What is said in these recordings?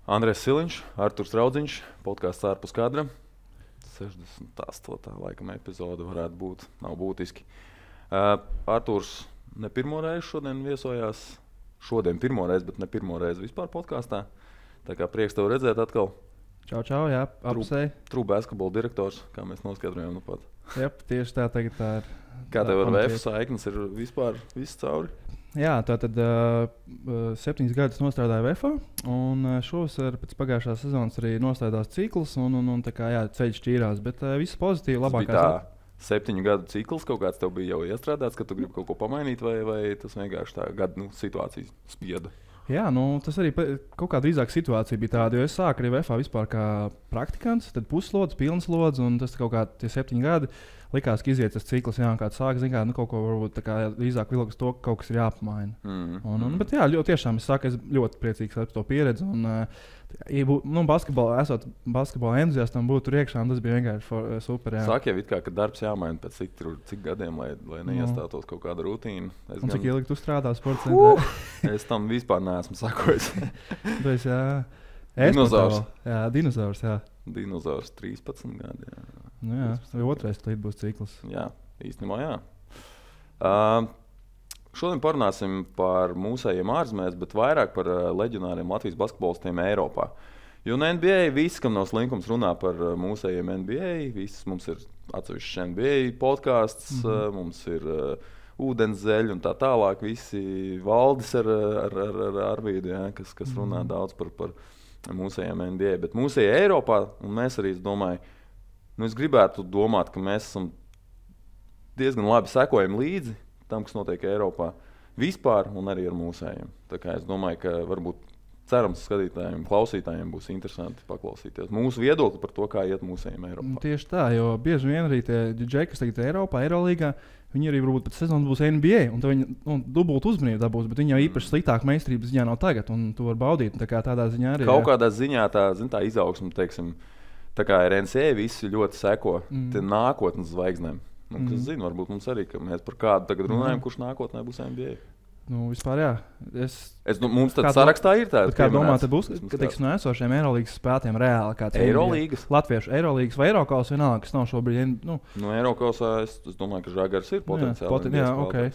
Andrēs Siliņš, Arturs Raudziņš, podkāsts ārpus kadra. 68. laikam epizode varētu būt, nav būtiski. Arturs ne pirmo reizi šodien viesojās. Šodien pirmo reizi, bet ne pirmo reizi vispār podkāstā. Tā kā prieks tev redzēt atkal. Čau, jā, apsei. True basketball direktors, kā mēs noskaidrojām nu pat. Jā, tieši tā tagad tā ir. Kā tev ar VF saiknes ir vispār viss cauri? Jā, tātad 7 gadus nostrādāju VF, un šovasar pēc pagājušās sezonas arī nostrādās cikls, un tā kā jā, ceļš šķīrās, bet viss pozitīvi, labākās. 7 gadu cikls kaut kāds tev bija jau iestrādāts, ka tu gribi kaut ko pamainīt, vai tas vienkārši tā gada situācija spieda? Jā, tas arī kaut kā drīzāk situācija bija tāda, jo es sāku arī VF vispār kā praktikants, tad puslodzi, pilnslodzi, un tas kaut kā tie 7 gadi likās, ka iziet tas cikls, jā, kāds sāk, zin kā, kaut ko varbūt tā kā drīzāk vilks to, ka kaut kas ir jāpamaina. Bet jā, tiešām es saku, es ļoti priecīgs par to pieredzi, un esot basketbola entuziastam būt tur iekšā, un tas bija vienkārši super, jā. Sāk jau it kā, ka darbs jāmaina pēc cik gadiem, lai neiestātos kaut kāda rutīna. Un cik ilgi tu strādā sporta centrā? Es tam vispār neesmu sakojis. Tas, jā. Dinozaurs. Jā, dinozaurs, jā. Dinozaurs 13 gadi, jā. Nu jā, vai otrais līdz būs cikls. Jā, īstenībā jā. Šodien parunāsim par mūsējiem ārzemēs, bet vairāk par leģionāriem Latvijas basketbolistiem Eiropā. Jo no NBA visi, kam nav slinkums, runā par mūsējiem NBA. Mums ir atsevišķs NBA podkāsts, mums ir ūdenszeļi un tā tālāk. Visi valdis ar Arvīdu, jā, kas runā daudz par mūsējiem NBA. Bet mūsējie Eiropā, un mēs arī, es domāju, es gribētu domāt, ka mēs esam diezgan labi sekojam līdzi tam, kas notiek Eiropā vispār un arī ar mūsējiem. Tā kā es domāju, ka varbūt cerams skatītājiem, klausītājiem būs interesanti paklausīties mūsu viedokli par to, kā iet mūsējiem Eiropā. Tieši tā, jo bieži vien arī tie džeki, kas tagad Eiropā, Eirolīgā, viņi arī varbūt pēc sezonas būs NBA, un tad viņi dubult uzmanību dabūs, bet viņi jau īpaši sliktāk meistarības ziņā nav tagad, un to var baudīt. Tā kā tādā ziņā arī. Kaut kādā ziņā tā izaugsme, teiksim, tā kā ar NCA visi ļoti seko nākotnes zvaigznēm. Kas zina, varbūt mums arī, ka mēs par kādu tagad runājam, kurš nākotnē būs NBA. Vispār jā. Mums tad sarakstā ir tāda. Kā domā, tad būs, ka teiksim, no esošiem Eirolīgas spēlētājiem reāli kāds Eirolīgas? Latviešu Eirolīgas vai Eirokaus vienalga, kas nav šobrīd. No Eirokausā es domāju, ka Žagars ir potenciāli.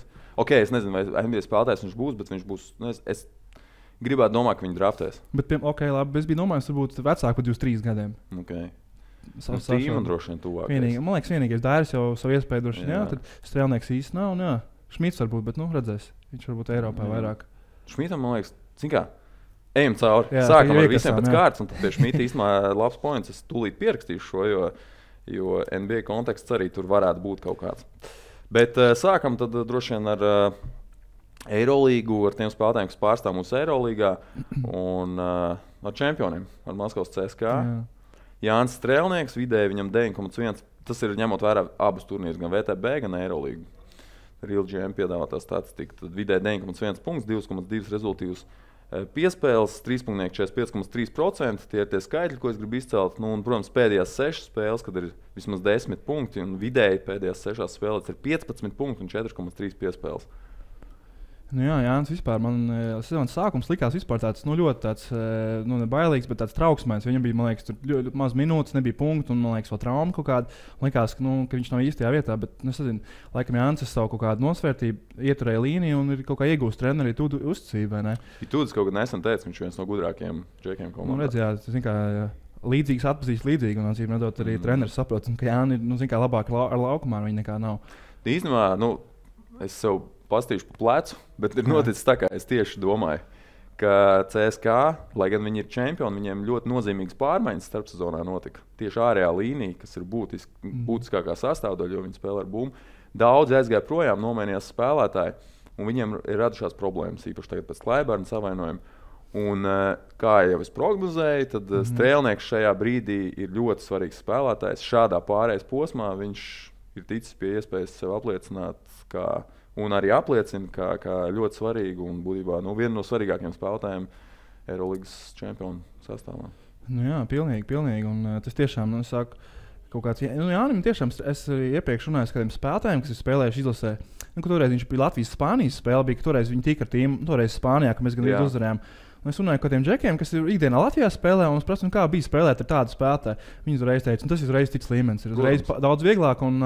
Jā, es nezinu, vai NBA spēlētājs viņš būs, bet viņš būs. Es gribētu domāt, ka viņi draftēs. Bet, labi, es biju domājis, varbūt vecāk par 23 gadiem. Tīma droši vien tuvākais. Man liekas, vienīgais Dairis jau savu iespēju droši vien, jā, tad Strēlnieks īsti nav, un jā, Šmits varbūt, bet, redzēs, viņš varbūt Eiropā vairāk. Šmitam, man liekas, cik kā, ejam cauri, jā, sākam ar visiem pēc kārtas, un tad pie Šmita īstenībā labs points, es tūlīt pierakstīšu šo, jo NBA konteksts arī tur varētu būt kaut kāds. Bet sākam tad droši vien ar Eirolīgu, ar tiem spēlētājiem, kas pārstāv mūsu Eirolīgā, un ar čempioniem, ar Maskavas CSKA. Jā. Jānis Strēlnieks, vidēji viņam 9,1. Tas ir ņemot vērā abus turnīrus, gan VTB, gan Eirolīgu. Real GM piedāvātā statistika. Tad vidēji 9,1 punkts, 2,2 rezultīvus piespēles, 45,3%. Tie ir tie skaitļi, ko es gribu izcelt. Un, protams, pēdējās 6 spēles, kad ir vismaz 10 punkti, un vidēji pēdējās 6 spēlēs ir 15 punkti un 4,3 piespēles. Jā, Jānis vispār, man sezonas sākums likās vispār tāds, ļoti tāds, nebailīgs, bet tāds trauksmēns. Viņam bija, man liekas, tur ļoti maz minūtes, nebija punktu, un, man liekas, vēl trauma kaut kāda. Likās, ka viņš nav īstajā vietā, bet, es nezinu, laikam Jānis savu kaut kādu nosvērtību ieturēja līniju un ir kaut kā iegūst treneri Tudu uzticību, vai ne? Tudis kaut kad nesen teica, viņš viens no gudrākajiem džekiem komandā. Redz, jā, zin kā, līdzīgs atpazīst līdzīgi, un, acīm redzot, arī treneris saprot, ka Jāni ir, zin kā, labāk ar laukumā, viņa nekā nav. Īstenībā, es sev pastīšu pa plecu, bet ir noticis tā, kā es tieši domāju, ka CSKA, lai gan viņi ir čempioni, viņiem ļoti nozīmīgas pārmaiņas starpsezonā notika. Tieši ārējā līnija, kas ir būtiskākā sastāvdaļa, jo viņi spēlē ar bumbu. Daudzi aizgāja projām, nomainījās spēlētāji, un viņiem ir radušās problēmas, īpaši tagad pēc Klaiberna savainojuma. Un, kā jau es prognozēju, tad Strēlnieks šajā brīdī ir ļoti svarīgs spēlētājs. Šādā pārējais posmā viņš ir ticis pie iespējas sev apliecināt, un arī apliecina, kā ļoti svarīgu un būtībā vienu no svarīgākajiem spēlētājiem Eirolīgas čempionu sastāvā. Jā, pilnīgi. Un tas tiešām, saku, kaut kāds... Jānim tiešām, es iepriekš runāju ar kādiem spēlētājiem, kas ir spēlējuši izlasē. Toreiz viņš bija Latvijas-Spānijas spēle, bija, ka toreiz viņi tika ar tīmu, toreiz Spānijā, ka mēs gan uzvarējām. Un es runāju par tiem džekiem, kas ir ikdienā Latvijā spēlē, un es prasu, kā bija spēlēt ar tādu spēlētāju. Viņi uzreiz teica, tas ir uzreiz cits līmenis, ir uzreiz daudz vieglāk. Un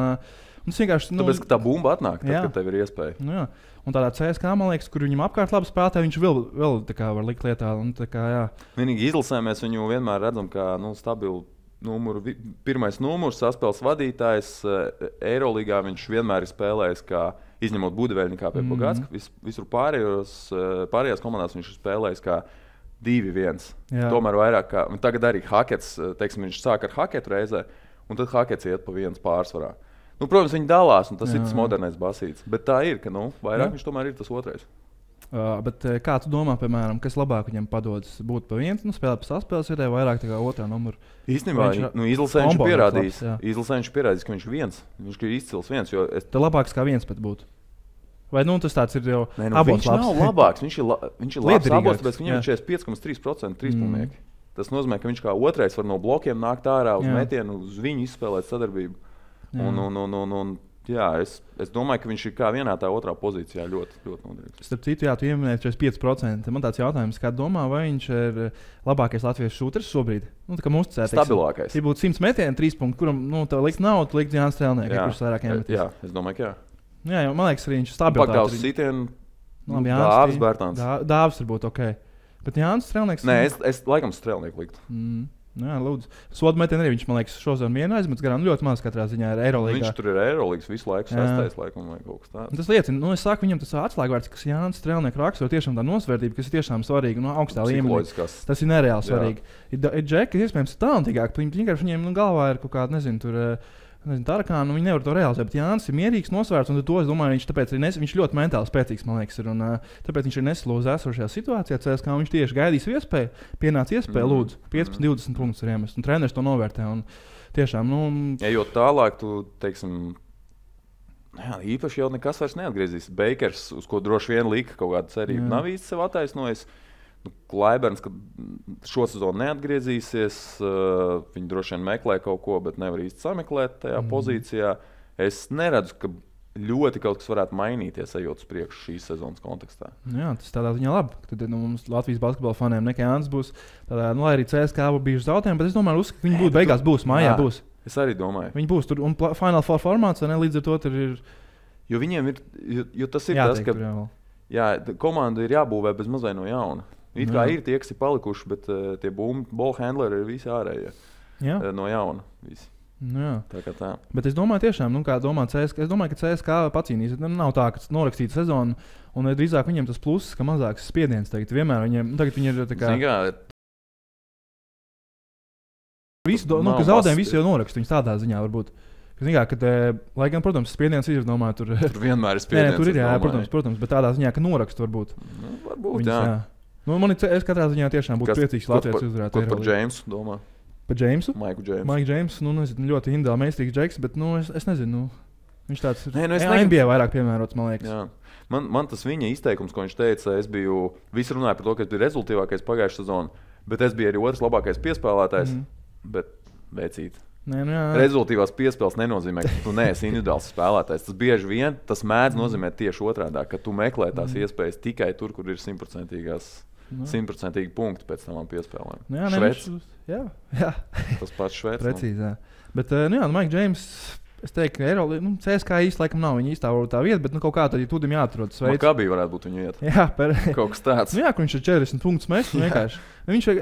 tas vienkārši. Tāpēc, ka tā bumba atnāk, tad, kad tev ir iespēja. Nu, jā. Un tādā CSK, man liekas, kur viņam apkārt labi spēlētāji, viņš vēl tā kā var likt lietā. Un, tā kā, jā. Vienīgi izlasē mēs viņu vienmēr redzam kā stabilu. Pirmais numurs, saspēles vadītājs. Eirolīgā viņš vienmēr ir spēlējis, kā izņemot Budaveļņikā pie Pogacka. Visur pārējās komandās viņš ir spēlējis kā 2-1. Tomēr vairāk kā. Tagad arī Hakets, teiksim, viņš sāk ar Haketu reizē, un tad Hakets iet pa 1 pārsvarā. Protams, viņi dalās, un tas ir tas modernais basīts. Bet tā ir, ka vairāk viņš tomēr ir tas otrais. Bet kā tu domā, piemēram, kas labāk viņam padodas būt pa 1, spēlēt pa saspēles vietē, vairāk tā kā otrā numura? Īstenībā, izlasē viņš pierādījis, ka viņš ir viens. Viņš ir izcils viens. Tā labāks kā viens pat būtu. Vai tas tāds ir jau abos viņš labs? Nav labāks, viņš ir labs abos, tāpēc viņam ir 45,3% trīspunktu. Tas nozīmē, ka viņš kā otrais var no blokiem nākt ārā uz metienu, uz viņu izspēlēt sadarbību. Es domāju, ka viņš ir kā vienā tā otrā pozīcijā ļoti, ļoti noderīgs. Starp citu, tu ieminēji 45%. Man tāds jautājums, kā domā, vai viņš ir labākais latviešu šūters šobrīd? Tā kā mums ticēt. Stabilākais. Ja būtu 100 metieni, 3 punkti, kuram tā likt nav, tu likt Jānis Strēlnieks, kurš vairāk iemetīs. Jā, es domāju, ka jā. Jā, man liekas, arī viņš ir stabils. Pagdāvs sitienu, Dāvs Bērtāns. Dāvs varbūt ok. Bet Jānis Strēlnieks... Nē, es laikam Strēlnieku liktu. Jā, lūdzu. Sodmetienu arī viņš, man liekas, šodien vienu aizmetis garām ļoti maz katrā ziņā ir Eirolīgā. Viņš tur ir Eirolīgas visu laiku, sastais laikam vai kaut kas tāds. Tas liecina, es saku, viņam tas atslēgvārds, kas Jānis Strēlnieku raksturo tiešām tā nosvērtība, kas ir tiešām svarīga, augstā līmenī. Tas ir nereāli svarīgi. Ir džeki, kas iespējams talantīgāki, viņiem galvā ir kaut kāda, Tarakāna, viņi nevar to realizēt, bet Jānis ir mierīgs, nosvērts, un to es domāju, viņš ļoti mentāli spēcīgs, man liekas, ir, un tāpēc viņš ir neslūdz esošajā situācijā, CSK, viņš tieši gaidīs iespēju, pienāca iespēja, lūdzu, 15-20 punktus ir iemest, un treneris to novērtē, un tiešām, Ejot tālāk, tu, teiksim, īpaši jau nekas vairs neatgriezīs. Bakers, uz ko droši vien lika kaut kāda cerība, nav īsti sev attaisnojis. Klaiberns, kad šo sezonu neatgriezīsies, viņi droši vien meklē kaut ko, bet nevar īsti sameklēt tajā pozīcijā. Es neredzu, ka ļoti kaut kas varētu mainīties, ejot uz priekšu šīs sezonas kontekstā. Jā, tas tādā ziņā labi. Tad mums Latvijas basketbola faniem nekā Jānis būs. Tādā, lai arī CSK bijuši zaudējumi, bet es domāju, ka viņi būtu beigās būs, mājā būs. Es arī domāju. Viņi būs tur, un Final Four formāts, līdz ar to tur ir... Jo viņiem ir, jo tas ir tas, ka komanda ir jābūvē bez mazai no jauna. It kā ir tie, kas ir palikuši, bet tie ballhandleri ir visi ārējie no jauna. Visi. Tā. Bet es domāju, tiešām, kā domā CSK, es domāju, ka CSK pacīnīs. Nav tā, ka norakstīta sezona, un drīzāk viņiem tas pluss, ka mazāks spiediens tagad. Vienmēr tagad viņi ir tā kā... ka zaudējumi visi jau norakst, viņus tādā ziņā varbūt. Lai gan, protams, spiediens ir, domāju, tur vienmēr ir spiediens. Tur ir, protams, bet tādā ziņā, ka norakst varbūt. Varbūt, viņus, jā. Es katrā ziņā tiešām būtu priecīgs Latvijas uzvarēt. Ko par Džeimsu domā? Par Džeimsu? Maiku Džeimsu. Maiku Džeimsu, ļoti individuāli meistarīgs džeks, bet, es nezinu, viņš tāds NBA vairāk piemērots, man liekas. Jā. Man tas viņa izteikums, ko viņš teica, visi runāja par to, ka es biju rezultīvākais pagājušā sezonā, bet es biju arī otrs labākais piespēlētājs, bet veicīt. Rezultīvās piespēles nenozīmē, ka tu neesi individuāls spēlētājs. Tas bieži vien mēdz nozīmē tieši otrādi, ka tu meklē tās iespējas tikai tur, kur ir 100% punkti pēc tam piespēlēm. Jā. Tas pats Šveicis. Precīzi, jā. Bet, Mike James, es teiktu, ka Eirolīga, CSK īsti laikam nav viņa īstā vieta, bet kaut kā tad, ja tudim jāatrodas veids. Kā bija varētu būt viņa vieta? Jā, kaut kas tāds. Jā, ka viņš ir 40 punktus mest, vienkārši.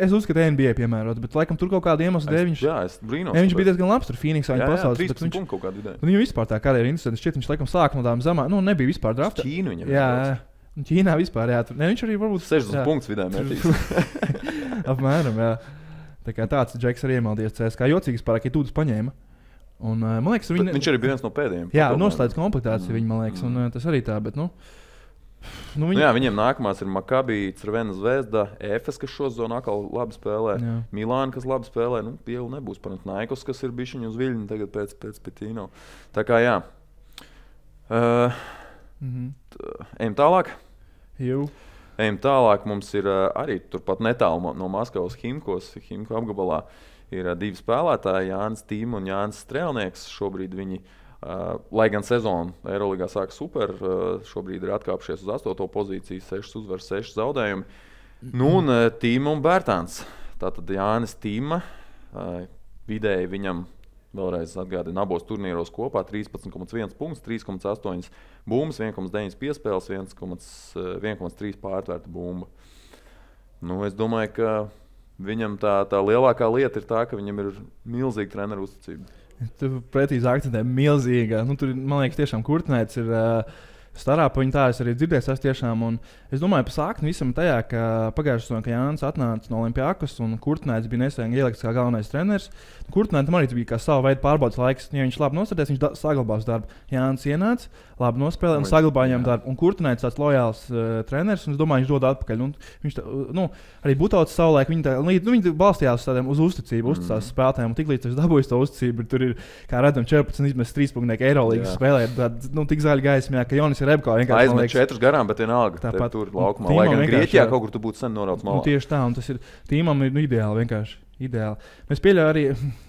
Es uzskatu, NBA piemērots, bet laikam tur kaut kāda iemesla dēļ viņš... Jā, es brīnos. Viņš bija diezgan labs tur Phoenixā, viņa pasaules. 13 punktu kaut kādu vidēju. Viņam vispār tā karjera interesanti. Šķiet, viņš laikam sāk no tām zamā, nebija vispār drafta. Ķīnu viņam. Jā, Ķīnā vispār, jā. Viņš arī varbūt 60 punktus vidēji metīs. Apmēram, jā. Tā kā tāds džeks arī iemaldies CSK. Jocīgs pārāk, ja tūdus paņēma. Un, man liekas, viņš arī bija viens no pēdējiem. Jā, noslēdz komplektāciju viņa, man liekas, un tas arī tā, bet, viņiem nākamās ir Maccabi, Crvena Zvezda, Efes, kas šo zonu atkal labi spēlē, Milāna, kas labi spēlē, Pielu nebūs, Panathinaikos, kas ir bišķiņu uz viļņu tagad pēc Pitino. Tā kā jā. Ejam tālāk. Ejam tālāk, mums ir arī turpat netālu no Maskavas Himku apgabalā. Ir divi spēlētāji, Jānis Tīma un Jānis Strēlnieks. Šobrīd viņi, lai gan sezonu Eirolīgā sāk super, šobrīd ir atkāpšies uz 8. pozīciju, 6 uzvaras, 6 zaudējumi. Nu, un Tīma un Bērtāns. Tātad Jānis Tīma, vidēji viņam vēlreiz atgādina abos turnīros kopā 13,1 punkts, 3,8 bumbas, 1,9 piespēles, 1,3 pārtvērta bumba. Nu, es domāju, ka viņam tā lielākā lieta ir tā, ka viņam ir milzīga treneru uzticība. Tur precīzi akcentē milzīga. Nu, tur, man liekas, tiešām Kurtnēts ir starā pa viņu tā, es arī dzirdēju, tiešām. Un es domāju, pa sākni visam tajā, ka pagājušajā sezonā, kad Jānis atnāca no Olimpiakos un Kurtnēts bija nesen ielikts kā galvenais treneris. Kurtnētam arī bija kā sava veida pārbaudas laiks. Ja viņš labi nostādījās, viņš saglabās darbu. Jānis ienāca, labi nospēlēja un saglabāja viņam darbu. Un Kurtnēts tāds lojāls treneris, un es domāju, viņš dod atpakaļ. Un viņš arī Butauts savulaik, viņi balstījās uz uzticību, uzticās spēlētājiem. Un tiklīdz viņš dabūjis to uzticību, tur ir, kā redzam, 14 izmest 3 punktu Eirolīgas spēlē. Tik zaļa gaismā, ka Jonis Rebko vienkārši aizmet 4 garām, bet vienalga. Tāpat tur laukumā. Lai gan Grieķijā kaut kur tu būtu sen norauts malā. Tieši tā, un tas ir Tīmam ir ideāli vienkārši. Ideāli. Mēs pieļaujam arī,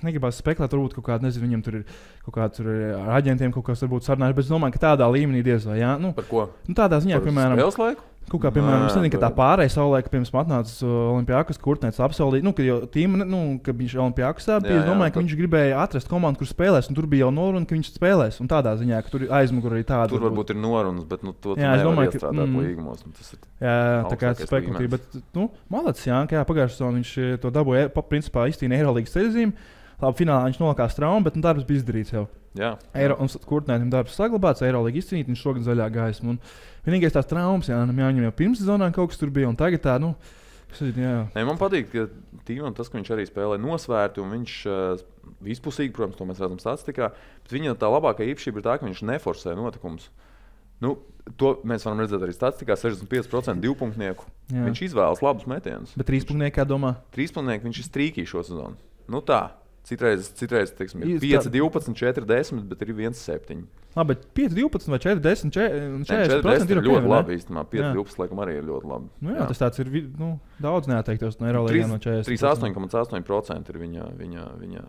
negribās spekulēt, varbūt kaut kāda, nezinu, viņam tur ir kaut kāds ar aģentiem kaut kas varbūt sarunājuši, bet es domāju, ka tādā līmenī diez vai, jā. Par ko? Tādā ziņā, piemēram, spēles laiku? Kaut kā, piemēram, es nezinu, ka tā pārējais savulaik, pirms atnāca Olimpiakos, Kurtnēts apsolīja, ka jau Tīma, ka viņš Olimpiakosā bija, es domāju, ka viņš gribēja atrast komandu, kur spēlēs, un tur bija jau noruna, ka viņš spēlēs, un tādā ziņā, ka tur aizmugur arī tāda. Tur varbūt ir norunas, bet to nevar iestrādāt līgumos. Jā, tā kā spekulatīvi, bet, malacis, jā, ka pagājušajā sezonā viņš to dabūja, principā izcīnīja Eirolīgas ceļzīmi. Labi, finālā viņš nolakās traumu, bet darbs bija izdarīts jau. Jā. Un Kurtnētam darbs saglabāts, Eirolīga izcīnīt, viņš šogad zaļā gaisma. Vienīgais tās traumas, jāņem jau pirms sezonā kaut kas tur bija, un tagad tā, Man patīk, ka Tīmam tas, ka viņš arī spēlē nosvērti, un viņš vispusīgi, protams, to mēs redzam statistikā, bet viņa tā labākā īpašība ir tā, ka viņš neforsē notikumus. To mēs varam redzēt arī statistikā, 65% divpunktnieku. Jā. Viņš izvēlas labus metienus. Bet trīspunktnieki, kā domā? Trīspunktnieki viņš ir strīkī šo sezonu. Tā. Citreiz teiksim, 5, 12, 4, 10, bet ir 1, 7. Labi, bet 5, 12 vai 4, 10, 40% ir ļoti labi īstenībā. 5, 12 laikam arī ir ļoti labi. Jā, tas tāds ir daudz neatteiktos no Eirolīgām no 40. 38,8% ir viņa.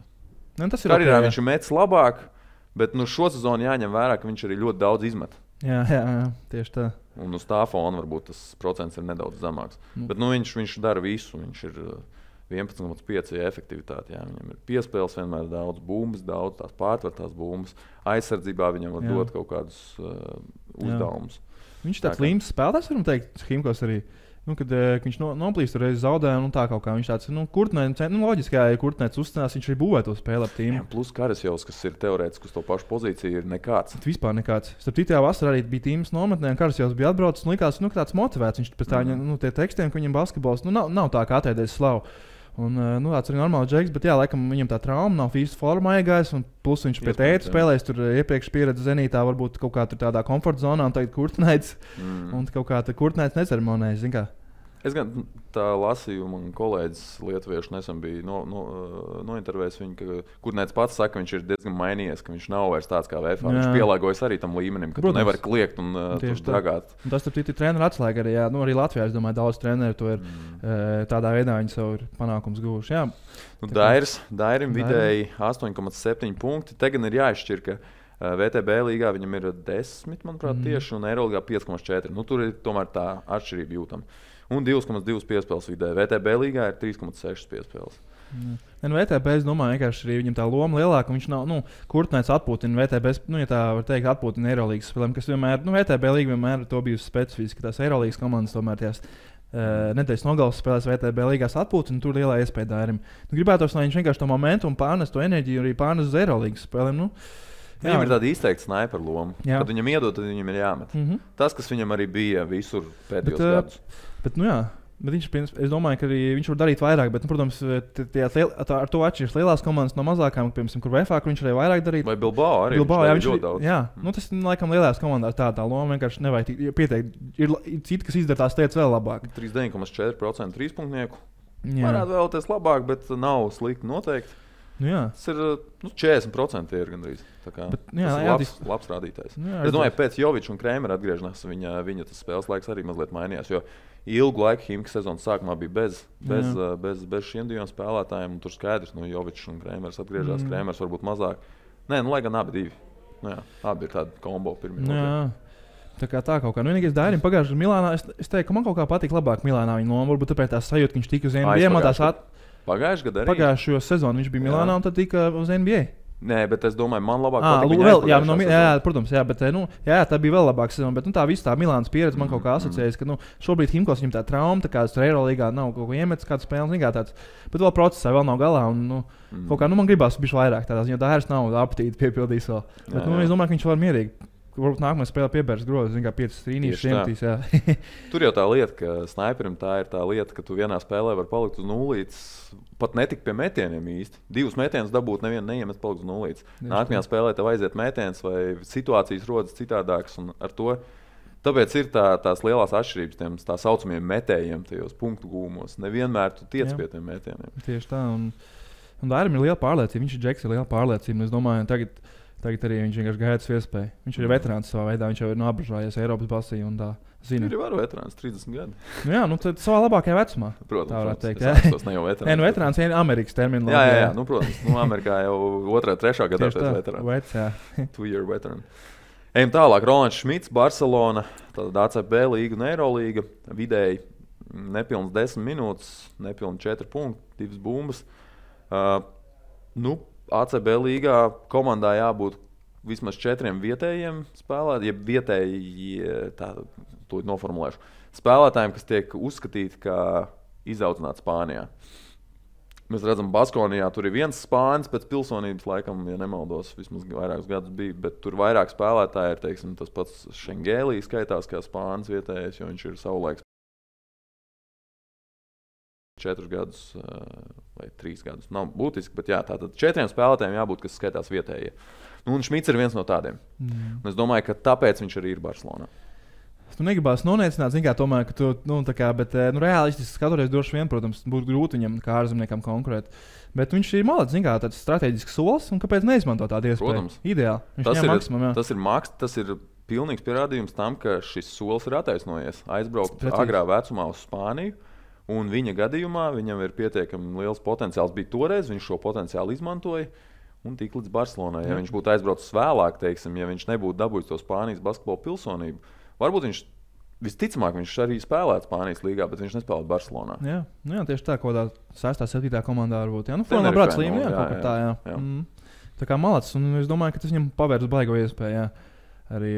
Tas ir karjerā viņš ir metis labāk, bet šo sezonu jāņem vērā, ka viņš arī ļoti daudz izmet. Jā, tieši tā. Un uz tā fona varbūt tas procents ir nedaudz zemāks. Bet viņš dara visu, viņš ir 11,5 efektivitāte. Jā. Viņam ir piespēles, vienmēr daudz bumbas, daudz tās pārtvertās bumbas. Aizsardzībā viņam var dot kaut kādus uzdevumus. Viņš ir tāds līmenis spēlētājs, varam teikt, Himkos arī. Kad viņš noplīst reiz zaudē, tā kaut kā viņš tāds, Kurtnēts, loģiski, ja Kurtnēts uzstājas, viņš arī būvē to spēli ap tīmu. Plus Karasjovs, kas ir teorētiski uz to pašu pozīciju, ir nekāds. Vispār nekāds. Starp citu, vasarā arī bija tīmas nometnē, un Karasjovs bija atbraucis, un likās, ka tāds motivēts. Viņš pēc tā, tie tekstiem, ka viņam basketbols, nav tā kā atēdēs slavu. Un, tāds arī normāls džeks, bet jā, laikam viņam tā trauma nav fīzes formā iegājis, un plus viņš pie tēta spēlēs, tur iepriekš pieredze Zenītā, varbūt kaut kā tur tādā komforta zonā, un tagad Kurtnēts, un kaut kā Kurtnēts neceremonējas, zin kā. Es gan tā lasīju, man kolēģis lietuviešu nesen bija nointervējis viņu, ka Kurtnēts pats saka, ka viņš ir diezgan mainījies, ka viņš nav vairs tāds kā VFA. Viņš pielāgojas arī tam līmenim, ka tu nevari kliegt un dragāt. Un tas ir treneru atslēga arī, jā. Arī Latvijā, es domāju, daudz treneru to ir tādā veidā viņi savu panākums guvuši. Jā. Dairim vidēji 8,7 punkti. Te gan ir jāizšķir, ka VTB līgā viņam ir 10, manuprāt, tieši, un Eirolīgā 5,4. Tur ir tomēr tā atšķirība jūtama. Un 2,2 piespēles vidē. VTB līgā ir 3,6 piespēles. VTB, es domāju, vienkārši arī viņam tā loma lielāka. Viņš nav, Kurtnēts atpūtina VTB, ja tā var teikt, atpūtina Eirolīgas spēlēm, kas vienmēr, VTB līga vienmēr to bijusi specifiski. Tās Eirolīgas komandas tomēr tās nedēļas nogalas spēlēs VTB līgās atpūtina, un tur lielā iespēja Dairim. Gribētos, lai viņš vienkārši to momentu un pārnes to enerģiju arī pārnes uz Eirolīgas spēlēm. Viņam ir tāda izteikta sniper loma. Kad viņam iedod, tad viņam ir jāmet. Tas, kas viņam arī bija visur pēdējos gadus. Bet viņš, es domāju, ka arī viņš var darīt vairāk, bet, protams, ar to atšķiras lielās komandas no mazākām, piemēram, kur VFA, kur viņš arī vairāk darīt. Vai Bilbao arī? Viņš ļoti daudz. Jā, tas laikam lielās komandās tā loma vienkārši nevajag pieteikt. Ir citi, kas izdara tās lietas vēl labāk. 39,4% trīspunktnieku. Varētu vēlēties labāk, bet nav slikti noteikti. Tas ir 40% ir gandrīz. Tas ir labs rādītājs. Es domāju, pēc Joviča un Krēmera atgriešanās viņa tas spēles laiks arī mazliet mainījās. Jo ilgu laiku Himkas sezonas sākumā bija bez šiem diviem spēlētājiem. Tur skaidrs, Jovičs un Krēmers atgriežas. Krēmers varbūt mazāk. Nē, lai gan abi divi. Abi ir tādi kombo pirmie. Tā kā tā kaut kā. Nu, vienīgais Dairim pagājušajā Milānā, es teiktu, ka man kaut kā patīk labāk Milānā viņa loma. Varbūt tāpēc tā sajūta, ka viņš tika uz NBA. Pagājušajā gadā arī? Pagājušajā sezonā viņš bija Milānā un tad tika uz NBA. Nē, bet es domāju, man labāk patīk. Protams, jā, bet tā bija vēl labāka sezona. Bet tā visa tā Milānas pieredze man kaut kā asociējas, ka šobrīd Himkos viņam tā trauma, tā kā tur Eirolīgā nav kaut ko iemetis, kāds spēles, tāds. Bet vēl procesā vēl nav galā. Un, kaut kā man gribās bišķi vairāk tādās, jo Dairis nav apetīti piepildījis vēl. Bet es domāju, ka viņš var mierīgi. Varbūt nākamajā spēlē piebērs grozu, kā 5 trīnīšus iemetīs. Tur jau tā lieta, ka sniperim tā ir tā lieta, ka tu vienā spēlē var palikt uz nulītes, pat netik pie metieniem īsti. 2 metienus dabūt, nevienu neiemet palikt uz nulītes. Nākamajā spēlē tev aiziet metiens vai situācijas rodas citādākas un ar to. Tāpēc ir tās lielās atšķirības tiem tā saucamiem metējiem tajos punktu gūmos. Nevienmēr tu tiec pie tiem metieniem. Tieši tā. Un Dairim ir liela pārliecība. Viņš ir Džeks, ir liela pārliecība. Es domāju, Tagad arī viņš vienkārši gaida savu iespēju. Viņš ir veterāns savā veidā, viņš jau ir apžājies Eiropas basī un tā zina. Viņš ir varu veterāns, 30 gadi. Tad savā labākajā vecumā. Protams, tā varētu teikt. Tas ne jau veterāns. Veterāns ir Amerikas termins. Jā, protams. Amerikā jau 2. 3. gadā tas veterāns. 2-year veteran. Ejam tālāk. Rolands Šmits, Barcelona, tāda ACB līga un Eirolīga. Vidēji nepilns 10 minūtes, nepilns 4 punkti, 2 bumbas. ACB līgā komandā jābūt vismaz 4 vietējiem spēlētājiem, jeb vietēji, to noformulēšu, spēlētājiem, kas tiek uzskatīti kā izaudzināti Spānijā. Mēs redzam, Baskonijā tur ir viens spānis pēc pilsonības, laikam, ja nemaldos, vismaz vairākus gadus bija, bet tur vairāk spēlētāji ir, teiksim, tas pats Šengēlī skaitās kā spānis vietējais, jo viņš ir savulaiks 4 gadus vai 3 gadus. Nav būtiski, bet jā, tātad 4 spēlētājiem jābūt, kas skaitās vietējie. Un Šmits ir viens no tādiem. Un es domāju, ka tāpēc viņš arī ir Barcelonā. Tu negribās noniecināt, tomēr, ka tu, reālistiski skatoties, droši vien, protams, būtu grūti viņam kā ārzemniekam konkurēt. Bet viņš ir malacis, tāds strateģisks solis, un kāpēc neizmanto tādu iespēju? Protams. Ideāli. Tas ir pilnīgs pierādījums tam, ka šis solis ir attaisnojies. Aizbraukt agrā vecumā uz Spāniju. Un viņa gadījumā viņam ir pietiekami liels potenciāls. Bija toreiz, viņš šo potenciālu izmantoja un tika līdz Barcelonai. Ja viņš būtu aizbraucis vēlāk, teiksim, ja viņš nebūtu dabūjis to Spānijas basketbola pilsonību, varbūt viņš visticamāk arī spēlētu Spānijas līgā, bet viņš nespēlētu Barcelonā. Jā, tieši tā, kaut kādā 6. 7. komandā varbūt. Formā brāc līmenī, kaut kā tā, jā. Tā kā malacis, un es domāju, ka tas viņam pavērs baigo iespēju, jā. Arī,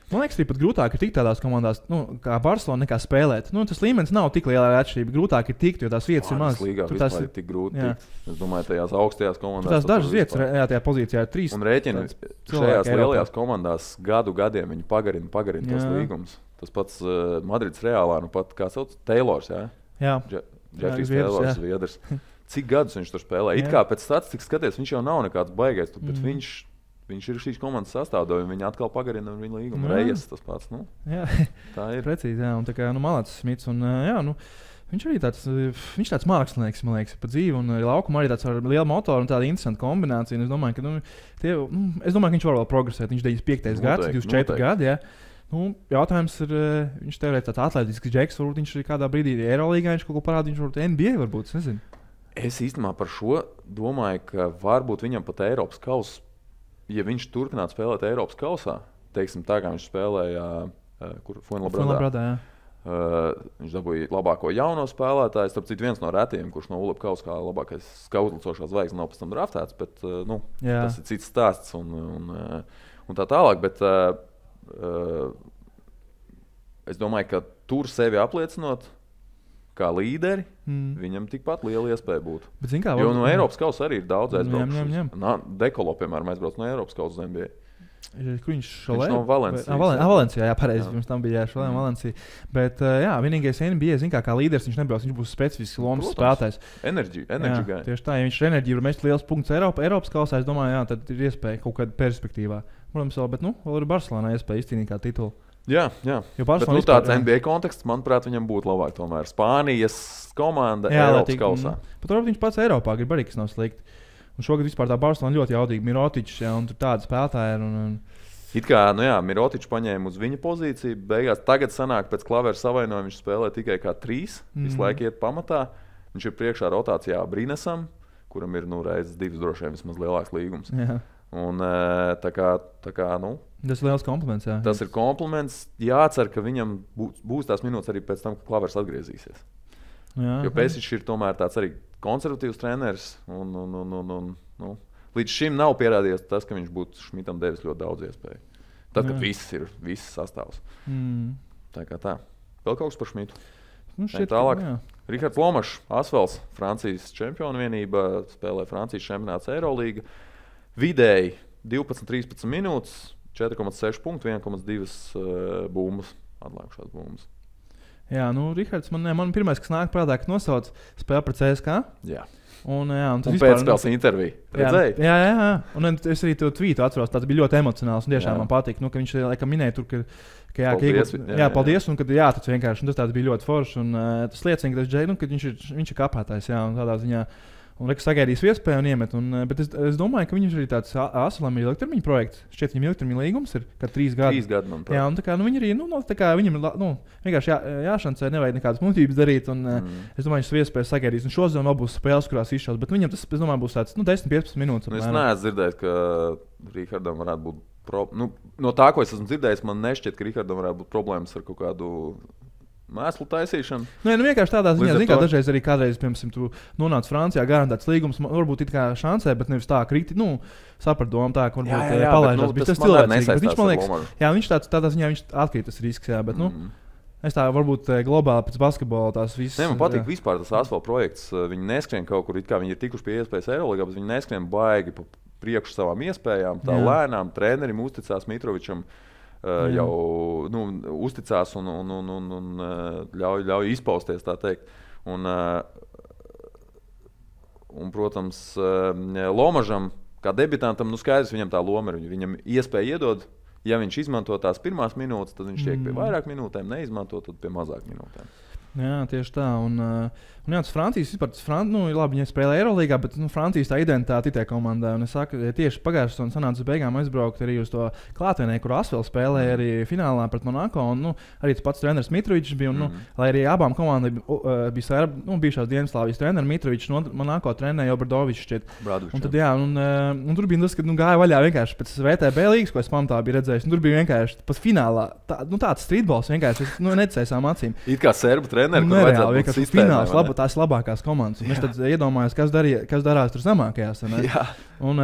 man liekas, arī pat grūtāk ir tikt tādās komandās, kā Barcelona, nekā spēlēt. Tas līmenis nav tik liela atšķirība. Grūtāk ir tikt, jo tās vietas ir mazas. Tur tas ir tik grūti tikt. Es domāju, tajās augstajās komandās. Tās dažas vietas, tajā pozīcijā ir 3. Un rēķini šajās lielajās komandās gadiem viņi pagarina tos līgumus. Tas pats Madrids Reālā, pat kā sauc, Taylors, jā? Jā. Jeffrijs Taylors, Zviedrs. Cik gadus viņš tur spēlē? It kā pēc statistikas skaties, viņš jau nav nekāds baigais, bet viņš ir šīs komandas sastāvdaļa, un viņi atkal pagarina viņa līgumu. Rejas tas pats. Tā ir. Precīzi, jā. Un tā kā malacis Smits. Un, viņš arī tāds mākslinieks, man liekas, pa dzīvi. Un arī laukumā arī tāds ar lielu motoru un tādu interesantu kombināciju. Un es domāju, ka viņš var vēl progresēt. Viņš 95. gads, 24 gadi. Jā. Jautājums ir, viņš teorētiski tāds atletisks džeks. Varbūt viņš arī kādā brīdī Eirolīgā viņš kaut ko parāda. Viņš varbūt NBA varbūt, es nezinu. Es īstenībā par šo domāju, ka varbūt viņam pat Eiropas kausa. Ja viņš turpinātu spēlēt Eiropas kausā, teiksim, tā kā viņš spēlēja Fuenlabradā, viņš dabūja labāko jauno spēlētāju. Starp citu, viens no retiem, kurš no ULEP kausa kā labākais skautlicošās zvaigznes nav pēc tam draftēts, bet tas ir cits stāsts un tā tālāk. Bet es domāju, ka tur sevi apliecinot kā līderi, viņam tikpat liela iespēja būtu. Jo no Eiropas kausa arī ir daudz aizbraukuši. Dekolo, piemēram, aizbrauc no Eiropas kausa uz NBA. Kur viņš šolē? Viņš no Valencijas. Valencijā, jā, pareizi. Pirms tam bija šolē Valencija. Bet, vienīgais NBA, kā līderis, viņš nebrauc. Viņš būs specifisks lomas spēlētājs. Enerģija gai. Tieši tā, ja viņš ir enerģija, var mest liels punkts Eiropas kausā, es domāju, tad ir iespēja kaut kādā perspektīvā. Protams, bet, vēl ir Barcelonā iespēja izcīnīt kā titulu. Jā. Bet tāds NBA konteksts, manuprāt, viņam būtu labāk tomēr. Spānijas komanda Eiropas kausā. Pat varbūt viņš pats Eiropā grib arī, kas nav slikti. Un šogad vispār tā Barcelona ļoti jaudīga. Mirotičs, un tur tādi spēlētāji ir. It kā, Mirotičs paņēma uz viņa pozīciju. Beigās tagad sanāk pēc klavera savainojuma viņš spēlē tikai kā 3. Visu laiku iet pamatā. Viņš ir priekšā rotācijā Brinesam, kuram ir reizes 2 droši vien vismaz lielāks līgums. Jā. Un, tā kā, nu, tas ir liels kompliments. Jā. Tas ir kompliments. Jācer, ka viņam būs tās minūtes arī pēc tam, kad Klavers atgriezīsies. Jā, jo Pēsiņš ir tomēr tāds arī konservatīvs treneris. Nu, līdz šim nav pierādījies tas, ka viņš būtu Šmitam devis ļoti daudz iespēju. Tad, kad viss sastāvs. Tā kā tā. Vēl kaut kas par Šmitu? Nu, tālāk. Rihards Lomašs, Asvels, Francijas čempionu vienība, spēlē Francijas čempionāts Eirolīga. Vidēji 12-13 minūtes, 4,6 punktu, 1,2 bumbas, atlikušās bumbas. Jā, nu, Rihards, man pirmais, kas nāk prātā, ka nosauc spēli pret CSKA. Jā. Un pēcspēles interviju. Redzēji? Jā. Un es arī to tvītu atceros. Tas bija ļoti emocionāls. Un tiešām man patīk, ka viņš laikam minēja tur, ka paldies. Un kad tas vienkārši tas bija ļoti forši. Un tas liecina, ka viņš ir kāpētājs. Jā, un tādā ziņā. Un Rekas sagaidīs iespēju un iemet. Bet es domāju, ka viņš arī tāds Asvelam ir ilgtermiņa projekts. Šķiet, viņam ilgtermiņa līgums ir 3 gadi. 3 gadi, manuprāt. Jā, un tā kā viņi arī, viņam vienkārši jāšancē, nevajag nekādas muļķības darīt. Un es domāju, viņš iespēju sagaidīs. Un šodien vēl būs spēles, kurās izšaus. Bet viņam tas, es domāju, būs tāds 10-15 minūtes. Es neesmu dzirdējis, ka Rihardam varētu būt no tā, ko es esmu dzirdējis, man nešķiet, ka Rihardam varētu būt problēmas ar kaut kādu mēslu taisīšanu. Vienkārši tādā ziņā, ka dažreiz arī kādreiz, piemēram, tu nonāc Francijā, garantēts līgums, varbūt it kā šansē, bet nevis tā kriti, saprat domu tā, ka varbūt palaižās. Tas cilvēcīgi. Viņš, man liekas, viņš tādā ziņā viņš atkrīt tas risks, jā, bet, es tā varbūt globāli pēc basketbola tās visas. Man patīk vispār tas Asfalt projekts. Viņi neskrien kaut kur, it kā viņi ir tikuši pie iespējas Eirolīgā, bet viņi neskrien baigi pa priekšu savām iespējām, tā lēnām. Trenerim uzticās Mitrovičam. Jau uzticās un ļauj izpausties, tā teikt. Un, protams, Lomažam, kā debitantam, skaidrs, viņam tā loma ir. Viņam iespēja iedod, ja viņš izmanto tās pirmās minūtes, tad viņš tiek pie vairāk minūtēm, neizmanto, tad pie mazāk minūtēm. Jā, tieši tā. Un tas Francijas vispār, labi, viņi spēlē Eirolīgā, bet Francijas tā identitāte ir komandai. Un es saku, tieši pagājušajā sezonā sanāca uz beigām aizbraukt arī uz to klātienē, kur Asvels spēlēja arī finālā pret Monako. Un, arī tas pats treneris Mitrovičs bija. Un, lai arī abām komandām bija bijušās Dienvidslāvijas treneris Mitrovičs, Monako trenēja Obradovičs. Un tad, jā, un tur bija tas, ka gāja vaļā vienkārši pēc VTB līgas, ko es pamatā biju redzējis. Tur bija vienkārši pat finālā tāds streetballs vienkārši necēsām acīm. It kā serbu treneri, nereāli, vienkārši fināls, tās labākās komandas. Es tad iedomājos, kas darās tur zemākajās. Un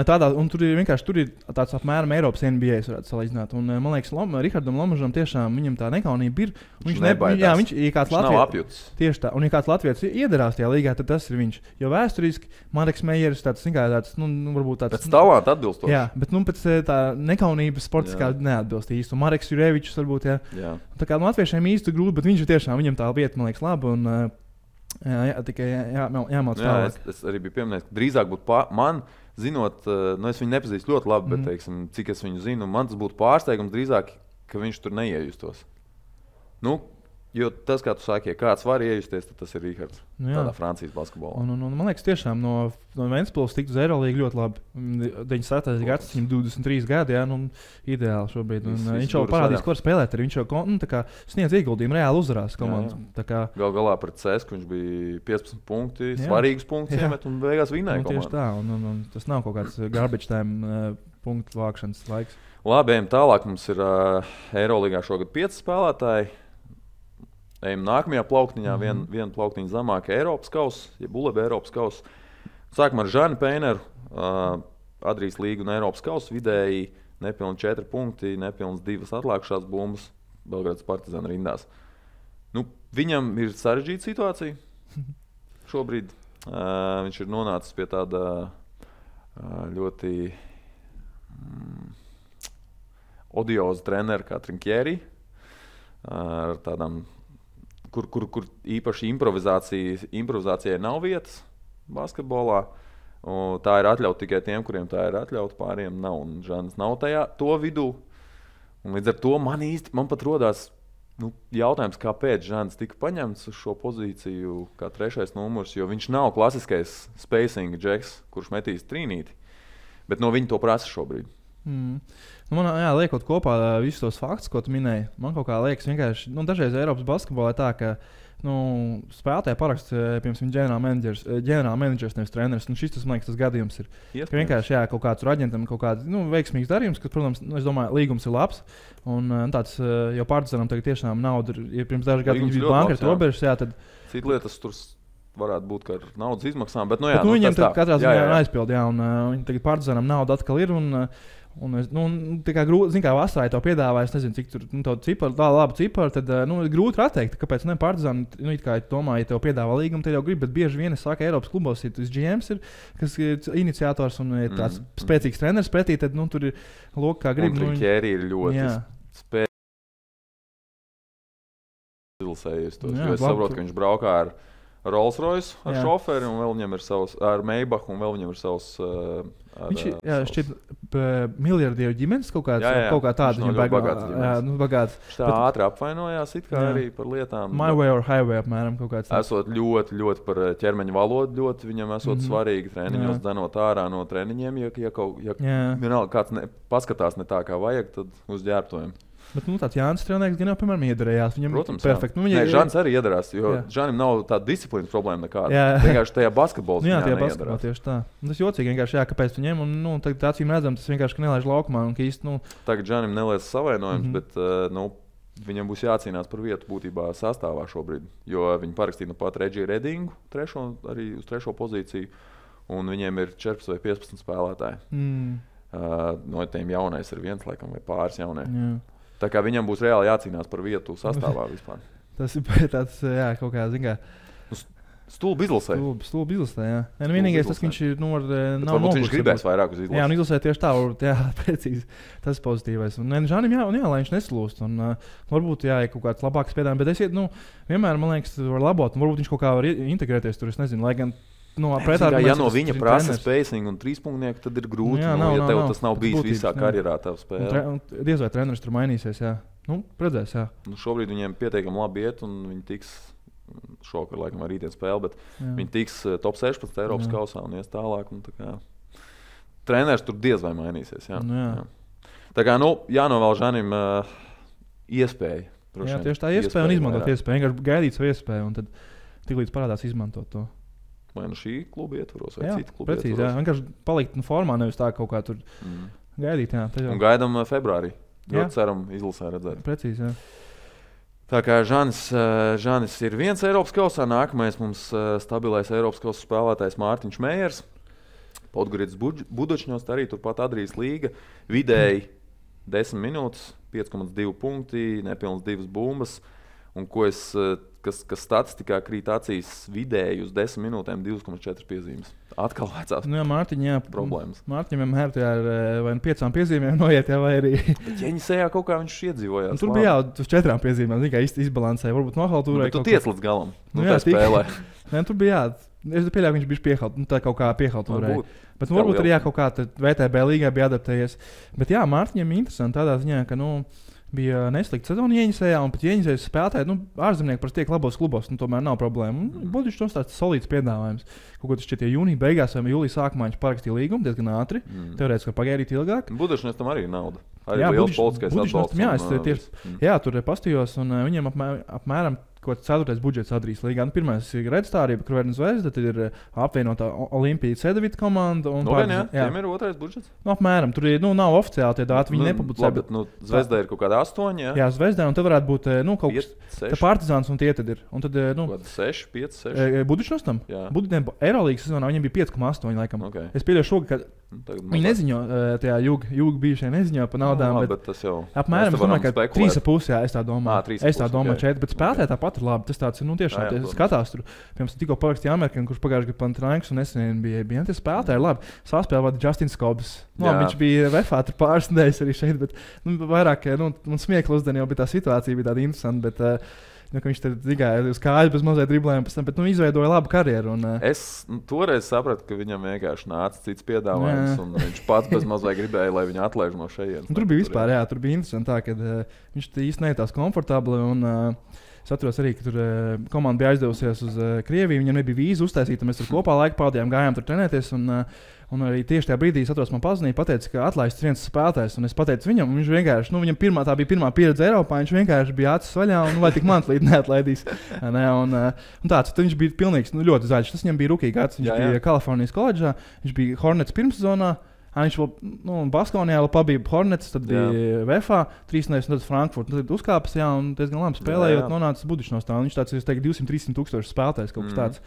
tur ir tāds apmēram Eiropas NBA, varētu salīdzināt. Un, man liekas, Rihardam Lomažam tiešām viņam tā nekaunība ir. Viņš ir kāds Latvijas. Tieši tā. Un ja kāds Latvijas iedarās tajā līgā, tad tas ir viņš. Jo vēsturiski Mareks Meijers tāds, varbūt tāds. Pēc talanta atbilstoši. Jā, bet pēc tā nekaunības sportiskā neatbilst īsti. Un Mareks Jurevičs varbūt, jā. Tā kā latviešiem īsti grūti, bet viņš ir tiešām, viņam tā vieta, man liekas, laba. Un, tikai jāmāc tālāk. Es arī biju pieminējis, ka drīzāk būtu man, zinot, es viņu nepazīstu ļoti labi, bet, teiksim, cik es viņu zinu, man tas būtu pārsteigums drīzāk, ka viņš tur neiejustos. Jo tas, kā tu saki, ja kāds var iejusties, tad tas ir Rihards. Tādā Francijas basketbolā. Un man liekas, tiešām no Ventspils tikt uz Eirolīgu ļoti labi. 97. gads, viņam 23 gadi, ideāli šobrīd. Viņš jau parādīs, ko var spēlēt. Viņš jau sniedz ieguldījumu, reāli uzvarās komandu. Gal galā pret CSKA viņš bija 15 punkti, svarīgus punktus iemet un beigās vinēja komandu. Tieši tā, un tas nav kaut kāds garbage time punktu vākšanas laiks. Labi, ejam tālāk. Mums ir Eirolīgā šogad 5 spēlētāji. Ejam nākamajā plauktiņā, viena plauktiņa zemāk Eiropas kausa, ja Buleba Eiropas kausa. Sākam ar Žani Peineru, Adrijas līgu un Eiropas kausa, vidēji nepilni 4 punkti, nepilns 2 atlikušās bumbas Belgrādas Partizāna rindās. Viņam ir sarežģīta situācija šobrīd. Viņš ir nonācis pie tāda ļoti odioza trenera kā Trinkieri, ar tādām kur īpaši improvizācijai nav vietas basketbolā. Tā ir atļauta tikai tiem, kuriem tā ir atļauta, pāriem nav. Un Žanis nav to vidū. Un līdz ar to man pat rodās jautājums, kāpēc Žanis tika paņemts uz šo pozīciju kā 3. numurs, jo viņš nav klasiskais spacing džeks, kurš metīs trīnīti. Bet no viņa to prasa šobrīd. Nu, man liekot kopā visus tos faktus, ko tu minēji, man kaut kā liekas vienkārši, dažreiz Eiropas basketbolā tā, ka spēlētāji paraksta, piemēram, ģenerālmenedžers, nevis treneris. Šis, man liekas, tas gadījums ir. Ka vienkārši kaut kāds aģentam kaut kāds veiksmīgs darījums, kas, protams, es domāju, līgums ir labs. Un tāds jau Partizanam tagad tiešām nauda ir, pirms dažu gadu viņš bija bankrota robežas, tad... Cita lietas tur varētu būt kā ar naudas izmaksām, bet viņiem katrā ziņā aizpild, un viņi tagad Partizanam nauda atkal ir, tā kā grūti, zin kā vasarā to piedāvāja, es nezinu, cik tur ciparu, tā labu ciparu, tad grūti atteikt, kāpēc ne Partizan, it kā domāju, ja tev piedāvā līgumu, te jau grib, bet bieži vien es saku, Eiropas klubos ir tas GMs, kas ir iniciators un ir tāds spēcīgs treneris pretī, tad tur ir loka, kā grib. Un Trinkēri ir ļoti spēcīgs. Jo es saprotu, ka viņš braukā ar Rolls Royce, ar šoferi, un vēl viņam ir savs, ar Maybach, un vēl viņam ir savs... Viņš ir šķiet miljardieru ģimenes kaut kā tāda. Viņš ļoti bagāts. Viņš tā ātri apvainojās it kā arī par lietām. My way or highway apmēram kaut kāds. Esot ļoti par ķermeņa valodu, ļoti viņam esot svarīgi treniņos dzenot ārā no treniņiem, ja vienalga kāds paskatās ne tā kā vajag, tad uz ģērbtojiem. Bet tāds Jānis Strelnieks gan jau, piemēram, iedarējās. Viņam protams, perfekti. Žanis arī iedarās, jo Žanim nav tāda disciplīnas problēma nekāda. Vienkārši tajā basketbolā tajā basketbolā tieši tā. Tas jocīgi vienkārši, kāpēc viņiem, un tagad acīm redzam, tas vienkārši nelaiž laukumā. Un, īsti, Tagad Žanim nelaiž savainojums, bet viņam būs jācīnās par vietu būtībā sastāvā šobrīd. Jo viņi parakstīja pat Regiju Redingu, arī uz 3. pozīciju, un viņiem ir 14 vai 15 spēlētāji. No tiem jaunais ir viens, laikam, vai pāris jaunie. Tā kā viņam būs reāli jācīnās par vietu sastāvā vispār. Tas ir tāds, kaut kā, zin kā... Stulbi izlasē. Stulbi izlasē, jā. Vienīgais tas, ka viņš nav varbūt viņš gribēs vairāk uz izlasē. Jā, un izlasē tieši tā, precīzi. Tas ir pozitīvais. Un Žanim, lai viņš neslūst. Un varbūt, kaut kāds labāks piedāvājums. Bet vienmēr, man liekas, var labot. Un varbūt viņš kaut kā var integrēties tur, es nezinu, lai gan... Ja no viņa prasa spacing un trīspunktnieku, tad ir grūti. Ja tev tas nav bijis visā karjerā, tev spēlē. Diez vai treneris tur mainīsies, jā. Redzēs, jā. Šobrīd viņiem pietiekami labi iet, un viņi tiks, šokar laikam ar rītdien spēli, bet viņi tiks top 16 Eiropas kausā un ies tālāk. Un tā kā, treneris tur diez vai mainīsies, jā. Jā. Tā kā, jānovēl Žanim iespēja. Jā, tieši tā iespēja un izmantot iespēju. Vienkārši gaidīt savu iespēju, un tad tiklīdz parādās izmantot to. Vai šī kluba ietvaros, vai cita kluba precīzi, ietvaros. Jā, vienkārši palikt formā, nevis tā kaut kā tur gaidīt. Jā, un gaidām februārī. Ļoti ceram izlasē redzēt. Precīzi, jā. Tā kā Žanis ir viens Eiropas kausā, nākamais mums stabilais Eiropas kausa spēlētājs Mārtiņš Mējers. Podgoridas Budočņos arī turpat Adrijas līga. Vidēji 10 minūtes, 5,2 punkti, nepilns 2 bumbas. Un kas statistikā krīt acīs vidēji uz 10 minūtēm 2,4 piezīmes. Atkal vecās problēmas. Mārtiņam vienmēr ir vai 5 piezīmēm noiet, vai arī... Bet Ķeņisējā kaut kā viņš iedzīvojās. Tur bija uz 4 piezīmēm, tikai izbalansēja, varbūt nohaltūrēja. Bet tu tiec līdz galam, tā spēlē. Tur bija es pieļauju, ka viņš bija piehalt, tā kaut kā piehaltūrēja. Bet varbūt arī kaut kā VTB līgai bija adaptējies. Bet jā, Mārtiņam interesanti tādā ziņā, ka, bija neslikta sezona Ieņisējā, un pat Ieņisējas spēlētāji, ārzemnieki parasti tiek labos klubos, tomēr nav problēma. Būtu viņš tāds solīds piedāvājums. Kaut ko tas šķiet, ja jūnija beigās vai jūlija sākumā viņš parakstīja līgumu diezgan ātri, teorētiski pagaidīt ilgāk. Budašņas tam arī ir nauda. Arī liels politiskais atbalsts. Jā, tur pastījos, un viņiem apmēram kaut kāds 4. budžets Adrijas līgā. Pirmais ir Redstārība, Kruverna Zvezda, tad ir apvienotā Olimpija Cedevita komanda. Tiem ir 2. budžets? Apmēram, tur ir, nav oficiāli tie dati, viņi nepublicē. Bet Zvezdā ir kaut kāda 8, jā? Jā, Zvezdā, un tad varētu būt kaut kas Partizāns, un tie tad ir. Un tad, 6, 5, 6. Budučnos tam? Eirolīgas sezonā viņiem bija 5,8 laikam. Okay. Es pieļauju šogad, ka viņi neziņo, tajā jūga bijušie neziņo par naudām, bet tas jau... Apmēram, es domāju, ka 3,5, jā, es tā domāju. Es tā domāju 4, bet spēlētāji tāpat ir labi. Tas tāds ir, tiešām, skatās tur. Piemēram, tikko parakstīja Amerikāņu, kurš pagājuši gadu Panathinaikos un nesen bija tie spēlētāji labi. Saspēlē vada Justins Kobs. Viņš bija VFā tur pāris nedēļas arī šeit, bet vairāk, man smiekli uzdien jau bija tā situācija, bija tāda interesanta, bet... ka viņš tur gāja uz kāju bez mazliet driblēm, bet izveidoja labu karjeru. Un, es toreiz sapratu, ka viņam vienkārši nāca cits piedāvājums, un viņš pats bez mazliet gribēja, lai viņu atlaiž no šejienes. Tur bija vispār, jā, tur bija interesanti tā, ka viņš īsti nejūtās komfortabli. Un, Es atceros arī, ka tur komanda bija aizdevusies uz Krieviju. Viņam nebija vīza uztaisīta. Mēs tur kopā laiku pavadījām, gājām tur trenēties. Un arī tieši tajā brīdī es atceros, man pazvanīja, pateica, ka atlaists viens spēlētājs. Un es pateicu viņam, viņš vienkārši, viņam tā bija pirmā pieredze Eiropā. Viņš vienkārši bija acis vaļā un vai tik man līdz neatlaidīs. Un tāds, viņš bija pilnīgs, ļoti zaļš. Tas viņam bija rookie gads. Viņš bija Kalifornijas koledžā, viņš bija Hornets pirmssezonā. Viņš vēl Baskonijā pabija Hornets, tad bija VFA, 3 nedēļas, un tad Frankfurt. Tad uzkāpis, un diezgan labi spēlējot, nonācis Budišnostāvā. Viņš tāds, es teiktu, 200-300 tūkstoši spēlētājs, kaut kas tāds.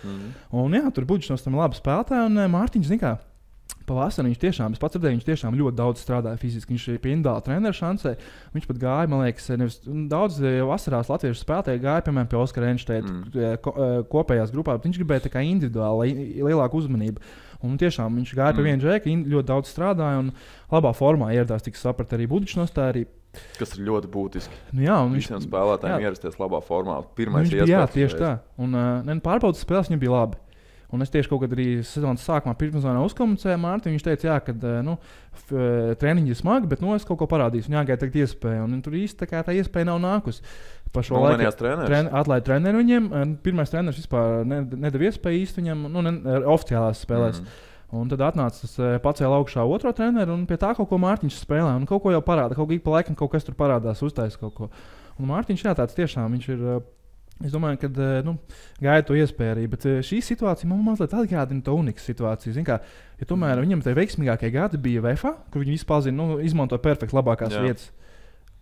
Un tur Budišnostāvā labi spēlētāji, un Mārtiņš, zin kā, pavasarī viņš tiešām, es pats redzēju, viņš tiešām ļoti daudz strādāja fiziski. Viņš pie individuāla treneru šancē. Viņš pat gāja, man liekas, nevis daudz vasarās latviešu spēlētāji gāja, piemēram, pie Oskara Enšteita kopējās grupā, bet viņš gribēja tā kā individuāli lielāku uzmanību. Un tiešām viņš gāja pie viena džeka, ļoti daudz strādāja un labā formā ieradās, tik saprat arī Budišnostāvā. Kas ir ļoti būtiski. Visiem spēlētājiem ierasties labā formā. Pirmais iespējas. Jā, tieši tā. Un pārbaudas spēles viņam bija labi. Un es tieši kaut kad arī sezonas sākumā pirmsezonā uzkomunicēju Mārtiņu. Viņš teica, ka treniņi ir smagi, bet es kaut ko parādīšu. Viņam jāgaida tagad iespēja. Un tur īsti tā iespēja nav nākusi. Pa šo laiku atlaida treneru viņiem. Pirmais treneris vispār nedeva iespēju īsti viņam oficiālās spēlēs. Un tad atnāca tas pacēla augšā otro treneru un pie tā kaut ko Mārtiņš spēlē. Un kaut ko jau parāda. Kaut kā pa laikam kaut kas tur parādās, uztaisa kaut ko. Un Mārtiņš tāds tiešām viņš ir. Es domāju, ka gāja to iespēju arī, bet šī situācija man mazliet atgādina to unikas situāciju. Kā, ja tomēr viņam tie veiksmīgākie gadi bija VFA, kur viņi vispār izmantoja perfekti labākās vietas.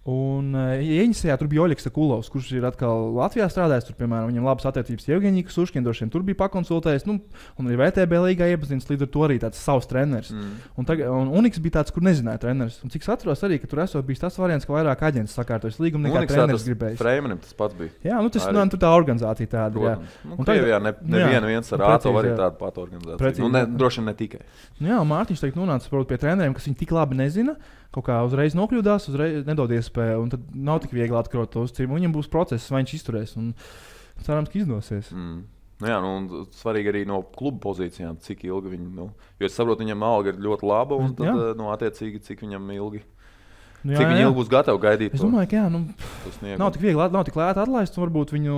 Un Ieņasajā tur bija Oļegs Kulovs, kurš ir atkal Latvijā strādājis. Tur, piemēram, viņam labas attiecības Jevgeņija Suškina, droši vien tur bija pakonsultējis. Un arī VTB līgā iepazīstināts, līdz ar to arī tāds savs treneris. Un Uniks bija tāds, kur nezināja treneris. Un cik es atceros arī, ka tur esot bijis tas variants, ka vairāk aģents sakārtojas līgumu nekā treneris gribējis. Freimanim tas pats bija. Jā, tur tā organizācija tāda. Krievijā neviens ar āto arī tādu patu organizāciju. Droši vien ne tikai. Jā, Mārtiņš teikt nonāca pie treneriem, kas viņi tik labi nezina. Kaut kā uzreiz nokļūdās, uzreiz nedod iespēju, un tad nav tik viegli atkarot to uzticību. Viņam būs process, vai viņš izturēs, un cerams, ka izdosies. Un svarīgi arī no kluba pozīcijām, cik ilgi viņi, jo es saprotu, viņam alga ir ļoti laba, un tad, attiecīgi, cik viņam ilgi. Cik viņi ilgi būs gatavi gaidīt? Es domāju, ka nav tik viegli, nav tik lēti atlaist. Varbūt viņi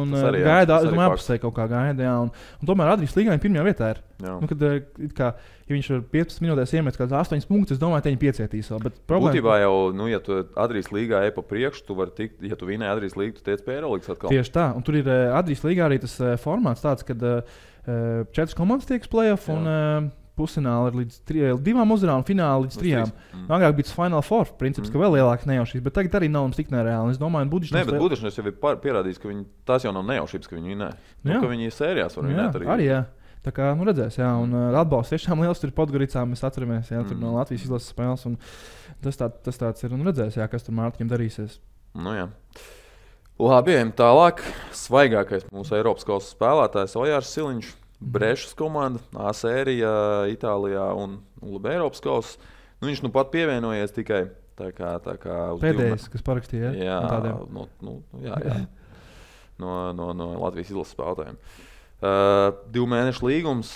gaida, apusē kaut kā gaida. Un tomēr Adrijas līgā viņa pirmajā vietā ir. Ja viņš ar 15 minūtēs iemet kāds 8 punktus, es domāju, ka viņi piecietīs vēl. Būtībā jau, ja tu Adrijas līgā ej pa priekšu, tu vari tikt, ja tu vinēji Adrijas līgu, tu tiec pie Eirolandes atkal. Tieši tā. Un tur ir Adrijas līgā arī tas formāts tāds, kad 4 komandas tiek play-off un pusfināli ir līdz 2 uzvarām un fināli līdz 3. Agrāk bija tas Final Four princips, ka vēl lielāks nejaušības, bet tagad arī nav tik nereāli. Es domāju, ka Budišnos jau ir pierādījis, ka tās jau nav nejaušības, ka viņi vinē. Ka viņi sērijās var vinēt arī. Jā. Tā kā redzēs, un atbalsts tiešām liels tur Podgoricā, mēs atceramies, tur no Latvijas izlases spēles. Tas tāds ir un redzēs, kas tur Mārtiņam darīsies. Labi, ejam tālāk. Svaigākais mūsu Eiropas kausa spēlētājs Ojārs Siliņš. Brešas komanda, A sērija Itālijā un Eiropas kausa. Viņš pat pievienojies tikai tā kā uz pēdējais, kas parakstīja. Jā, no Latvijas izlases spēlētājiem. 2 mēnešu līgums.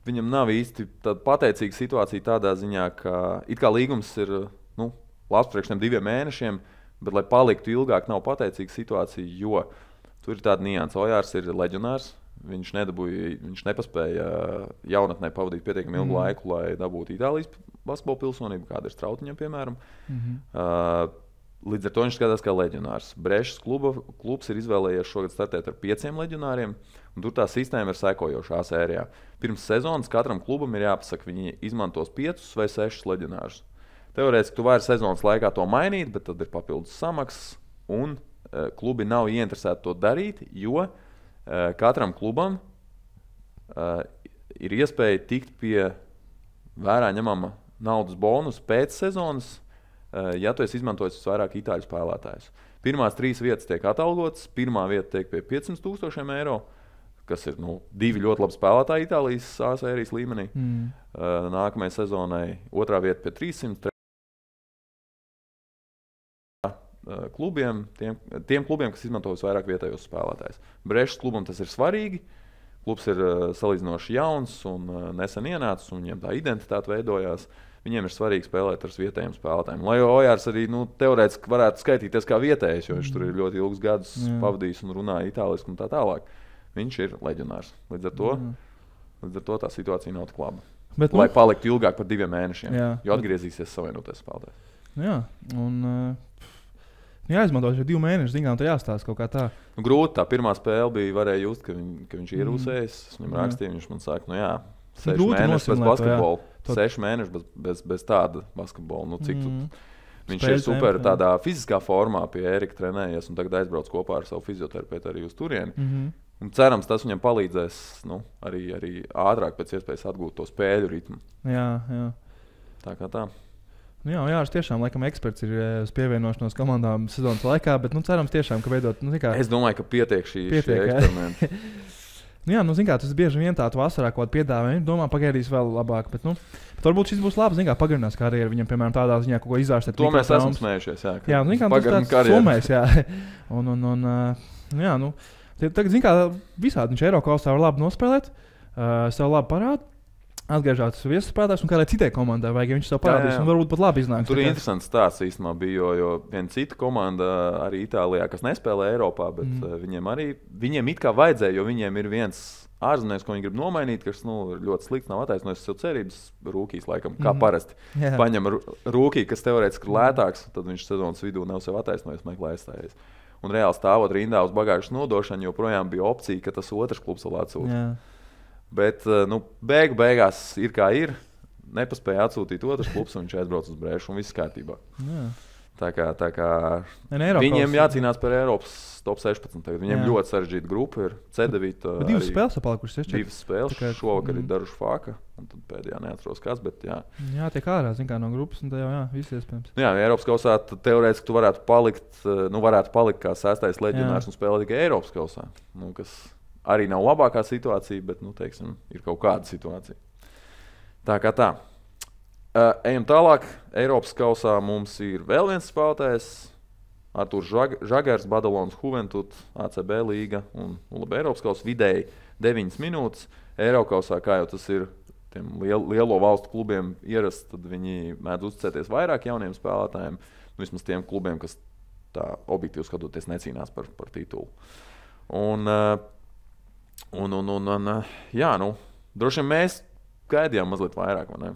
Viņam nav īsti tāda pateicīga situācija tādā ziņā, ka it kā līgums ir labs priekš tiem 2 mēnešiem, bet, lai paliktu ilgāk, nav pateicīga situācija, jo tur ir tāda nianse. Ojārs ir leģionārs. Viņš nepaspēja jaunatnē pavadīt pietiekami ilgu laiku, lai dabūtu Itālijas basketbola pilsonību, kāda ir Strautiņam, piemēram. Līdz ar to viņš skatās kā leģionārs. Brešas klubs ir izvēlējies šogad startēt ar 5 leģionāriem, un tur tā sistēma ir sekojoša A sērijā. Pirms sezonas katram klubam ir jāpasaka, viņi izmantos 5 vai 6 leģionārus. Teorētiski tu vari sezonas laikā to mainīt, bet tad ir papildus samaksas, un klubi nav ieinteresēti to darīt, jo katram klubam ir iespēja tikt pie vērā ņemama naudas bonusa pēc sezonas, ja tu esi izmantojis vairāk itāļu spēlētājus. Pirmās 3 vietas tiek atalgotas, pirmā vieta tiek pie 500,000 eiro, kas ir 2 ļoti labi spēlētāji Itālijas A sērijas līmenī. Nākamajai sezonai otrā vieta pie 300. Klubiem, tiem klubiem, kas izmanto vairāk vietējos spēlētājus. Brešas klubam tas ir svarīgi, Klubs ir salīdzinoši jauns un nesen ienācis, un viņiem tā identitāte veidojās. Viņiem ir svarīgi spēlēt ar vietējiem spēlētājiem. Lai Ojārs arī teorētiski varētu skaitīties kā vietējais, jo viņš tur ir ļoti ilgus gadus pavadījis un runāja itāliski un tā tālāk. Viņš ir leģionārs. Līdz ar to tā situācija nav tik laba. Bet, lai paliktu ilgāk par 2 mēnešiem, jo atgriezīsies savienoties spēlētājs. Jā, un jāizmanto šie 2 mēneši, zinām, tā jāstāsta kaut kā tā. Grūti, tā pirmā spēle bija, varēja just, ka viņš ir ierūsējis. Es viņam rakstīju, viņš man saka, 6 mēneši bez basketbola. 6 mēneši bez tāda basketbola. Viņš ir super tādā fiziskā formā pie Ērika trenējies un tagad aizbrauc kopā ar savu fizioterapeitu arī uz turieni. Un cerams, tas viņam palīdzēs arī ātrāk pēc iespējas atgūt to spēļu ritmu. Jā. Tā kā tā. Jā, Jārs tiešām laikam eksperts ir uz pievienošanos komandām sezonas laikā, bet cerams tiešām, ka veidot... Es domāju, ka pietiek šī eksperimenta. Tas bieži vien tādu vasarā kaut kādu piedāvājumu. Viņš domā, pagaidīs vēl labāk, bet varbūt šis būs labs, pagarinās karjeru viņam, piemēram, tādā ziņā kaut ko izārstēt. To mēs esam smējušies, jā. Tas tāds summēs, jā. Tagad, visādi viņš Eirokausā var labi nospēlēt, sev labi parāda. Atgriežās viesuspēlētājs un kādai citai komandai vajag, ja viņš sev parādīs un varbūt pat labi iznāks. Tur ir interesants stāsts īstenībā bija, jo viena cita komanda arī Itālijā, kas nespēlē Eiropā, bet viņiem it kā vajadzēja, jo viņiem ir viens ārzemnieks, ko viņi grib nomainīt, kas ir ļoti slikts, nav attaisnojis sev cerības, rūkīs laikam, kā parasti. Paņem rūkī, kas teorētiski ir lētāks, tad viņš sezonas vidū nav sev attaisnojis, meklē aizstājies. Un reāli stāvot rindā uz bagāžas nodošanu, joprojām bija opcija, ka tas otrs klubs vēl atsūta. Bet beigās ir kā ir. Nepaspēja atsūtīt otrs klubs, un viņš aizbrauc uz Brēšu, un viss kārtībā. Tā kā viņiem jācīnās par Eiropas top 16. Viņiem ļoti sarežģīta grupa ir C9. Bet 2 spēles palikušas. 2 spēles. Šovakar ir Daruši Fāka, un tad pēdējā neatceros kāds, bet jā. Jā, tiek ārā, no grupas, un tā jau viss iespējams. Jā, Eiropas kausā teorētiski tu varētu palikt kā 6. leģionārs un spēlēt tikai Eiropas kausā. Kas arī nav labākā situācija, bet, teiksim, ir kaut kāda situācija. Tā kā tā. Ejam tālāk. Eiropas kausā mums ir vēl viens spēlētājs. Arturs Žagars, Badalonas Juventud, ACB līga un Eiropas kausā vidēji 9 minūtes. Eirokausā, kā jau tas ir tiem lielo valstu klubiem ierasts, tad viņi mēdz uzticēties vairāk jauniem spēlētājiem. Vismaz tiem klubiem, kas tā objektīvi skatoties necīnās par titulu. Droši vien mēs gaidījām mazliet vairāk, vai ne?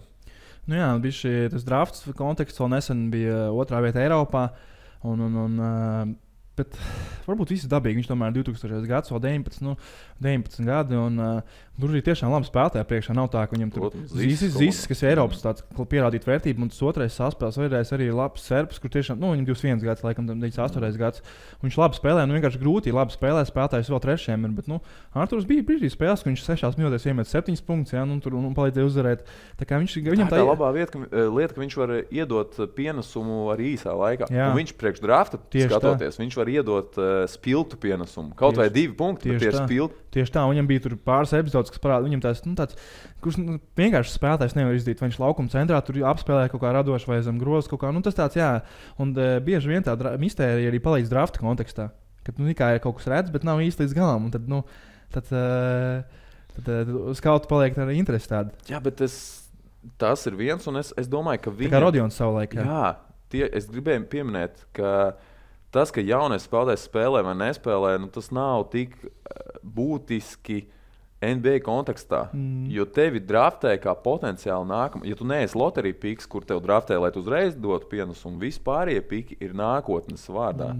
Bija tas drafts konteksts, vēl nesen bija 2. vieta Eiropā, bet varbūt viss dabīgi. Viņš tomēr 2000. gads, vēl 19 gadi, un tur ir tiešām labi spēlētāji priekšā. Nav tā, ka viņam tur Zis, kas ir Eiropas pierādīt vērtību, un tas otrais saspēles vajadzēs arī labs serbs, kur tiešām, viņam 21 gads, laikam, 98 gads. Viņš labi spēlē, vienkārši grūti labi spēlē, spēlētājs vēl trešajam ir, bet, Arturs bija brīdī spēles, ka viņš 6 minūtēs iemet 7 punktus, un palīdzēja uzvarēt. Tā kā viņam tā labā lieta, ka viņš var iedot pienesumu arī īsā laikā. Un viņš priekš drafta skatoties, viņš var iedot spilgtu pienesumu. Kaut vai 2 punkti, bet tie ir spilgti. Tieši tā, viņam bija tur pāris epizodes, kas parāda, viņam tāds, kurš vienkārši spēlētājs nevar izdīt. Viņš laukuma centrā tur apspēlē kaut kā radoši vai zem grozas kaut kā. Tas tāds, jā. Un bieži vien tā mistērija arī palīdz drafta kontekstā. Kad kā ir kaut kas redz, bet nav īsti līdz galam. Un tad skauti paliek tāda interese tāda. Jā, bet tas ir viens, un es domāju, ka viņam... Tā kā Rodions savulaik. Es gribēju pieminēt, ka tas, ka jaunais spēlētājs spēlē vai nespēlē, tas nav tik būtiski NBA kontekstā. Jo tevi draftē kā potenciāli nākamā. Ja tu neesi loterija piks, kur tev draftē, lai tu uzreiz dotu pienesumu, vispārējie piki ir nākotnes vārdā.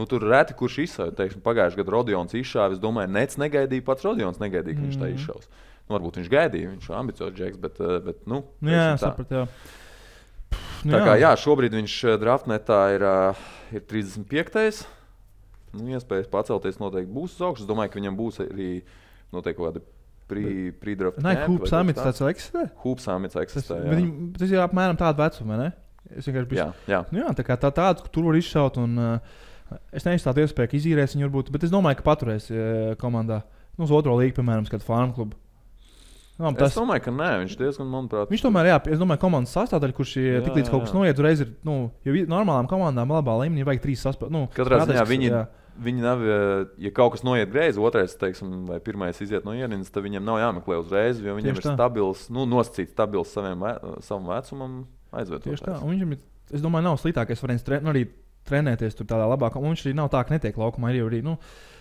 Tur reti kurš izšauja. Pagājušajā gadā Rodions izšāva. Es domāju, Nets negaidīja, pats Rodions negaidīja, ka viņš tā izšaus. Varbūt viņš gaidīja, viņš ir ambiciozs džeks, bet jā, saprat, jā. Tā kā šobrīd viņš draftnetā ir 35. Iespējas pacelties noteikti būs uz augšu. Es domāju, ka viņam būs arī noteikti kaut kādi pre-draft camp. Hoops Summits tāds eksistē? Hoops Summits eksistē, jā. Tas ir apmēram tāda vecuma, ne? Es vienkārši biju... Jā. Tā kā tāds, tur var izšaut, un es neizstātu iespēju, ka izīrēs viņu varbūt, bet es domāju, ka paturēs komandā. Uz otro līgu, piemēram, kādu farm klubu. Es domāju, ka nē, viņš diezgan, manuprāt... Viņš tomēr, jā, es domāju, komandas sastāvdaļa, kurš tik līdz kaut kas noiet, uzreiz ir, jo normālām komandām labā līmenī vajag 3 sastāvdaļas. Katrā ziņā viņi nav, ja kaut kas noiet greizi, otrais, teiksim, vai pirmais iziet no ienindas, tad viņiem nav jāmeklē uzreiz, jo viņiem ir stabils, nosacīts stabils savam vecumam aizvietotājs. Tieši tā, un viņam ir, es domāju, nav sliktākais variants arī trenēties tur tādā labākā, un viņš arī nav tā, ka netiek laukumā, arī,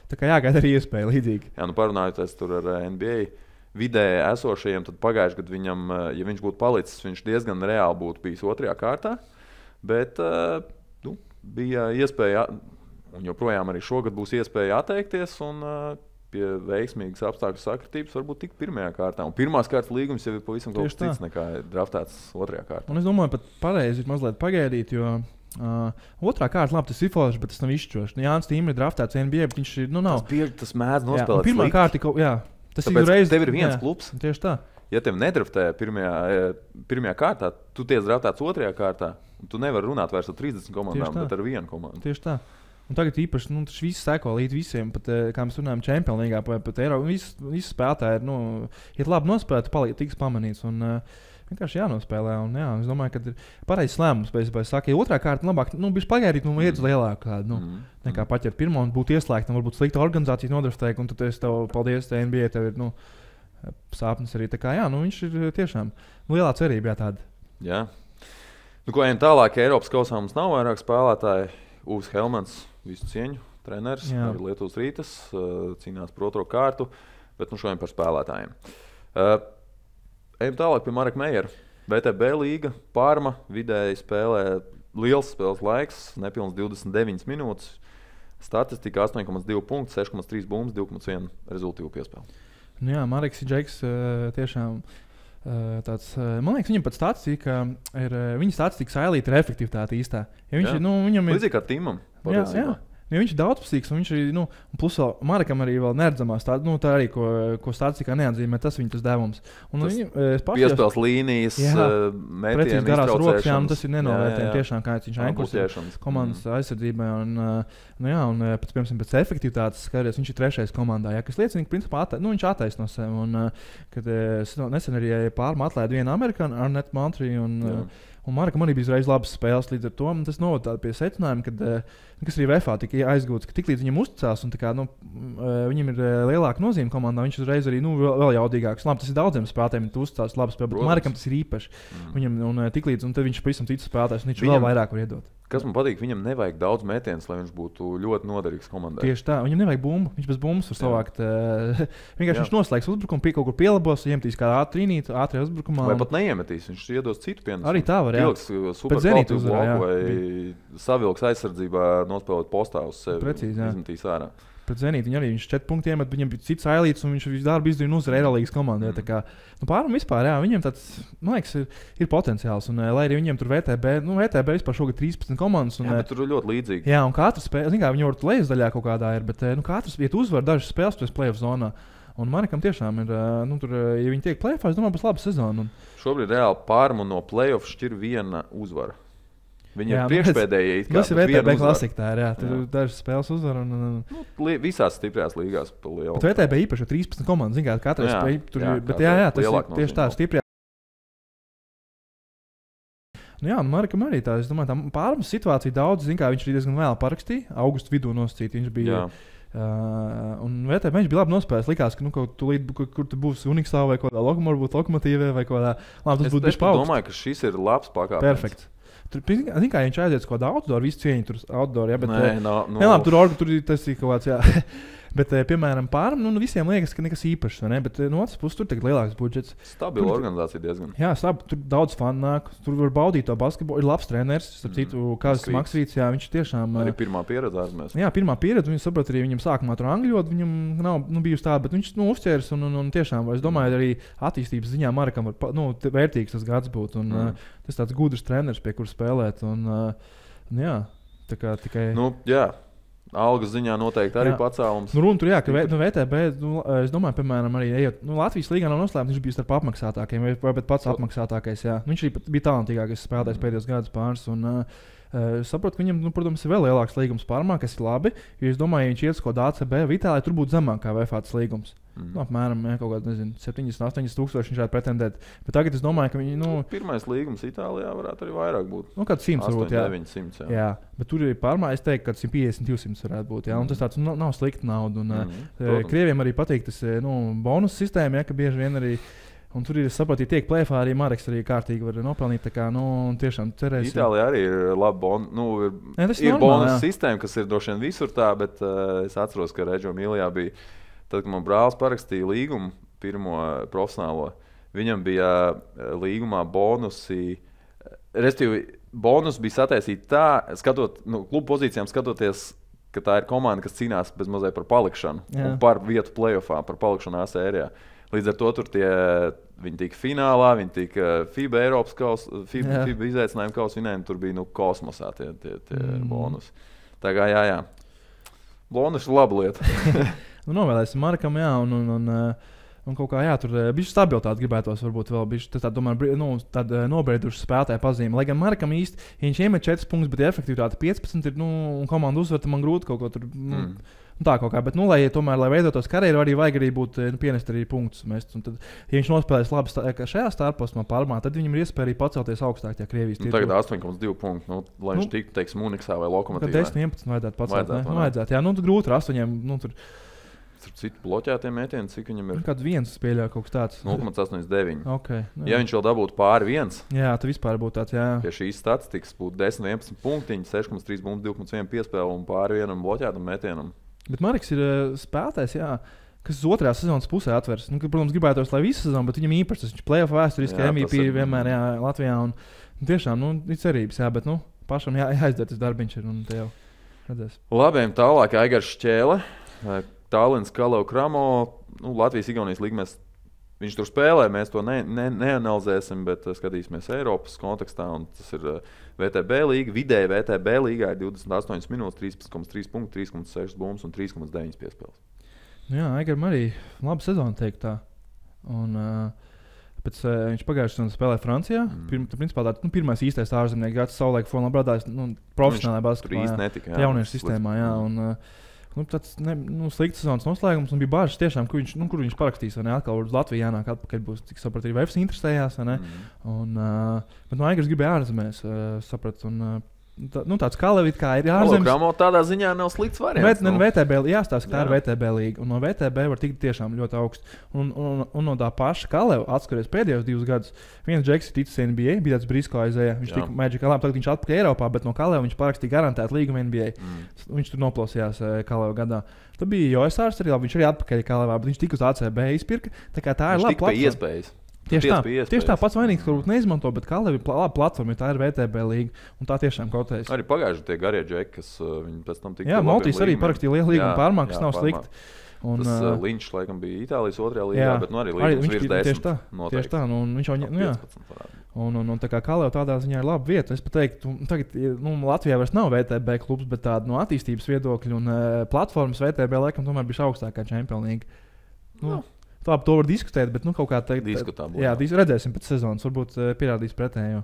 tā kā jāgaida arī iespēja līdzīgi. Jā, parunājoties tur ar NBA vidēji esošajiem, tad pagājuši gadu viņam, ja viņš būtu palicis, viņš diezgan reāli būtu bijis 2. kārtā, bet bija iespēja, un joprojām arī šogad būs iespēja atteikties, un pie veiksmīgas apstākļu sakritības varbūt tik 1. kārtā. Un 1. kārtas līgums jau ir pavisam kaut kas cits nekā draftēts 2. kārtā. Un es domāju, pat pareizi ir mazliet pagaidīt, jo 2. kārta, labi, tas ir forši, bet tas nav izšķiroši. Jānis Tīm ir draftēts NBA, bet viņš ir, nav. Tas mēdz nospēlēt. 1. kārta, jā. Tas tāpēc ir reiz, tev ir viens klubs. Tieši tā. Ja tev nedraftē 1. kārtā, tu tiec draftēts 2. kārtā, un tu nevari runāt vairs ar 30 komandām, bet ar 1 komandu. Tieši tā. Un tagad īpaši, tas viss seko līdz visiem, pat, kā mēs runājam, Champions League, pat Eiropā. Visi spēlētāji ir labi nospēlēti, tiks pamanīts. Un, vienkārši jānospēlē. Un, jā, es domāju, ka ir pareizs lēmums. Ja 2. kārta labāk, bija pagaidīt, iet uz lielāku kādu. Nekā paķert 1. un būt ieslēgtam, varbūt slikta organizācija nodraftēja, un tad es tev paldies, te NBA, tev ir sāpnes arī. Tā kā jā, viņš ir tiešām lielā cerība, jā, tāda. Jā. Ko ejam tālāk, Eiropas kausā mums nav vairāk spēlētāji. Uvis Helmans, visu cieņu, treneris, arī Lietuvas Rītas, cīnās par 2. kārtu, bet šodien par spēlētājiem. Ejam tālāk pie Mareka Meijera. VTB līga, Parma, vidēji spēlē liels spēles laiks, nepilns 29 minūtes. Statistika 8,2 punkti, 6,3 bumbas, 2,1 rezultīvu piespēli. Jā, Mareks ir Džeks tiešām tāds, man liekas, viņam pat statistika ir, viņa statistika sailīta ir efektivitāte īstā. Ja viņš ir, viņam ir... Līdzīgi kā Timam. Jā. Ja viņš ir daudzpusīgs, un viņš arī, plus vēl Marekam arī vēl neredzamās, tā arī, ko statistikā neatzīmē, tas viņa tas devums. Un piespēles līnijas, metieni, garās rokas, tas ir nenovērtējami tiešām, kā viņš aizkurs komandas aizsardzībai. Un pēc efektivitātes skaties, viņš ir 3. komandā, kas liecina, ka principā viņš attaisno sevi. Un, kad nesen arī Parma atlaida vienu amerikāņu, Arnett Montri, un Marekam arī bija uzreiz labas spēles līdz ar to. Tas novada pie secinājuma, kas arī VFA tika aizgūts, ka tiklīdz viņam uzticās un viņam ir lielāka nozīme komandā, viņš uzreiz arī vēl jaudīgāks. Labi, tas ir daudziem spēlētājiem, ja tu uzticās labi spēlē, bet Marekam tas ir īpaši. Viņam tiklīdz, un tad viņš pavisam cits spēlētājs, un viņš vēl vairāk var iedot. Kas man patīk, viņam nevajag daudz metienus, lai viņš būtu ļoti noderīgs komandai. Tieši tā, viņam nevajag bumbu, viņš bez bumbas var savākt. Vienkārši viņš noslēgs uzbrukumu, kaut kur pielabos, iemetīs kā ātrie uzbrukumā. Vai pat neiemetīs, viņš iedos citu pienesumu. Arī tā var, jā. Pilks superkvalitīvu bloku vai savilks aizsardzībā nospēlēt postā uz sevi. Precīzi, jā. Izmetīs ārā. Pret Zenītu viņš 4 punktiem iemet, viņam bija cits ailīts, un viņš visu darbu izdarīja uzvar Eirolīgas komandai. Pāram vispār, jā, viņiem tāds, man liekas, ir potenciāls. Un, lai arī viņiem tur VTB vispār šogad 13 komandas. Un, jā, bet tur ir ļoti līdzīgi. Jā, un katrs spēle, zin kā, viņi varbūt lejas daļā kaut kādā ir, bet katrs iet uzvar dažas spēles pēc play-off zonā. Un Marekam tiešām ir, tur, ja viņi tiek play-offā, es domāju, būs laba sezona. Šobrīd reāli Parmu no play-off šķir viena uzvara. Viņi ir priekšpēdējie. Tas ir VTB klasika, jā. Tur dažas spēles uzvar. Visās stiprās līgās pa lielu. Bet VTB īpaši 13 komandas, zin kā, katrai spēja tur ir, bet jā, tas ir tieši tā stiprā. Jā, Marekam arī tā, es domāju, tā Parmas situācija daudz, zin kā, viņš arī diezgan vēl parakstīja, augustu vidū nosacīt, viņš bija. Un VTB viņš bija labi nospēlējis. Likās, ka kaut kur tu būsi Uniksā vai kaut kādā Lokomotīvē vai kaut kādā. Labi, tas būtu bišķi paugst. Es domāju, ka šis ir labs pakāpens. Perfekt. Tur, zin kā, viņš aiziet kaut kādā outdoor, visu cieņu tur outdoor, jā, bet... Nē, tur tas ir kaut kāds, jā. Bet, piemēram, Parma, visiem liekas, ka nekas īpašs, ne? Bet no otras puses tur tagad lielāks budžets. Stabila organizācija diezgan. Jā, tur daudz fanu nāk, tur var baudīt to basketbolu. Ir labs treneris, starp citu, Kazis Maksvīts, jā, viņš tiešām... Arī pirmā pieredze ārzemēs. Jā, pirmā pieredze, viņš saprot arī viņam sākumā tur angļot, viņam nav bijusi tā, bet viņš uzķērs un tiešām, es domāju, arī attīstības ziņā Marekam var, vērtīgs tas gads būt. Un tas tāds gudrs treneris, pie kur spēlēt. Un jā, tā kā tikai... Jā. Algas ziņā noteikti arī pacēlums. Runa tur, jā, ka VTB, es domāju, piemēram, arī ejot, Latvijas līgā nav noslēpts, viņš bija starp apmaksātākajiem, vai pats apmaksātākais, jā. Viņš arī bija talantīgākais spēlētājs pēdējos gadus pāris, un saprotu, ka viņam, protams, ir vēl lielāks līgums Parmā, kas ir labi, jo es domāju, ja viņš iet uz kaut kādu ACB, Itālijā tur būtu zemāk kā VFA līgums. Apmēram kaut kādā 70-80 tūkstoši viņš varētu pretendēt. Bet tagad es domāju, ka viņi. Pirmais līgums Itālijā varētu arī vairāk būt. Kāds 100 varbūt. 900. Jā, bet tur ir pārmaiņas. Es teiktu, ka 150-200 varētu būt. Jā, un tas tāds nav slikta nauda. Un, Krieviem arī patīk tas bonus sistēma, ka bieži vien arī. Un tur ir, es saprotu, tiek plēfā arī Mareks arī kārtīgi var nopelnīt. Tā kā, tiešām cerēsim. Itālijā arī ir laba ir bonus sistēma, kas ir droši vien visur tā, bet es atceros, ka Reggio Emilijā bija, tad, kad man brālis parakstīja līgumu, pirmo profesionālo, viņam bija līgumā bonusi, respektīvi, bonus bija sataisīti tā, klubu pozīcijām skatoties, ka tā ir komanda, kas cīnās bez mazai par palikšanu un par vietu playoffā, par palikšanu A sērijā. Līdz ar to tur viņi tika finālā, viņi tika FIBA Eiropas kausa, FIBA izaicinājuma kausa vinējumi, tur bija kosmosā tie bonusi. Tā kā jā. Bonus ir laba lieta. Novēlēsim Markam, jā, un kaut kā, jā, tur bišķi stabilitāti gribētos varbūt vēl bišķi, tāda nobrieduša spēlētāja pazīme. Lai gan Markam īsti, ja viņš iemet 4 punktus, bet efektivitāte 15 ir, un komanda uzvar, tad man grūti kaut ko tur... Tā kaut kā, bet, lai veidotos karjeru, arī vajag arī būt, pienest arī punktus mest. Un tad, ja viņš nospēlēs labi šajā starposmā Parmā, tad viņam ir iespēja arī pacelties augstāk tajā Krievijas tirgu. Tagad 8,2 punktu, lai viņš tiktu, teiksim, Uniksā vai Lokomotīvā. Tad 10-11 vajadzētu pacelt. Vajadzētu, jā, grūti ar 8, tur... Citu bloķētiem mētieniem, cik viņam ir? Kāds viens spēļā kaut kas tāds. 0,89. Okay, ja viņš vēl dabūtu pāri 1. Jā, tad vispār būtu tāds, jā. Pie šīs statistikas būtu 10-11 punktiņi, 6,3 bumbas, 2,1 piespēle un pāri 1 bloķētam mētienam. Bet Marks ir spēlētājs, kas uz otrajā sezonas pusē atvers. Protams, gribētos, lai visu sezonu, bet viņam īpaši tas playoff vēsturiski MVP vienmēr Latvijā. Un tiešām, ir cerības, bet pašam jāizdara tas darbiņš ir, un te jau redzēs. Labiem tālāk Aigars Šķēle, Tallinas Kalau Kramo, Latvijas-Igaunijas līgumēs. Viņš tur spēlē, mēs to neanalizēsim, bet skatīsimies Eiropas kontekstā. Tas ir VTB līga. Vidēji VTB līgā ir 28 minūtes, 13,3 punkti, 3,6 bumbas un 3,9 piespēles. Jā, Aigaram arī laba sezona teikt tā. Un, pēc viņš pagājušajā sezonā spēlēja Francijā. Principā tā pirmais īstais ārzemnieks gads savulaik formā brādājis profesionālajā basketbolā. Jauniešu sistēmā, jā. Un, tāds slikts sezonas noslēgums, un bija bažas tiešām, kur viņš parakstīs, vai ne, atkal uz Latviju jānāk atpakaļ būs, cik sapratu, arī Vefs interesējās, vai ne, bet Aigars gribēja ārzemēs, sapratu, un tāds Kalevit, kā ir ārzemēs. Kramo tādā ziņā nav slikts variants. VTB, jāstāsta, ka tā ir VTB līga, un no VTB var tikt tiešām ļoti augstu, un no tā paša Kaleva atskaries pēdējos 2 gadus, viens Džeks ir ticis NBA, bija tāds Brisko aizēja, viņš tika Magic Kaleva, tagad viņš atpakaļ Eiropā, bet no Kaleva viņš parakstīja garantētu līgumu NBA. Viņš tur noplausījās Kaleva gadā. Tad bija Joesārs arī labi, viņš arī atpakaļ Kalevā, bet viņš tika uz ACB izpirka, tā kā tā ir laba platforma. Tieši tā pats vainīgs, varbūt neizmanto, bet Kaleva ir laba platforma, tā ir VTB līga, un tā tiešām kotējas. Arī pagājuši tie garie džeki, kas viņi pēc tam tika. Jā, Maltīs arī parakstīja lielu līgumu Parmā, kas nav slikti. Un, tas Linčs, laikam, bija Itālijas 2. līgā, bet arī līgums virs 10. Tieši tā, un viņš jau un tā kā Kaleva tādā ziņā ir laba vieta. Es pat teiktu, tagad Latvijā vairs nav VTB klubs, bet tāda attīstības viedokļa un platformas VTB laikam tomēr bija augstākā Champions League. Tā to var diskutēt, bet kaut kā tā diskutēta. Jā, redzēsim pēc sezonas, varbūt pierādīs pretējo.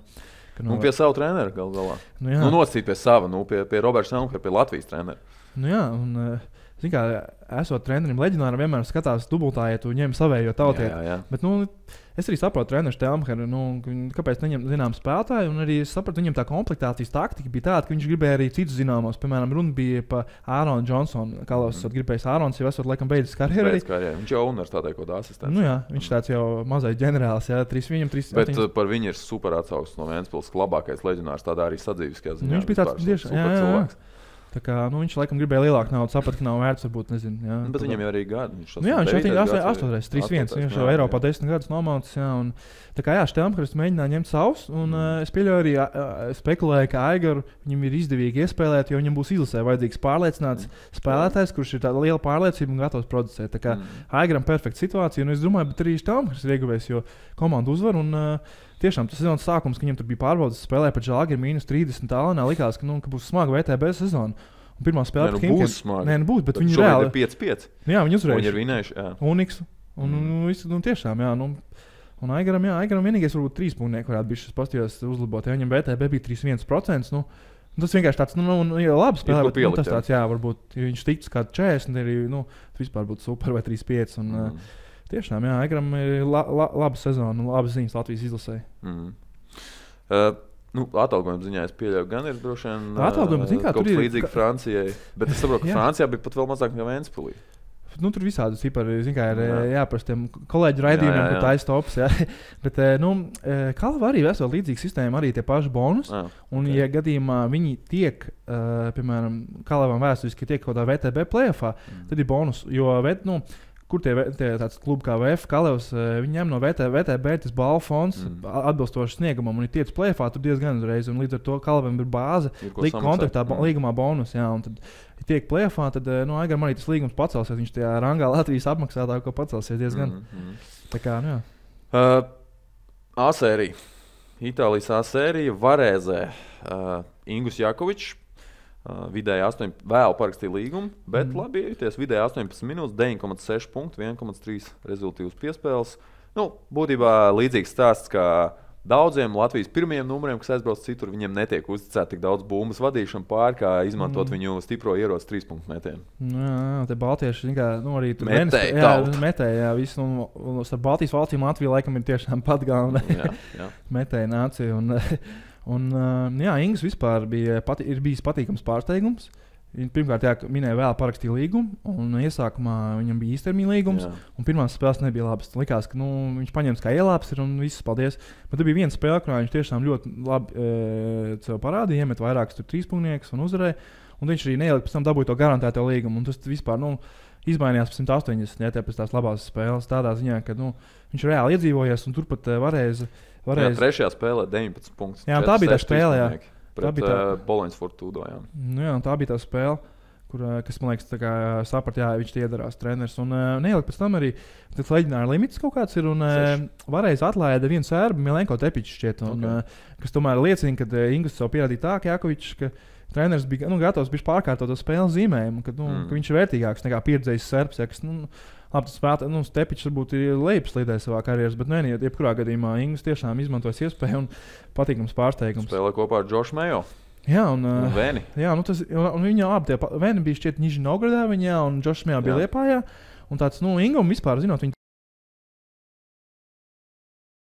Pie sava trenera gal galā. Nosacīt pie sava, pie Roberta Selmkara, pie Latvijas trenera. Jā, un zin kā, esot trenerim leģionāram vienmēr skatās dubultā, ja tu ņem savējo tautieti. Jā. Bet, es arī saprotu treneru Stelmheru, kāpēc neņem zinām spēlētāju, un arī es sapratu, viņam tā komplektācijas taktika bija tāda, ka viņš gribēja arī citus zināmos. Piemēram, runa bija par Āronu Džonsonu. Kālos esat gribējis Ārons, jau esot laikam beidzis karjeru. Viņš jau universitātē kaut kādā asistents. Jā, viņš tāds jau mazais ģenerālis, jā, 3. Bet par viņu ir super atsauksmes no Ventspils, labākais leģionārs tādā arī sadzīviskajā ziņā. Viņš bija tāds tieši cilvēks. Tā kā, viņš laikam gribēja lielāku naudu, saprata, ka nav vērts, varbūt, nezinu. Jā, bet viņam jau arī gadi. Viņš 8, 3-1, viņš jau Eiropā 10 gadus nomaucis, jā, un tā kā, jā, Štelmkars mēģināja ņemt savus, un es pieļauju arī spekulēju, ka Aigaru viņam ir izdevīgi iespēlēt, jo viņam būs izlasē vajadzīgs pārliecināts spēlētājs, kurš ir tāda liela pārliecība un gatavs producēt. Tā kā Aigaram perfekta situācija, un es domāju, bet arī Štelmkars ir ieguvējis, jo komanda uzvar, un tiešām tas sezonas sākums, ka viņam tur bija pārbaudas spēlē pret Žalgiru -30 Tallinā, likās, ka būs smaga VTB sezona. Un pirmā spēle pret Himkiem. Būs smaga. Būs, bet viņi reāli 5-5. Jā, viņi uzvarēja. Viņi ir vinējuši, jā. Uniks. Un tiešām, jā, un Aigaram vienīgais varbūt 3 punkti varētu būt šis pastījās uzlabot. Ja viņam VTB bija 3,1%, Tas vienkārši tāds, labi spēlē, bet tas tāds, varbūt, ja viņš tiktu kādu 40, arī, vispār būtu super vai 35. Un, tiešām, Egram ir laba sezona un labas ziņas Latvijas izlasē. Atalgojuma ziņā es pieļauju, gan ir droši vien kaut kas līdzīgs Francijai, bet es saprotu, ka Francijā bija pat vēl mazāk nekā Ventspilī. Tur visādi cipari, ir jāprast tiem kolēģu raidījumiem, kur taisa tops. Bet Kalva arī vesela līdzīga sistēma, arī tie paši bonus. Un, ja gadījumā viņi tiek, piemēram, Kalvam vēsturiski tiek kaut kādā VTB play-offā, tad ir bonus. Jo, kur tie tāds klubi kā VF, Kalevs, viņi ņem no VTB tas balvu fonds atbilstoši sniegumam un ir tiec play-offā, tur diezgan uzreiz. Un līdz ar to Kalvam ir bāze, kontraktā līgumā bonus. Un tad, ja tiek play-offā, tad Aigaram arī tas līgums pacelsies. Viņš tajā rangā Latvijas apmaksātāko pacelsies diezgan. Tā kā, A-sērija. Itālijas A-sērija Varēzē. Ingus Jakovičs. Vidēji vēl parakstīja līgumu, bet labi iejuties. Vidēji 18 minūtes, 9,6 punktu, 1,3 rezultīvas piespēles. Būtībā līdzīgs stāsts kā daudziem Latvijas pirmajiem numuriem, kas aizbrauc citur, viņiem netiek uzticēta tik daudz bumbas vadīšanu pār, kā izmantot viņu stipro ieroci 3-punktu metienu. Te baltieši arī tur metēja. Visu, un starp Baltijas valstīm Latvija laikam ir tiešām pat galvenā metēja nācija. Ingus vispār ir bijis patīkams pārsteigums. Pirmkārt, minēja vēl parakstīja līgumu, un iesākumā viņam bija īstermiņa līgums, un pirmās spēles nebija labas. Likās, ka viņš paņems kā ielāps ir un viss, paldies. Bet tur bija viena spēle, kurā viņš tiešām ļoti labi sev parādīja, iemet vairākus 3-punktus un uzvarēja, un viņš arī neielika pēc tam dabūja to garantēto līgumu, un tas vispār, izmainījās pēc 180, pēc tās labās spēles, tādā ziņā, ka viņš reāli iedzīvojies, un turpat varēja. Trešajā spēlē 19 punktus. Tā bija tā spēle, pret Boloņas Fortūdo. Tā bija tā spēle, kas, man liekas, saprat, viņš tie iedarās treneris. Un neielika pēc tam arī tas leģionāra limits kaut kāds ir, un varēja atlaida vienu sērbu, Milenko Tepičs šķiet, kas tomēr liecina, ka Ingus sev pierādīja tā, ka Jakovičs, ka treneris bija gatavs pārkārtot to spēles zīmējumu, ka viņš ir vērtīgāks nekā pieredzējis serbs, kas, labi, tas spēlētājs, Tepičs varbūt ir lejupslīdējis savā karjeras, bet jebkurā gadījumā Ingus tiešām izmantojas iespēju un patīkams pārsteigums. Spēlē kopā ar Džošu Mejo. Un Vēni. Un viņa abi Vēni bija šķiet Nižņi Novgorodā, un Džošs Mejo bija Liepājā. Un tāds, Ingum vispār, zinot,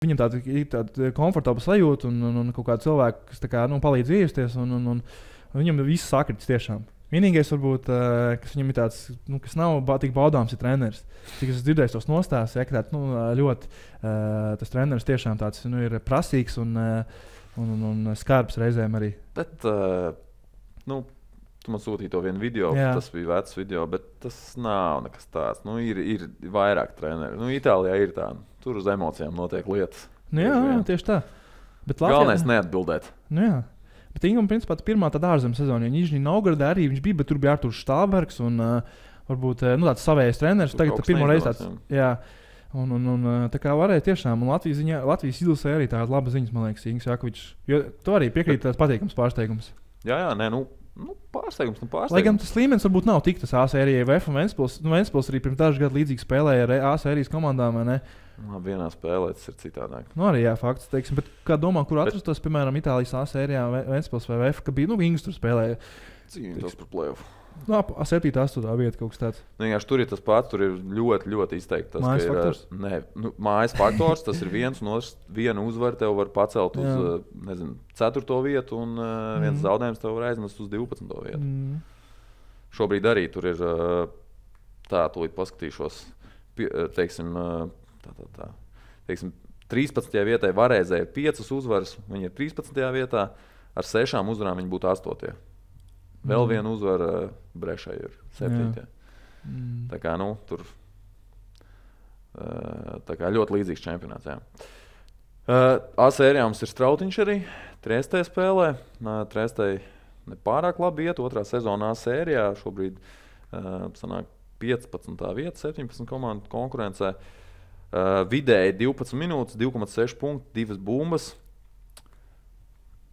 viņam tāda komfortabla sajūta un kaut kāda cilvēka, kas palīdz iejusties, un viņam viss sakritis tiešām. Vienīgais, varbūt, kas viņam ir tāds, kas nav tik baudāms, ir treneris. Cik es dzirdēju tos nostāstus, ka tāds, ļoti tas treneris tiešām tāds ir prasīgs un skarbs reizēm arī. Bet, tu man sūtīji to vienu video, tas bija vecs video, bet tas nav nekas tāds. Ir vairāk treneri. Itālijā ir tā, tur uz emocijām notiek lietas. Tieši tā. Bet galvenais neatbildēt. Bet Ingam, principā, pirmā tāda ārzemju sezona, jo Nižņi Novgorodā arī viņš bija, bet tur bija Arturs Štābergs un varbūt tāds savējais treneris. Tagad pirmo reizi tāds, un tā kā varēja tiešām, un Latvijas izlasē arī tāda laba ziņas, man liekas, Ingus Jakovičs. Jo to arī piekrīt tāds patīkams pārsteigums. Pārsteigums. Lai gan tas līmenis varbūt nav tik tas A-sērijai VF un Ventspils arī pirms dažu gadu līdzīgi spēlēja ar A-sērijas komandām, vai ne? Vienā spēlē tas ir citādāk. Arī fakts, teiksim, bet kā domā, kur atrastos, piemēram, Itālijas A-sērijā Ventspils vai VF, ka bija, Ingus tur spēlēja? Cīnītos par play-off. 7. 8. vieta kaut kas tāds. Tur ir tas pats, tur ir ļoti, ļoti izteikti. Mājas faktors? Mājas faktors, tas ir viens, un viena uzvara tev var pacelt uz 4. vietu, un viens zaudējums tev var aizmest uz 12. vietu. Šobrīd arī tur ir tūlīt paskatīšos, teiksim, 13. vietai Varēzē ir 5 uzvaras, viņi ir 13. vietā, ar 6 uzvarām viņi būtu 8. Vēl viena uzvara Brešai ir 7. Tā kā, tur tā kā ļoti līdzīgs čempionāts. A-sērijā mums ir Strautiņš arī, Triestē spēlē. Triestē nepārāk labi iet, 2. sezonā A-sērijā. Šobrīd sanāk 15. vieta, 17 komandu konkurencē. Vidēji 12 minūtes, 2,6 punkti, 2 bumbas.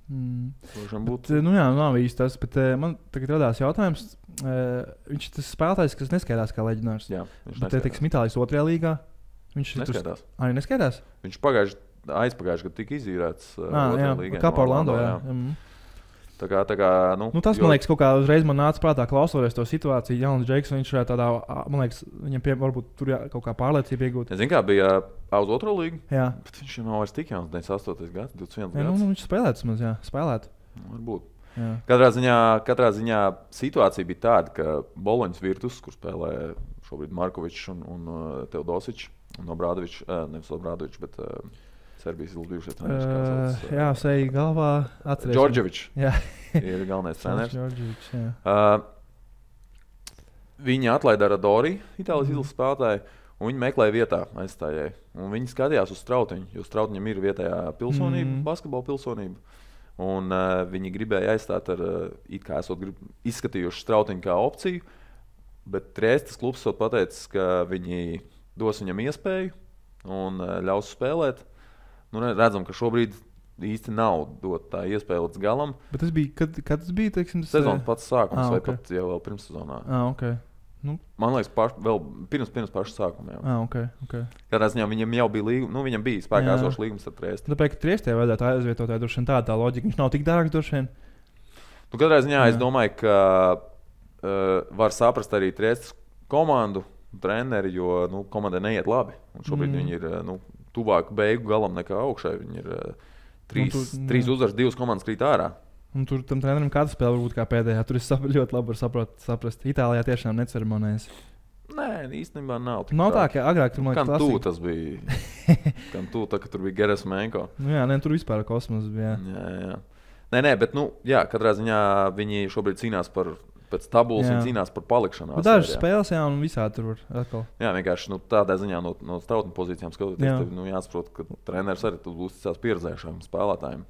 Nav īsti tas, bet man tagad radās jautājums. Viņš ir tas spēlētājs, kas neskaidās kā leģionārs. Jā, viņš neskaidās. Bet, Itālijas 2. līgā viņš neskaidās. Arī neskaidās? Viņš aizpagājuši gadu tika izīrēts 2. līgā. Kā par Orlando, jā. Tā kā, Tas, man liekas, kaut kā uzreiz man nāca prātā, klausoties to situāciju. Jauns Džeks, viņš varētu tādā, man liekas, viņam varbūt tur kaut kā pārliecība iegūt. Es zinu, kā bija uz otro līgu. Jā. Bet viņš jau nav vairs tik jauns, 98. gads, 21 gads. Viņš spēlētu maz, jā, spēlētu. Varbūt. Jā. Katrā ziņā situācija bija tāda, ka Boloņas Virtus, kur spēlē šobrīd Markovičs un Teodosičs, un Obradovičs, nevis Obradovičs, bet Serbijas bijušais treneris. Jā, seja galvā atcerēs. Džordževičs ir galvenais treneris. Viņi atlaida Radori, Itālijas izlases spēlētāju, un viņi meklēja vietā aizstājēju. Un viņi skatījās uz Strautiņu, jo Strautiņam ir vietējā pilsonība, basketbola pilsonība. Un viņi gribēja aizstāt ar, it kā esot izskatījuši Strautiņu kā opciju, bet Triestas klubs esot pateicis, ka viņi dos viņam iespēju un ļaus spēlēt. Redzam, ka šobrīd īsti nav dot tā iespēja līdz galam. Bet tas bija, kad tas bija, teiksim, sezonas pats sākums vai pat jau vēl pirms sezonā. Okay. Man liekas, vēl pirms paša sākuma. Okay. Kādā ziņā viņam jau bija līgums, viņam bija spēkā esošs līgums ar Triesti. Tāpēc, ka Triestē vajadzētu aizvietot droši vien tā loģika, viņš nav tik dārgs droši vien. Katrā ziņā es domāju, ka var saprast arī Triestas komandu, treneri, jo komandai neiet labi. Un šobrīd viņi ir tuvāk beigu galam nekā augšai. Viņi ir 3 uzvaras, 2 komandas krīt ārā. Un tur tam trenerim katra spēle varbūt kā pēdējā. Tur es ļoti labi varu saprast. Itālijā tiešām neceremonējas. Nē, īstenībā nav. Nav tā, ka agrāk tur man liekas klasika. Kan tas bija. Kan ka tur bija Geresmenko. Tur vispār kosmos bija. Jā. Nē, bet katrā ziņā viņi šobrīd cīnās pēc tabulas, viņi cīnās par palikšanu. Dažas spēles, un visādi tur var atkal. Jā, vienkārši tādā ziņā no Strautņa pozīcijām skatoties, tad jāsaprot, ka treneris arī uzticās pieredzējušiem spēlētājiem.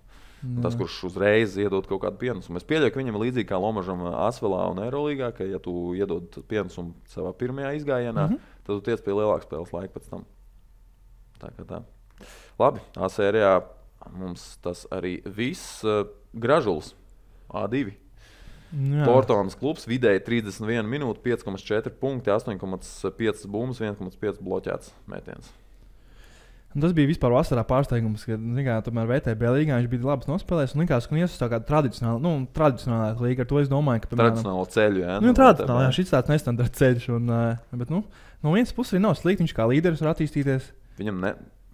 Tas, kurš uzreiz iedod kaut kādu pienesumu. Es pieļauju, ka viņam ir līdzīgi kā Lomažam Asvelā un Eirolīgā, ka ja tu iedod pienesumu savā pirmajā izgājienā, tad tu tiec pie lielākas spēles laika pēc tam. Tā. Labi, A sērijā mums tas arī viss. Gražuls A2. Portonas klubs vidēji 31 minūtes, 5,4 punkti, 8,5 bumbas, 1,5 bloķēts mētiens. Un tas bija vispār vasarā pārsteigums, ka tomēr VTB līgā viņš bija labs nospēlējis. Un likās, ka viņš ir tāda tradicionālā līga. Ar to es domāju, ka tradicionālo ceļu, jā. Tradicionāli, jā, šis tāds nestandarta ceļš. Bet no vienas puses arī nav slikti, viņš kā līderis var attīstīties. Viņam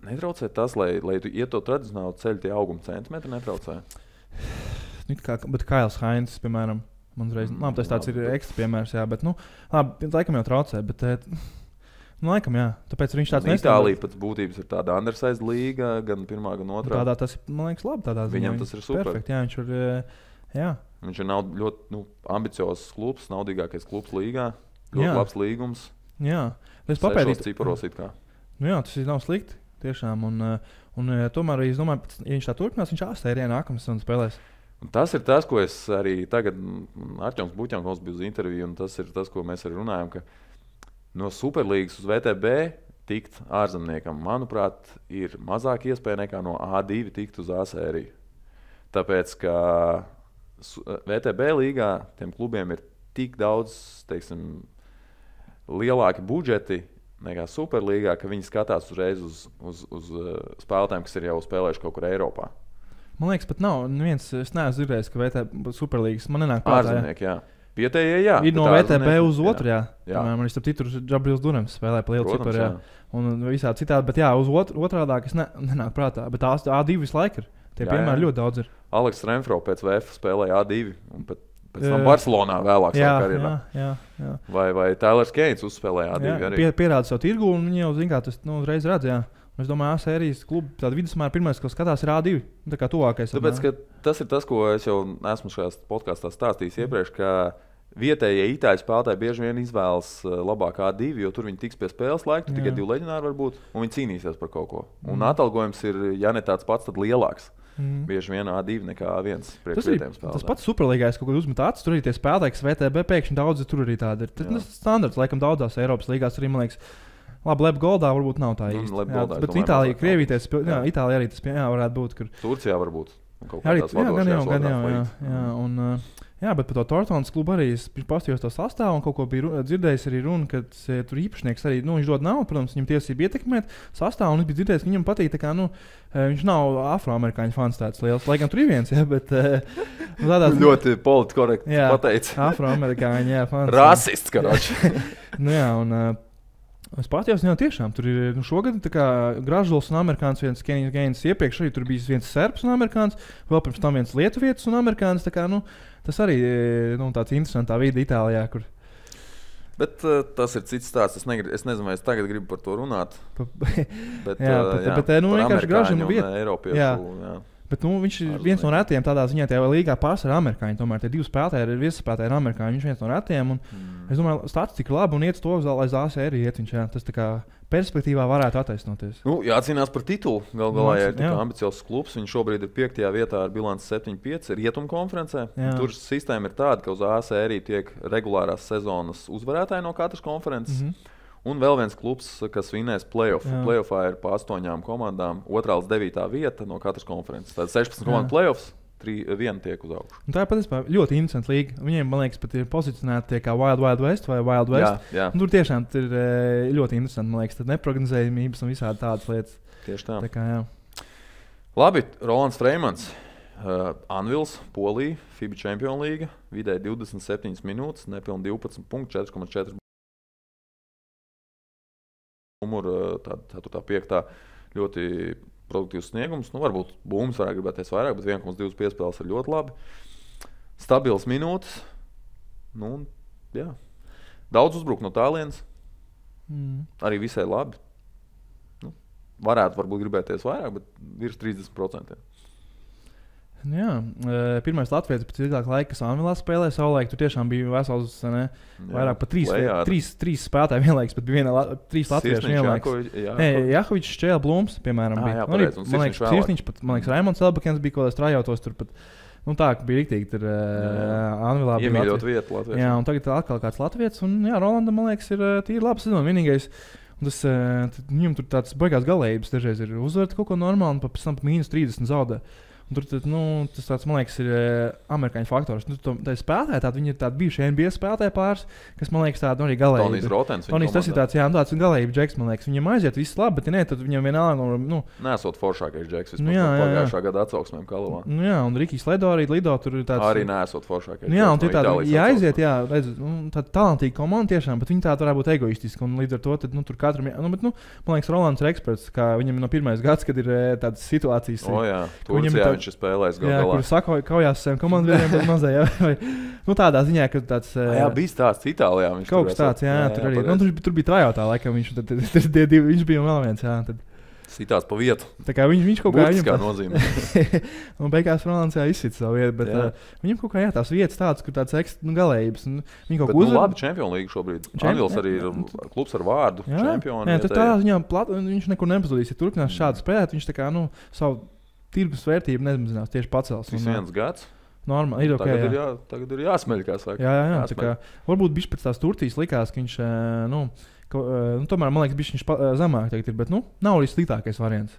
netraucē tas, lai tu iet to tradicionālo ceļu, tie auguma centimetri netraucē. Bet Kails Hainz, piemēram, man reiz, tas tāds ir ekstra piemērs, jā, bet laikam jau traucē. Laikam, jā. Tāpēc viņš tāds nestandarts. Itālija pēc būtības ir tāda undersized līga, gan pirmā, gan otrā. Tādā tas ir, man liekas, labi. Viņam tas ir super. Perfekt, jā, viņš ir, jā. Viņš ir ļoti ambiciozs klubs, naudīgākais klubs līgā. Ļoti labs līgums. Jā. Es papētīju. Ciparos it kā. Jā, tas nav slikti, tiešām. Un tomēr, es domāju, ja viņš tā turpinās, viņš A-sērijā nākamās un spēlēs. Un tas ir tas, ko es arī tagad, Arķoms Buķankovs bija uz interviju, un tas ir tas, ko mēs arī runājam, ka no Superlīgas uz VTB tikt ārzemniekam, manuprāt, ir mazāk iespēja nekā no A2 tikt uz A sēriju. Tāpēc, ka VTB līgā tiem klubiem ir tik daudz, teiksim, lielāki budžeti nekā Superlīgā, ka viņi skatās uzreiz uz spēlētājiem, kas ir jau spēlējuši kaut kur Eiropā. Man liekas, pat nav neviens, es neesmu dzirdējis, ka VTB Superlīgas man nenāk prātā. Ārzemnieki, jā. Vietējie, jā. Ir no VTB uz otru, jā. Man ir starp citu Džabrils Durams spēlē pa lielu ciparu, jā. Un visādi citādi, bet jā, uz otrādāk es nenāk prātā. Bet A2 visu laiku ir. Tie piemēri ļoti daudz ir. Aleks Renfro pēc VF spēlēja A2 un pēc tam Barcelonā vēlāk savā karjerā. Jā. Vai Tailers Keins uzspēlēja A2 arī. Pierāda savu tirgu un viņi jau zin kā tas uzreiz redz, jā. Es domāju, A-sērijas klubu tāda vidusmēra pirmais, ko skatās, ir A2. Tā kā tuvākais. Tāpēc, ka tas ir tas, ko es jau esmu šajā podkāstā stāstījis iepriekš, ka vietējie itāļu spēlētāji bieži vien izvēlas labāk A2, jo tur viņi tiks pie spēles laika, tikai 2 leģionāri var būt, un viņi cīnīsies par kaut ko. Un atalgojums ir, ja ne tāds pats, tad lielāks. Bieži vien A2 nekā A1 priekš vietējiem spēlētājiem. Tas pats Superlīgais kaut kad uzmet acis, tur arī tie spēlētāji, kas VTB pēkšņi daudzi tur arī tādi ir. Tas standarts, laikam daudzās Eiropas līgās arī, man liekas, labi, Lebgoldā varbūt nav tā īsti. Bet Itālija, Krievīties, Itālija arī tas varētu būt. Tur. Turcijā varbūt. Arī, gan jau. Un Jā, bet par to Tortonas klubu arī es pastījos to sastāvu un kaut ko biju dzirdējis arī runa, ka tur īpašnieks arī, viņš dod naudu, protams, viņam tiesība ietekmēt sastāvu, un es biju dzirdējis, ka viņam patīk, tā kā, viņš nav afroamerikāņu fans tāds liels, lai gan tur ir viens, jā, bet tādās... Ļoti politkorekti pateicis. Afroamerikāņu, jā, fans. Rasists, karoči. Jā, un... Es patījos, jā, tiešām tur ir šogad Gražuls un amerikāns, viens Kenijs Gaines iepriekš arī tur bija viens serbs un amerikāns, vēl pirms tam viens lietuvietis un amerikāns, tā kā, tas arī tāds interesantā vide Itālijā, kur... Bet tas ir cits stāsts, es nezinu, vai es tagad gribu par to runāt, bet vienkārši Gražulim vieta. Eiropiešu, jā. Bet viņš ir viens no retiem tādā ziņā, tajā līgā pārsvarā amerikāņi. Tomēr tie divi spēlētāji ir viesspēlētāji amerikāņi. Viņš ir viens no retiem. Es domāju, statistika ir laba un iet uz to, lai ZAS arī iet. Tas tā kā perspektīvā varētu attaisnoties. Jācīnās par titulu. Galu galā, ja ir tik ambiciozs klubs, viņš šobrīd ir 5. vietā ar bilanci 7-5 Rietumu konferencē. Tur sistēma ir tāda, ka uz ZAS arī tiek regulārās sezonas uzvarētāji no katras konferences. Un vēl viens klubs, kas vinēs play-off. Play-offā ir pa 8 komandām, 2. līdz 9. vieta no katras konferences. Tad 16 komandu play-offs, 1 tiek uz augšu. Tā ir patiesībā ļoti interesanta līga. Viņiem, man liekas, pat ir pozicionēti kā Wild West vai Wild West. Jā. Tur tiešām ir ļoti interesanti, man liekas, neprognozējumības un visādi tādas lietas. Tieši tā. Tā kā, jā. Labi, Rolands Freimans. Anvils, Polija, FIBA Champions League, vidēji 27 minūtes, nepilni 12 punkti, 4,4. Numuru, tā 5. ļoti produktīvs sniegums. Varbūt Būms varētu gribēties vairāk, bet 1,2 piespēles ir ļoti labi. Stabils minūtes. Jā. Daudz uzbruk no tālienes. Arī visai labi. Varētu varbūt gribēties vairāk, bet virs 30%. Jā, pirmais Latvijas pēc ilgāka laika, kas Anvilā spēlēja savulaik, tur tiešām bija vesels, vairāk par 3 spēlētāji vienlaikus, bet bija 3 latvieši vienlaikus. Jakovičs, Šķēla, Blums, piemēram, bija. Man liekas, Sirsniņš, man liekas, Raimonds Elbakens bija kaut kāds trajautos tur pat. Tā, ka bija riktīgi tur Anvilā. Iemīļot vietu Latvijas. Jā, un tagad atkal kāds Latvijas, un jā, Rolanda, man liekas, ir tīri laba sezona. Vienīgais, viņam tur tāds baigās galējības dažreiz ir uzvarēt kaut ko normāli, un pēc tam -30 zaudē. Tur tas tāds, man liekas, ir amerikāņu faktors. Tā spēlētāji, viņi ir tādi bijuši NBA spēlētāji pāris, kas, man liekas, tādi arī galēji. Tonijs Rotens. Tonijs, tas ir tāds, tāds galēji džeks, man liekas. Viņam aiziet viss labi, bet ja ne, tad viņam vienalga. Nesot foršākais džeks vispār pagājušā gada atsauksmēm Kalavā. Jā, un Rikijs Ledo arī lido tur ir tāds. Arī nesot foršākais. Jā, un tie tādi, ja aiziet, redz, tāda talantīga komanda tiešām, bet viņi tādi varētu būt egoistiski, un līdz ar to tad, tur katram, bet, man liekas, Rolands ir eksperts, kā viņam no pirmais gads, kad ir tādas situācijas. Turcijā viņš ir spēlējis. Jā, kur saka, kaujās saviem komandiem, bet mazajā. Tādā ziņā, ka tāds... Jā, bija stāsts Itālijā. Kaut kas tāds, jā, tur arī. Tur bija trajautā, laikam, viņš bija vēl viens, jā. Tad. Sitās pa vietu. Tā kā viņš kaut kā... Būtiskā nozīmē. Un beigās Rolands izsita savu vietu, bet viņam kaut kā, tās vietas tādas, kur tāds galējības. Viņi kaut ko labi Champions League šobrīd. Anvils arī ir klubs ar vārdu. Čempioni. Jā, tad tādā ziņā viņš nekur nepazudīs. Ja turpinās šādi spēlēt, viņš tā kā, savu tirgus vērtību nemazinās, tieši pacels. Tas viens gads. Normāli, ir ok. Tagad ir jāsmeļ, kā saka. Jā, tā kā varbūt bišķi pēc tās Turcijas likās, ka viņš, tomēr, man liekas, bišķi viņš zemāk tagad ir, bet, nav arī sliktākais variants.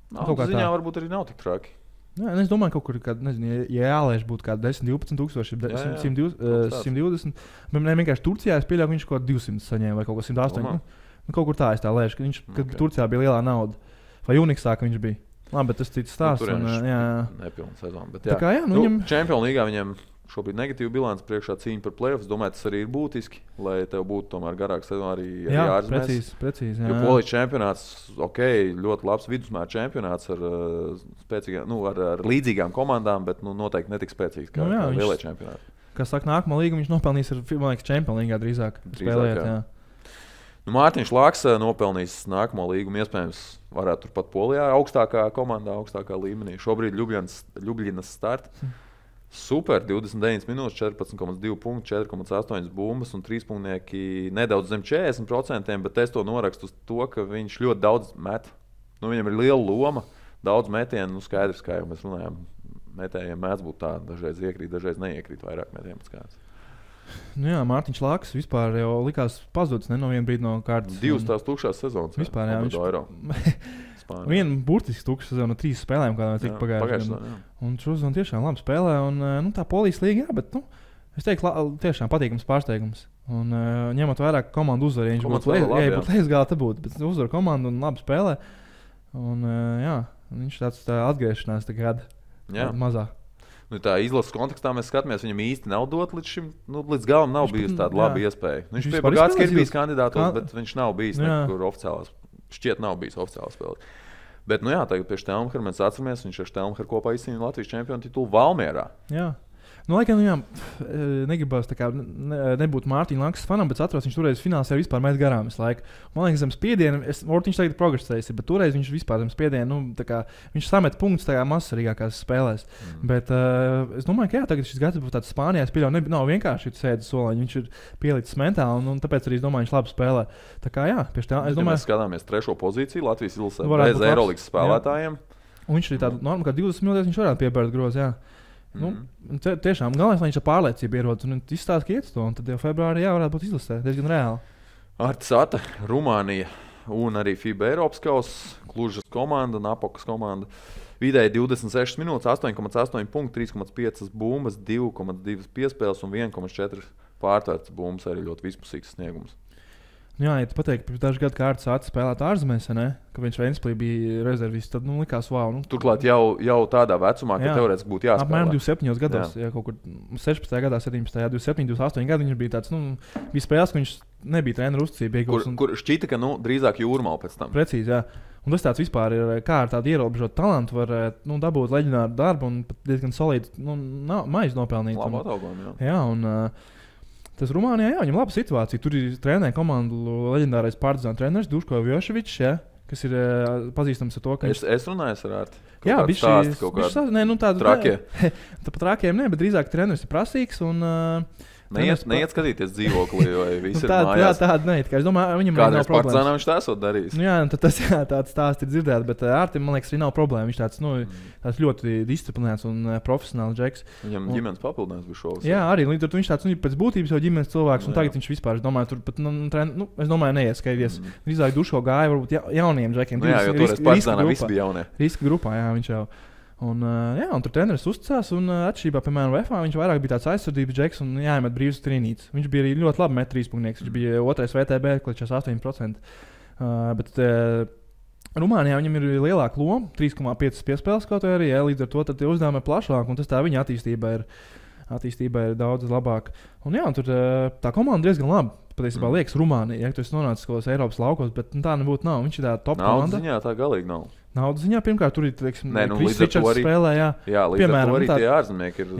Ziņā varbūt arī nav tik traki. Jā, es domāju, kaut kur, nezinu, ja jālēš būtu kādi 10-12 tūkstoši, 120, bet ne vienkārši Turcijā es pieļauju, ka viņš kaut 200 saņēma vai kaut ko 108. Kaut kur tā es tā lēšu, ka viņš, kad Turcijā bija lielā nauda. Vai Uniksā, ka viņš bija. Labi, bet tas cits stāsts. Nepilna sezona. Bet jā. Kā, viņam... Champions League viņam šobrīd negatīva bilance, priekšā cīņa par play-offs. Domāju, tas arī ir būtiski, lai tev būtu tomēr garāka sezona arī ārzemēs. Precīzi. Jo Polijas čempionāts, ļoti labs vidusmēra čempionāts ar spēcīgām, ar līdzīgām komandām, bet noteikti netik spēcīgs kā lielie čempionāti. Kas saka, nākamā līga viņš nopelnīs ar, man liekas, Champions League drīzāk spēlēt. Jā. Mārtiņš Laks nopelnījis nākamo līgumu, iespējams, varētu turpat Polijā, augstākā komandā, augstākā līmenī. Šobrīd Ljubljanas start. Super, 29 minūtes, 14,2 punkti, 4,8 bumbas un 3 punktnieki nedaudz zem 40%, bet es to norakstu uz to, ka viņš ļoti daudz met. Viņam ir liela loma, daudz metienu, skaidrs, kā jau mēs runājām, metējiem mēdz būt tā, dažreiz iekrīt, dažreiz neiekrīt vairāk metienu pēc kāds. Jā, Mārtiņš Laks vispār jau likās pazudis no viena brīdi no kārtas. 2 tās tukšās sezonas. Vispār, jā. Spānijā. Viena burtiski tukša sezona, 3 spēlēm, kādā tika pagājušajā gadā. Un šodien tiešām labi spēlē, un tā Polijas līga, jā, bet, es teiktu, tiešām patīkams pārsteigums. Un ņemot vairāk komandu uzvaru, ja viņš būtu lejas galā, te būtu, bet uzvaru komandu un labi spēlē. Un jā, viņš tāds atgriešanās tagad mazāk. Tā izlases kontekstā mēs skatāmies, viņam īsti nav dot līdz šim, līdz galam nav bijusi tāda laba iespēja. Viņš pie Bagātska ir bijis kandidātos, bet viņš nav bijis nekur oficiālās, šķiet nav bijis oficiālās spēles. Bet, tagad pie Štelmhera mēs atceramies, viņš ar Štelmheru kopā izcīnīja Latvijas čempionu titulu Valmierā. Jā. Laikam, negribas nebūt Mārtiņa Lankas fanam, bet atceros, viņš toreiz finālā vispār met garām visu laiku. Man liekas, zem spiediena, Ortiņš tagad ir progresējis, bet toreiz viņš vispār zem spiediena, viņš samet punktus tajā mazsvarīgākās spēlēs. Bet es domāju, ka tagad šis gads būs tāds Spānijā, es pieļauju, nav vienkārši sēdis soliņš, viņš ir pielicis mentāli, un tāpēc arī es domāju, viņš labi spēlē. Tā kā es domāju, mēs skatāmies 3. pozīciju Latvijas izlasē bez Eirolīgas spēlētājiem. Un viņš ir tāda norma, ka 20 minūtēs viņš varētu piebērt grozu, jā. Tiešām galvenais, lai viņš ar pārliecību ierodas un izstāsta, ka iet to, un tad jau februārī varētu būt izlasē, diezgan reāli. Artis Ata, Rumānija un arī FIBA Eiropas kausa, Klužas komanda, Napokas komanda. Vidēji 26 minūtes, 8,8 punkti, 3,5 bumbas, 2,2 piespēles un 1,4 pārtvērts bumbas, arī ļoti vispusīgs sniegums. Jā, ja tu pateikti, pirms dažu gadu kārtas Ata spēlēt ārzemēs, ka viņš Ventspilī bija rezervists, tad likās wow. Turklāt jau tādā vecumā, ka teorētiski būtu jāspēlē. Apmēram 27 gados, ja kaut kur 16. gadā, 17. 27, 28 gadu viņš bija tāds, bija spēles, ka viņš nebija treneru uzticība. Kur šķita, ka drīzāk Jūrmala pēc tam. Precīzi, jā. Un tas tāds vispār ir, kā ar tādu ierobežotu talantu var dabūt leģendāru darbu un pat diezgan solīdu maizi nopelnīt. Labu atalgojumu, jā. Un tas Rumānijā, viņam laba situācija. Tur ir trenē komandu leģendārais Partizāna treneris Duško Vjoševičs, kas ir pazīstams ar to, ka Es runāju ar Arti. Jā, viņš tādu trakie. Tāpat trakiem ne, bet drīzāk treneris ir prasīgs un Neiet skatīties dzīvoklī, vai visi ir mājās. Tāda neiet. Es domāju, viņam nav problēmas. Partizānā viņš tā esot darījis. Jā, tas tāds stāsts ir dzirdēts, bet Ārtim, man liekas, arī nav problēma. Viņš tāds ļoti disciplinēts un profesionāls džeks. Viņam ģimenes papildinājums bija šovs. Jā, arī līdz ar to viņš tāds pēc būtības jau ģimenes cilvēks, un tagad viņš vispār, es domāju, tur pat, es domāju, neiet skatīties. Drīzāk Duško gāja varbūt jauniem džekiem. Jā, jo toreiz Partizānā visi bija jaunie. Riska grupā, jā, viņš jau. Un tur treneris uzticās, un atšķirībā, piemēram, VFA viņš vairāk bija tāds aizsardzības džeks un jāiemet brīvs trīnītes. Viņš bija arī ļoti labi met trīspunkts. Viņš bija 2. VTB, kličās 8%. Bet Rumānijā viņam ir lielāka loma, 3,5 piespēles kaut arī, līdz ar to tie uzdevumi ir plašāki, un tas tā viņa attīstība ir daudz labāka. Un tur tā komanda diezgan labi. Patiesībā liekas Rumānija, ja tu esi nonācis kaut kādos Eiropas laukos, bet tā nebūtu nav. Viņš ir tā top komanda. Naudas ziņā tā galīgi nav. Naudas ziņā pirmkārt tur ir, teiksim, Kris Ričards spēlē, jā. Jā, līdz ar to arī tie ārzemnieki ir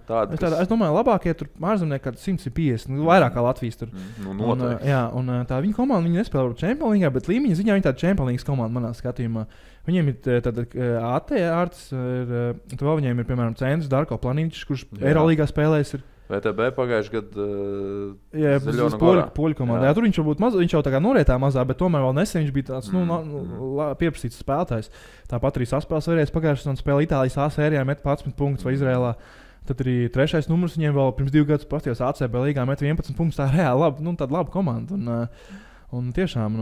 tādi, Es domāju, labākie tur ārzemnieki kādi 150, vairāk kā Latvijas tur. Noteikti. Un tā viņa komanda, viņi nespēlē Champions League, bet līmeņa ziņā viņi tāda Champions League komanda manā skatījumā. Viņiem ir tāda AT Artis, tur vēl viņiem ir, piemēram, centrs Darko Planīčs, kurš Eirolīgā spēlēs ir. VTB pagājuši gadu poļu komandā. Tur viņš varbūt viņš jau tā kā norietā mazā, bet tomēr vēl nesen viņš bija tāds pieprasīts spēlētājs. Tāpat arī saspēles vērējais pagājušajā un spēlē Itālijas A sērijā met 11 punktus vai Izrēlā. Tad arī 3. numurs viņiem vēl pirms 2 gadus pastījās ACB līgā met 11 punktus. Tā reāli labi, tāda laba komanda. Un tiešām,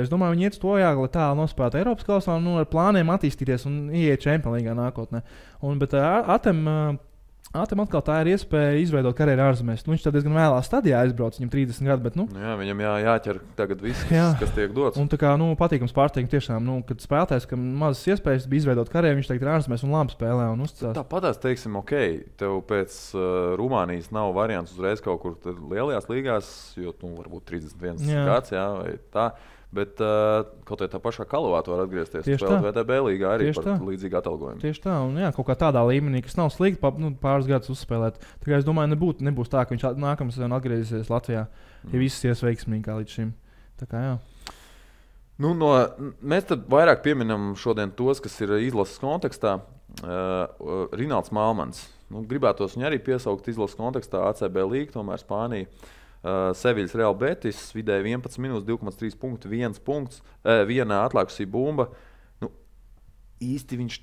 es domāju, viņi iet stojāk, lai tā nospēlētu Eiropas kausā un ar plāniem attīstīties un ieiet Champions League nākotnē. Bet Atam atkal tā ir iespēja izveidot karjeru ārzemēs. Viņš tad diezgan vēlā stadijā aizbrauc, viņam 30 gadi, bet viņam jāķer tagad viss, kas tiek dots. Un tā kā patīkams pārsteigums tiešām, kad spēlētājs, kam mazas iespējas bija izveidot karjeru, viņš tagad ir ārzemēs un labi spēlē un uzticās. Tāpatās, teiksim, tev pēc Rumānijas nav variants uzreiz kaut kur lielajās līgās, jo varbūt 31 gads, vai tā. Bet kaut kā tā pašā Kalavā var atgriezties. Spēlēt VTB līgā arī par līdzīgu atalgojumu. Tieši tā, un kaut kā tādā līmenī, kas nav slikti, pāris gadus uzspēlēt. Tā kā es domāju, nebūs tā, ka viņš nākamā sezonā atgriezīsies Latvijā, ja viss ies veiksmīgi kā līdz šim. Tā kā jā. Mēs tad vairāk pieminam šodien tos, kas ir izlases kontekstā. Rinalds Malmans. Gribētos viņu arī piesaukt izlases kontekstā ACB līga, tomēr Spānija. Seviļas Real Betis, vidēji 11 minūtes, 2,3 punkti, 1 punkts, 1 atlaikusī bumba. Īsti viņš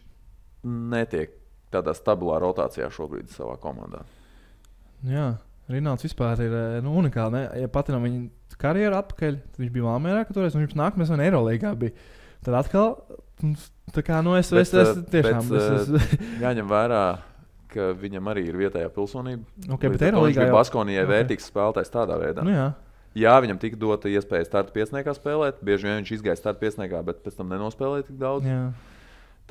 netiek tādā stabilā rotācijā šobrīd savā komandā. Jā, Rinalds vispār ir unikāli. Ja patinām viņa karjeru atpakaļ, tad viņš bija Valmierā, ka toreiz viņš nākamais un Eirolīgā bija. Tad atkal Tā kā, es tiešām... Jāņem vērā, ka viņam arī ir vietējā pilsonība. Okay, bet Eirolīgā jau... Baskonijai vērtīgs spēlētājs tādā veidā. Nu, jā. Jā, viņam tika dota iespēja starta piesniegā spēlēt. Bieži vien viņš izgāja starta piesniegā, bet pēc tam nenospēlēja tik daudz. Jā.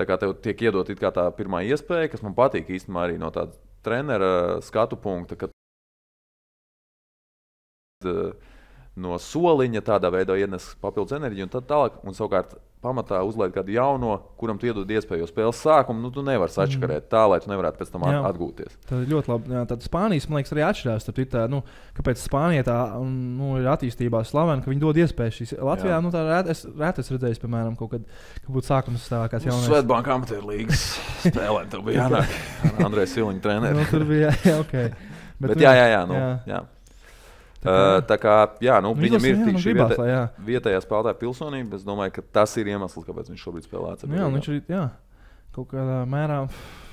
Tā kā tev tiek iedot it kā tā pirmā iespēja, kas man patīk īstenībā arī no tāda trenera skatu punkta, ka no soliņa tādā veidā ienes papildus enerģiju un tad tālāk, un savukārt pamatā uzliek kādu jauno, kuram tu iedod iespēju, jo spēles sākumu tu nevari sačakarēt tā, lai tu nevarētu pēc tam atgūties. Tā ir ļoti labi. Jā, tad Spānijas, man liekas, arī atšķirās. Tā, kāpēc Spānija tā ir attīstībā slavena, ka viņi dod iespēju šīs. Latvijā tā rēti es redzēju, piemēram, kaut kad būtu sākums stāvākās jaunais. Svetbanka amatieru līgas spēlē, tev bija jānāk ar Andreju Siliņu treneri. Tur bija, ok. Bet jā. Tā kā viņam ir tik šī vietējā spēlētāja pilsonība. Es domāju, ka tas ir iemesls, kāpēc viņš šobrīd spēlē ACB. Jā, viņš ir kaut kādā mērā.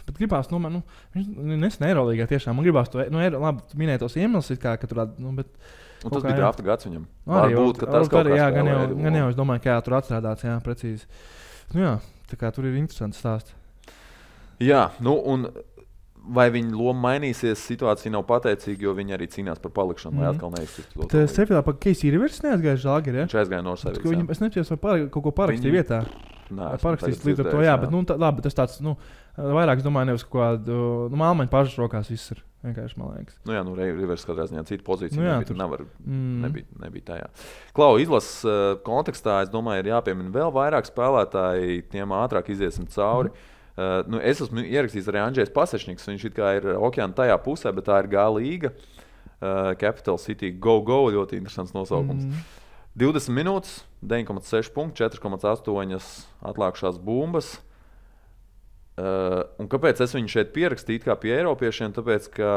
Bet gribās, viņš nesen Eirolīgā tiešām. Man gribās to, labi, tu minēji tos iemeslus, ka tur, bet... Un tas bija drafta gads viņam. Varbūt, ka tas kaut kā spēlē. Gan jau, es domāju, ka tur atstrādāts, precīzi. Tā kā tur ir interesants stāsts. Jā, un... Vai viņa loma mainīsies, situācija nav pateicīga, jo viņi arī cīnās par palikšanu, lai atkal neiztiktu. Tas Sevillā par Casey Rivers neaizgāja Žalgiri, ja? Viņš aizgāja no Sevillas. Es nepatiesu, vai kaut ko parakstīja vietā. Nē, parakstīs līdz ar to, bet labi, tas tāds, vairāk, es domāju, nevis kaut kādu, Malmaņa pašas rokās viss ir, vienkārši, man liekas. Rivers katrā ziņā cita pozīcija nebija tajā. Klau, izlases kontekstā, es domāju, ir jāpiemina vēl vairāk spēlētāji, tiem ātrāk iziesim cauri. Es esmu ierakstījis arī Andrzejs Pasečniks, viņš ir okeāna tajā pusē, bet tā ir G līga, Capital City Go, ļoti interesants nosaukums. 20 minūtes, 9,6 punkti, 4,8 atlākušās bumbas. Un kāpēc es viņu šeit pierakstīju kā pie eiropiešiem? Tāpēc, ka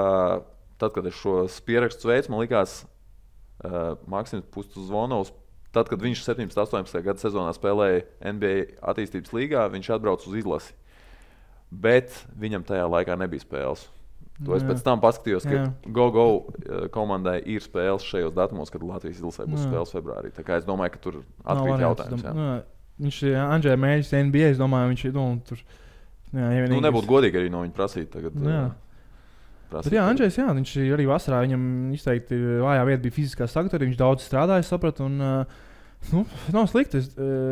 tad, kad es šos pierakstus veicu, man likās Maksims Pustuzvonovs, tad, kad viņš 17-18 gadu sezonā spēlēja NBA attīstības līgā, viņš atbrauc uz izlasi. Bet viņam tajā laikā nebija spēles. To es pēc tam paskatījos, ka Go komandai ir spēles šajos datumos, kad Latvijas izlasē būs spēles februārī. Tā kā es domāju, ka tur atkrīt jautājums. Viņš Andrzej mēģis NBA, es domāju, viņš tur... nebūtu godīgi arī no viņa prasīt tagad. Bet Andrzejs, viņš arī vasarā, viņam izteikti vājā vieta bija fiziskā sagatavotība, viņš daudz strādāja, sapratu, un nav slikti.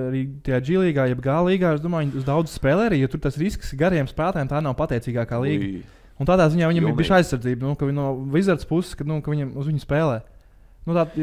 Arī tajā G-līgā, jeb G-līgā, es domāju, viņi uz daudz spēlē arī, jo tur tas risks gariem spēlētājiem tā nav pateicīgākā līga. Un tādā ziņā viņam ir bijusi aizsardzība, ka no Wizards puses, ka viņi uz viņu spēlē. Bet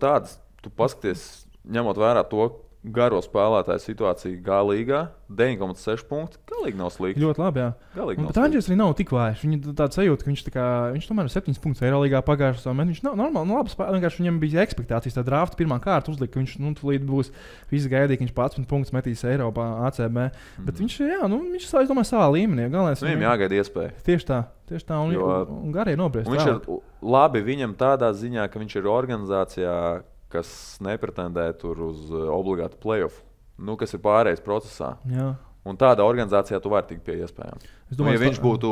tāds, tu paskaties, ņemot vērā to garo spēlētāju situāciju G-līgā, 9,6 punkti, galīgi nav slikti. Ļoti labi, jā. Bet Andrzejs arī nav tik vājš. Viņa tāda sajūta, ka viņš tomēr ir 7 punktus Eirolīgā pagājušajā sezonā. Viņš nav normāli, labi spēlē. Vienkārši viņam bija ekspektācijas, tā drafta pirmā kārta uzlika, ka viņš tūlīt būs. Visi gaidīja, ka viņš 11 punktus metīs Eiropā ACB. Bet viņš, viņš es domāju, savā līmenī. Viņam jāgaida iespēja. Tieši tā, un garie nobriest. Viņš ir labi viņam tādā ziņā, ka viņš ir organizācijā, kas nepretendē tur uz obligātu playoff, kas ir pārējais procesā. Jā. Un tādā organizācijā tu vari tikt pie iespējām. Ja viņš būtu,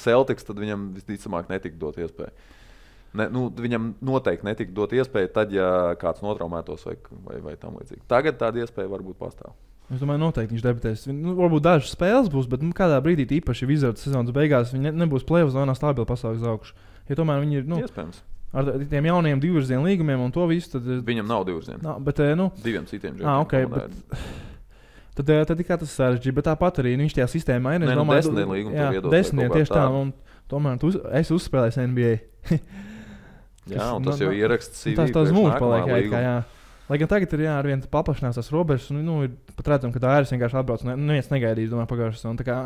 Celtics, tad viņam visticamāk netika dot iespēju. Viņam noteikti netika dot iespēju tad, ja kāds notraumētos vai tam līdzīgi. Tagad tāda iespēja varbūt pastāv. Es domāju, noteikti viņš debitēs. Varbūt dažas spēles būs, bet kādā brīdī īpaši Wizards sezonas beigās viņi nebūs playoff zonā stabili pasaules augšu. Ja tomēr viņi ir, iespējams. Ar tiem jaunajiem divvirzienu līgumiem un to visu, tad... Viņam nav divvirzienu. Diviem citiem džekiem. Okay, tad kā tas sarežģīja, bet tāpat arī viņš tajā sistēmā ir. Desmitiem līgumu tev iedot. Desmitiem tieši tā, un tomēr es uzspēlēju NBA. Jā, un tas jau ieraksts CV. Tas mūžs paliek, jā. Lai gan tagad ir arvien paplašinās tās robežas, un ir pat redzam, ka tā arī vienkārši atbrauc, un neviens negaidīs, domāju, pagājušas. Un tā kā,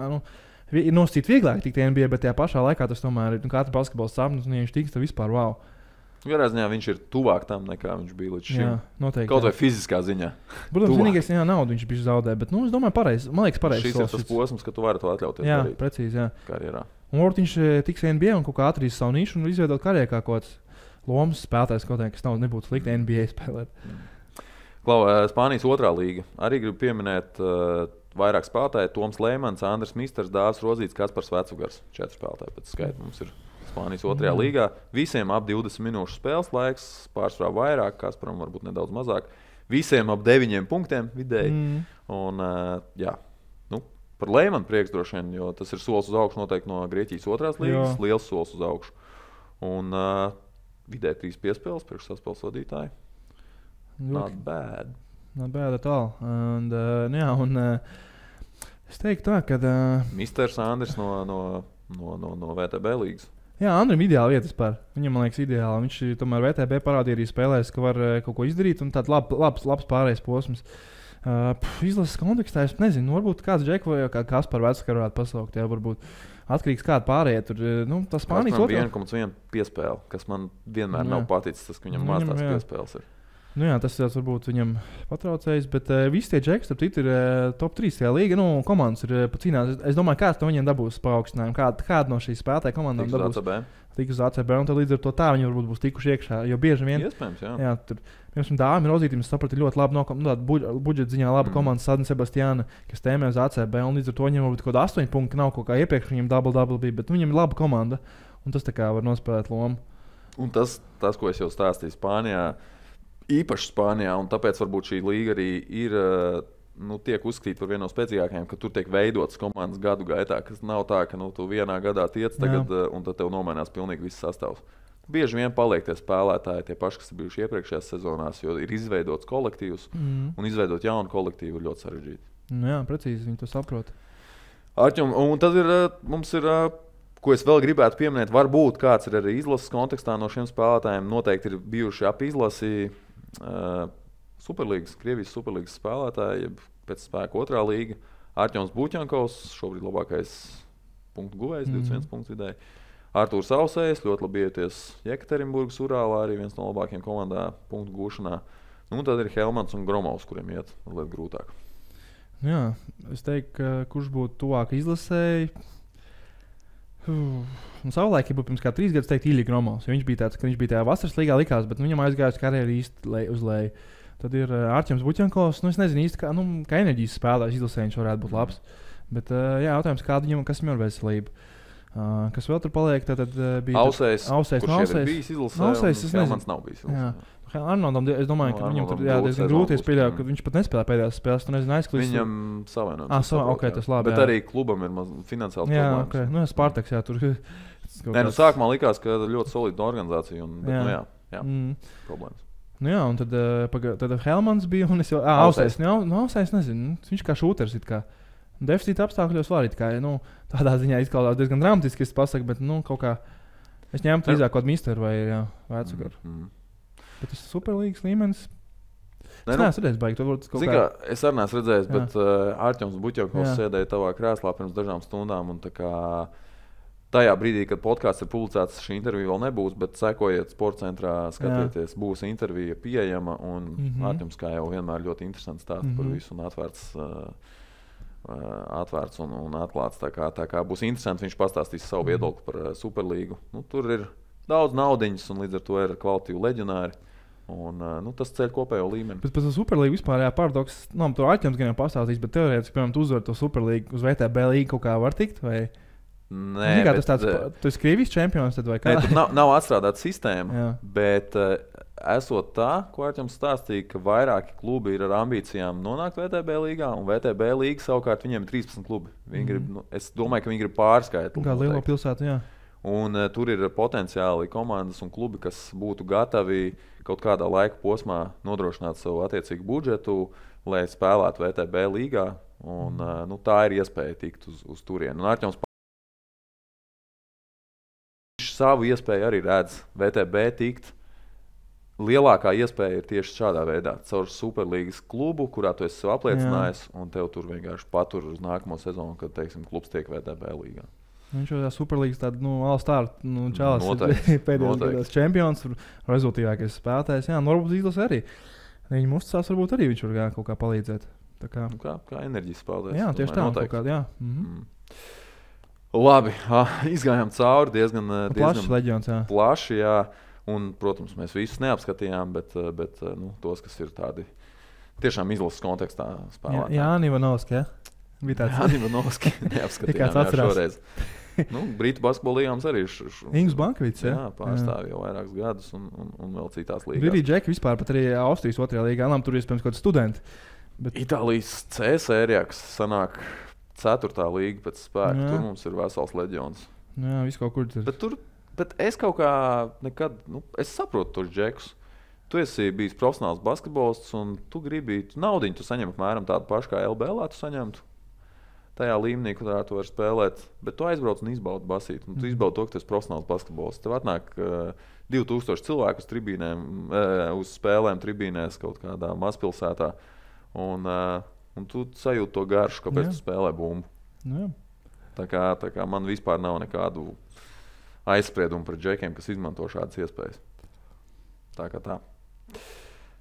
ir nosacīt vieglāk tikt NBA, bet tajā pašā laikā tas tomēr ir katra basketbola sapnis, un ja viņš tiks, tad vispār wow. Garā ziņā viņš ir tuvāk tam, nekā viņš bija līdz šim. Jā, noteikti. Kaut vai fiziskā ziņā. Protams, vienīgais naudu viņš bija zaudē, bet es domāju, pareizi. Man liekas, pareizi. Šis ir tas posms, ka tu vari to atļauties darīt. Jā, precīzi, jā. Karjerā. Un varbūt viņš tiks NBA un kaut kā atradīs savu nišu un izveidot karjerā kā kaut kāds lomas spēlētājs, kaut kā, kas nebūtu slikti NBA spēlēt. Klau, Spānijas otrā līga. Arī gribu pieminēt vairāk spēlētāju. Toms Lēmans, Andris Misters, Dāvis Rodzīts, Kaspars Vecugars. 4 spēlētāji pēc skaita mums ir. Spānijas otrajā līgā. Visiem ap 20 minūšu spēles laiks, pārsvarā vairāk, Kasparam varbūt nedaudz mazāk. Visiem ap 9 punktiem vidēji. Un, jā, par Leimanu prieks droši vien, jo tas ir solis uz augšu noteikti no Grieķijas 2. līgas, liels solis uz augšu. Un vidē 3 piespēles priekš saspēles vadītāji. Not bad. Not bad at all. Es teiktu tā, ka... Misters Andris no VTB līgas. Jā, Andrim ideāli vietas par. Viņam, man liekas, ideāli. Viņš tomēr VTB parādīja arī spēlēs, ka var kaut ko izdarīt, un tāds labs pārējais posms. Izlases kontekstā es nezinu, varbūt kāds Džeku vai kā Kaspar Vecakar varētu pasaukt, jā, varbūt atkarīgs kāda pārējie tur, tas Spānijas otrā. 1,1 piespēle, kas man vienmēr nav paticis, tas, ka viņam maz tās piespēles ir. Jā, tas varbūt viņam patraucējis, bet visi tie Džeki, starp citu, ir top 3 tajā līga. Komandas ir cīnās. Es domāju, kāds no viņiem dabūs paaugstinājumu. Kāda no šīs spēlētāju komandām dabūs? Tik uz ACB. Un tad līdz ar to tā viņi varbūt būs tikuši iekšā. Jo bieži vien... Iespējams, jā. Jā, tur, piemēram, Dāmi Rozītim, es sapratu, ļoti labi budžeta ziņā laba komanda Sadne Sebastiāna, kas tēmē uz ACB. Un līdz ar to viņam varbūt kaut 8 punkti nav kaut kā iepriekš, viņam double bija, bet viņam ir laba komanda. Un tas tā kā var nospēlēt lomu. Un tas, ko es jau stāstīju Spānijā, īpaši Spānijā, un tāpēc varbūt šī līga arī ir, tiek uzskatīta par vienu no spēcīgākajām, ka tur tiek veidotas komandas gadu gaitā, kas nav tā, ka tu vienā gadā tiec tagad, un tad tev nomainās pilnīgi viss sastāvs. Bieži vien paliek tie spēlētāji, tie paši, kas ir bijuši iepriekšējās sezonās, jo ir izveidots kolektīvs, un izveidot jaunu kolektīvu ir ļoti sarežģīti. Jā, precīzi, viņi to saprot. Arķum, un tad mums ir... Ko es vēl gribētu pieminēt, varbūt kāds ir arī izlases kontekstā no šiem spēlētājiem. Noteikti ir bijuši ap izlasi Superlīgas, Krievijas Superlīgas spēlētāji, pēc spēka 2. līga. Arķons Buķankovs, šobrīd labākais punktu guvējs, 21 punktu vidēji. Artūrs Ausējs, ļoti labi ieties Jekaterinburgas Urālā, arī viens no labākajiem komandā punktu gūšanā. Tad ir Helmans un Gromovs, kuriem iet mazliet grūtāk. Jā, es teiktu, kurš būtu tuvāk izlasēji. Savulaik, ja būtu pirms kā 3 gadus, teiktu Ilja Gromovs. Viņš bija tāds, ka viņš bija tajā vasaras līgā likās, bet viņam aizgājusi karjeru īsti uz leju. Tad ir Arķems Buķankovs. Es nezinu īsti, kā enerģijas spēlētājs izlasē viņš varētu būt labs. Bet jautājums, kas viņam ir veselība. Kas vēl tur paliek, tad bija Ausējs, kurš ir bijis izlasē, un Helmans nav bijis izlasē. Arnoldam, es domāju, ka viņam tur diezgan grūti pieļauj, ka viņš pat nespēlē pēdējās spēles. Tu nezini, aizklīst. Viņam savienojums. Okay, tas labi. Bet arī klubam ir finansiāls problēmas. Okay. Spartaks, jā, tur. Sākumā likās, ka ļoti solida organizācija, bet problēmas. Un tad Helmans bija, un es jau Ausējs. Ausējs nezinu, viņš kā šūters it kā. Deficīta apstākļos var it kā, tādā ziņā izklausās diezgan dramatiski, es pasaku, bet kaut kā es ņemtu drīzāk kaut misteru vai Vecakaru. Bet tas ir Superlīgas līmenis. Es neesmu redzējis, baigi. Es arī neesmu redzējis, bet Arķems Buķankovs sēdēja tavā krēslā pirms dažām stundām. Un tajā brīdī, kad podkāsts ir publicēts, šī intervija vēl nebūs, bet sekojiet Sportcentrā, skatieties, būs intervija pieejama. Un Arķems, kā jau vienmēr, ļoti interesants stāsts par visu un atvērts un atklāts. Tā kā būs interesanti, viņš pastāstīs savu viedokli par Superlīgu. Tur ir daudz naudiņas, un līdz ar to ir kvalitīvi leģionāri. Un, tas ceļ kopējo līmeni. Bet par Superlīgu vispār paradoks, to Arķems gan jau pastāstīs, bet teorētiski, piemēram, tu uzvar to Superlīgu uz VTB līgu kaut kā var tikt? Vai? Nē, tas tāds, tu esi Krievijas čempions, tad vai kā? Nē, tur nav atstrādāta sistēma, bet esot tā, ko Arķems stāstīja, ka vairāki klubi ir ar ambīcijām nonākt VTB līgā, un VTB līga savukārt viņiem ir 13 klubi. Es domāju, ka viņi grib pārskaitli. Kā lielo pilsētu, jā. Un tur ir potenciāli komandas un klubi, kas būtu gatavi kaut kādā laika posmā nodrošināt savu attiecīgu budžetu, lai spēlētu VTB līgā. Un, tā ir iespēja tikt uz turieni. Un Arķems savu iespēju arī redz VTB tikt. Lielākā iespēja ir tieši šādā veidā. Caur Superlīgas klubu, kurā tu esi sev apliecinājis, un tev tur vienkārši patur uz nākamo sezonu, kad, teiksim, klubs tiek VTB līgā. Viņš jau Superlīgas tāda, all-star, čalas pēdējos gados čempions, rezultīvākais spēlētājs. Jā, varbūt izlasē arī. Viņam uzticās, varbūt arī viņš var kaut kā palīdzēt. Kā enerģijas spēlētājs. Jā, tieši tā. Kaut kādā, jā. Labi, izgājām cauri diezgan plašs leģions, jā. Plaši, jā. Un, protams, mēs visus neapskatījām, bet tos, kas ir tādi tiešām izlases kontekstā spēlētāji. Jāni Ivanovski, jā? Jāni Ivanovski neapskatījām šoreiz. Brītu basketbola līgām arī Ingus Bankvits, pārstāv jau vairākus gadus un vēl citās līgās. Ir arī Džeki vispār pat arī Austrijas 2. līgā. Tur iespējams kaut kāds studenti. Bet... Itālijas C sērijā, kas sanāk 4. līga pēc spēka, tur mums ir vesels leģions. Jā, viss kaut kur tur. Bet es kaut kā nekad, es saprotu tos džekus. Tu esi bijis profesionāls basketbolists un tu gribi naudiņu, tu saņem apmēram tādu pašu kā LBL, tu saņemtu tajā līmenī, kurā tu vari spēlēt, bet tu aizbrauc un izbaudi basīt. Un tu izbaudi to, ka tu esi profesionāls basketbolists. Tev atnāk 2000 cilvēku uz tribīnēm, uz spēlēm tribīnēs kaut kādā mazpilsētā. Un tu sajūti to garšu, kāpēc tu spēlē bumbu. Jā. Tā kā man vispār nav nekādu aizspriedumu par džekiem, kas izmanto šādas iespējas. Tā kā tā.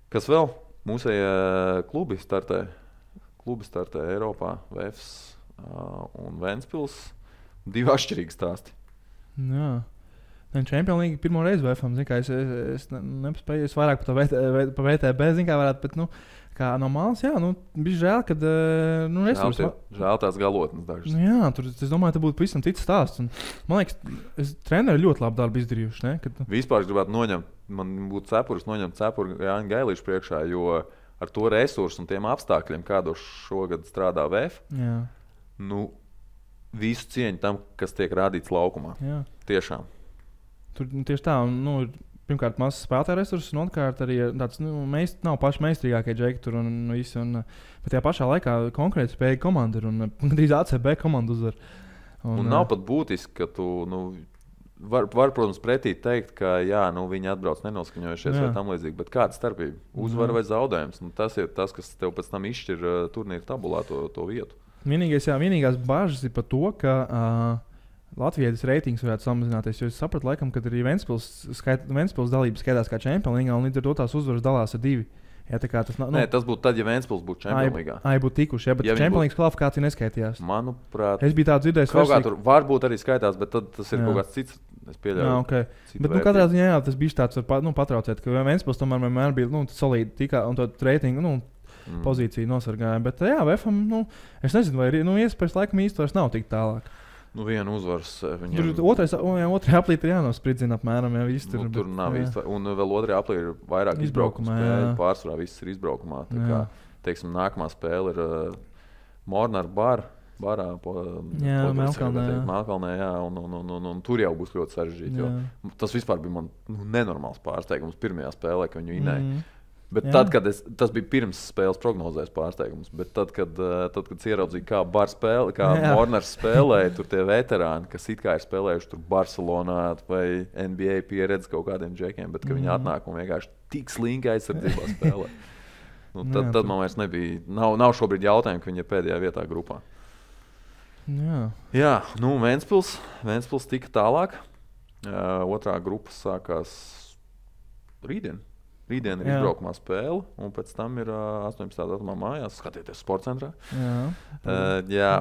Kas vēl? Mūsējie klubi startē Eiropā, VFS un Ventspils. 2 atšķirīgi stāsti. Jā. Champions League pirmo reizi VFM, zin kā, es nespēju, es vairāk pa VTB, zin kā varētu, bet, kā no malas, jā, bija žēl, kad, Žēl tās galotnes dažas. Jā, tur, es domāju, te būtu pavisam cits stāsts. Un, man liekas, treneri ļoti labu darbu izdarījuši, ne? Kad... Vispār es gribētu man būtu noņemt cepuru Jāņa Gailīša priekšā, jo ar to resursu un tiem apstākļiem, kādos šogad strādā VF, visu cieņu tam, kas tiek rādīts laukumā. Jā. Tiešām. Tur tieši tā, pirmkārt, mazs spēlētāju resursus, un otrkārt arī tāds, nav paši meistrīgākie džeki tur un visi. Bet tajā pašā laikā konkrēti spēja komanda ir un drīz ACB komanda uzvar. Un nav pat būtiski, ka tu, var, protams, pretī teikt, ka jā, viņi atbrauc nenoskaņojušies vai tam līdzīgi, bet kāda starpība? Uzvara vai zaudējums? Tas ir tas, kas tev pēc tam izšķir turnīra tabulā to vietu. Vienīgās bažas ir par to, ka Latvijas reitings varētu samazināties, jo es sapratu, laikam, ka arī Ventspils dalības skaitās kā Champions League, un līdz ar to tās uzvaras dalās ar 2. Ja, Nē, tas būtu tad, ja Ventspils būtu Champions League. Būtu tikuši, bet Champions League kvalifikācija neskaitījās. Manuprāt, es biju tā dzirdējis. Kaut kā tur varbūt arī skaitās, bet tad tas ir kaut kāds cits. Es pieļauju. Okay. Bet katrā ziņā tas bija tāds patraucēt, ka Ventspils tomēr vienmēr bija solīdi tikā un to reitingu pozīciju nosargāja. Bet jā, VFM, es nezinu, vai iespējas laikam īsti vairs nav tik tālāk. Viena uzvaras viņam. Tur otrajā aplī ir jānospridzina apmēram. Tur nav īsti. Un vēl otrajā aplī ir vairāk izbraukuma spēļu. Pārsvarā viss ir izbraukumā. Tā kā, teiksim, nākamā spēle ir Mornar barā Melkalnē, jā, un tur jau būs ļoti sarežģīti. Tas vispār bija man nenormāls pārsteigums pirmajā spēlē, ka viņu inēja. Bet tad, kad tas bija pirms spēles prognozēs pārsteigums, bet tad, kad ieraudzīju, kā Mornars spēlēja, tur tie veterāni, kas it kā ir spēlējuši tur Barcelonā vai NBA pieredzi kaut kādiem džekiem, bet ka viņi atnāk un vienkārši tik slinki aizsardzībā spēlē. Tad man vairs nebija, nav šobrīd jautājumu, ka viņi ir pēdējā vietā grupā. Jā, Ventspils tika tālāk. Otrā grupa sākās rītdien. Rītdien ir izbraukumā spēle, un pēc tam ir 18. datumā mājās. Skatieties sporta centrā. Jā,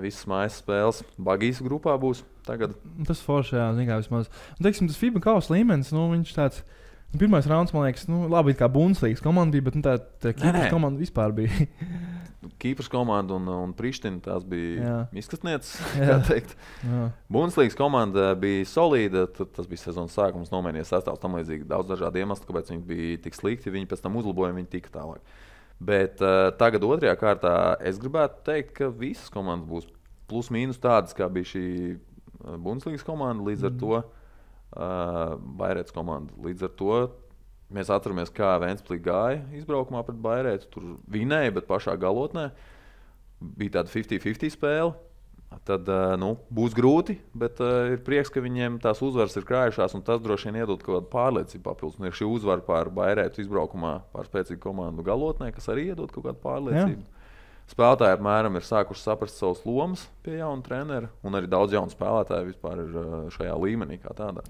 visas mājas spēles Bagijas grupā būs tagad. Tas forši, jā, zin kā vismaz. Un, teiksim, tas FIBA kausa līmenis, viņš tāds, pirmais rauns, man liekas, labi, kā Bundeslīgas komanda bija, bet tā Kīpras komanda vispār bija. Kīpras komanda un Priština, tās bija izkastnieces, kā teikt. Bundeslīgas komanda bija solīda, tas bija sezonas sākums, nomainīja sastāvs tam līdzīgi daudz dažādu iemeslu, kāpēc viņi bija tik slikti, viņi pēc tam uzlaboja, viņi tika tālāk. Bet tagad otrajā kārtā es gribētu teikt, ka visas komandas būs plus mīnus tādas, kā bija šī Bundeslīgas komanda, līdz ar to Bairētas komanda. Līdz ar to mēs atceramies, kā Ventspils gāja izbraukumā pret Bairētu. Tur vinēja, bet pašā galotnē bija tāda 50-50 spēle. Tad būs grūti, bet ir prieks, ka viņiem tās uzvaras ir krājušās, un tas droši vien iedod kaut kādu pārliecību papildus. Un ir šī uzvara pār Bairētu izbraukumā pār spēcīgu komandu galotnē, kas arī iedod kaut kādu pārliecību. Spēlētāji apmēram ir sākuši saprast savus lomas pie jauna trenera, un arī daudz jaunu spēlētāju vispār ir šajā līmenī kā tādā.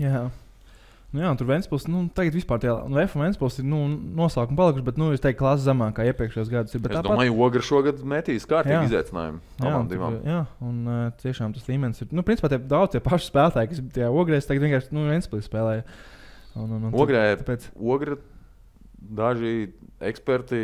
Jā, tur Ventspils, tagad vispār tie Ventspils ir noslēgumi palikuši, bet, es teiktu, klases zemāk kā iepriekšējos gadus. Es domāju, Ogra šogad metīs kārtīgi izaicinājumu abām divām. Jā, un tiešām tas līmenis ir, principā daudz tie paši spēlētāji, kas tie Ogrēs tagad vienkārši, Ventspils spēlēja. Ogra daži eksperti,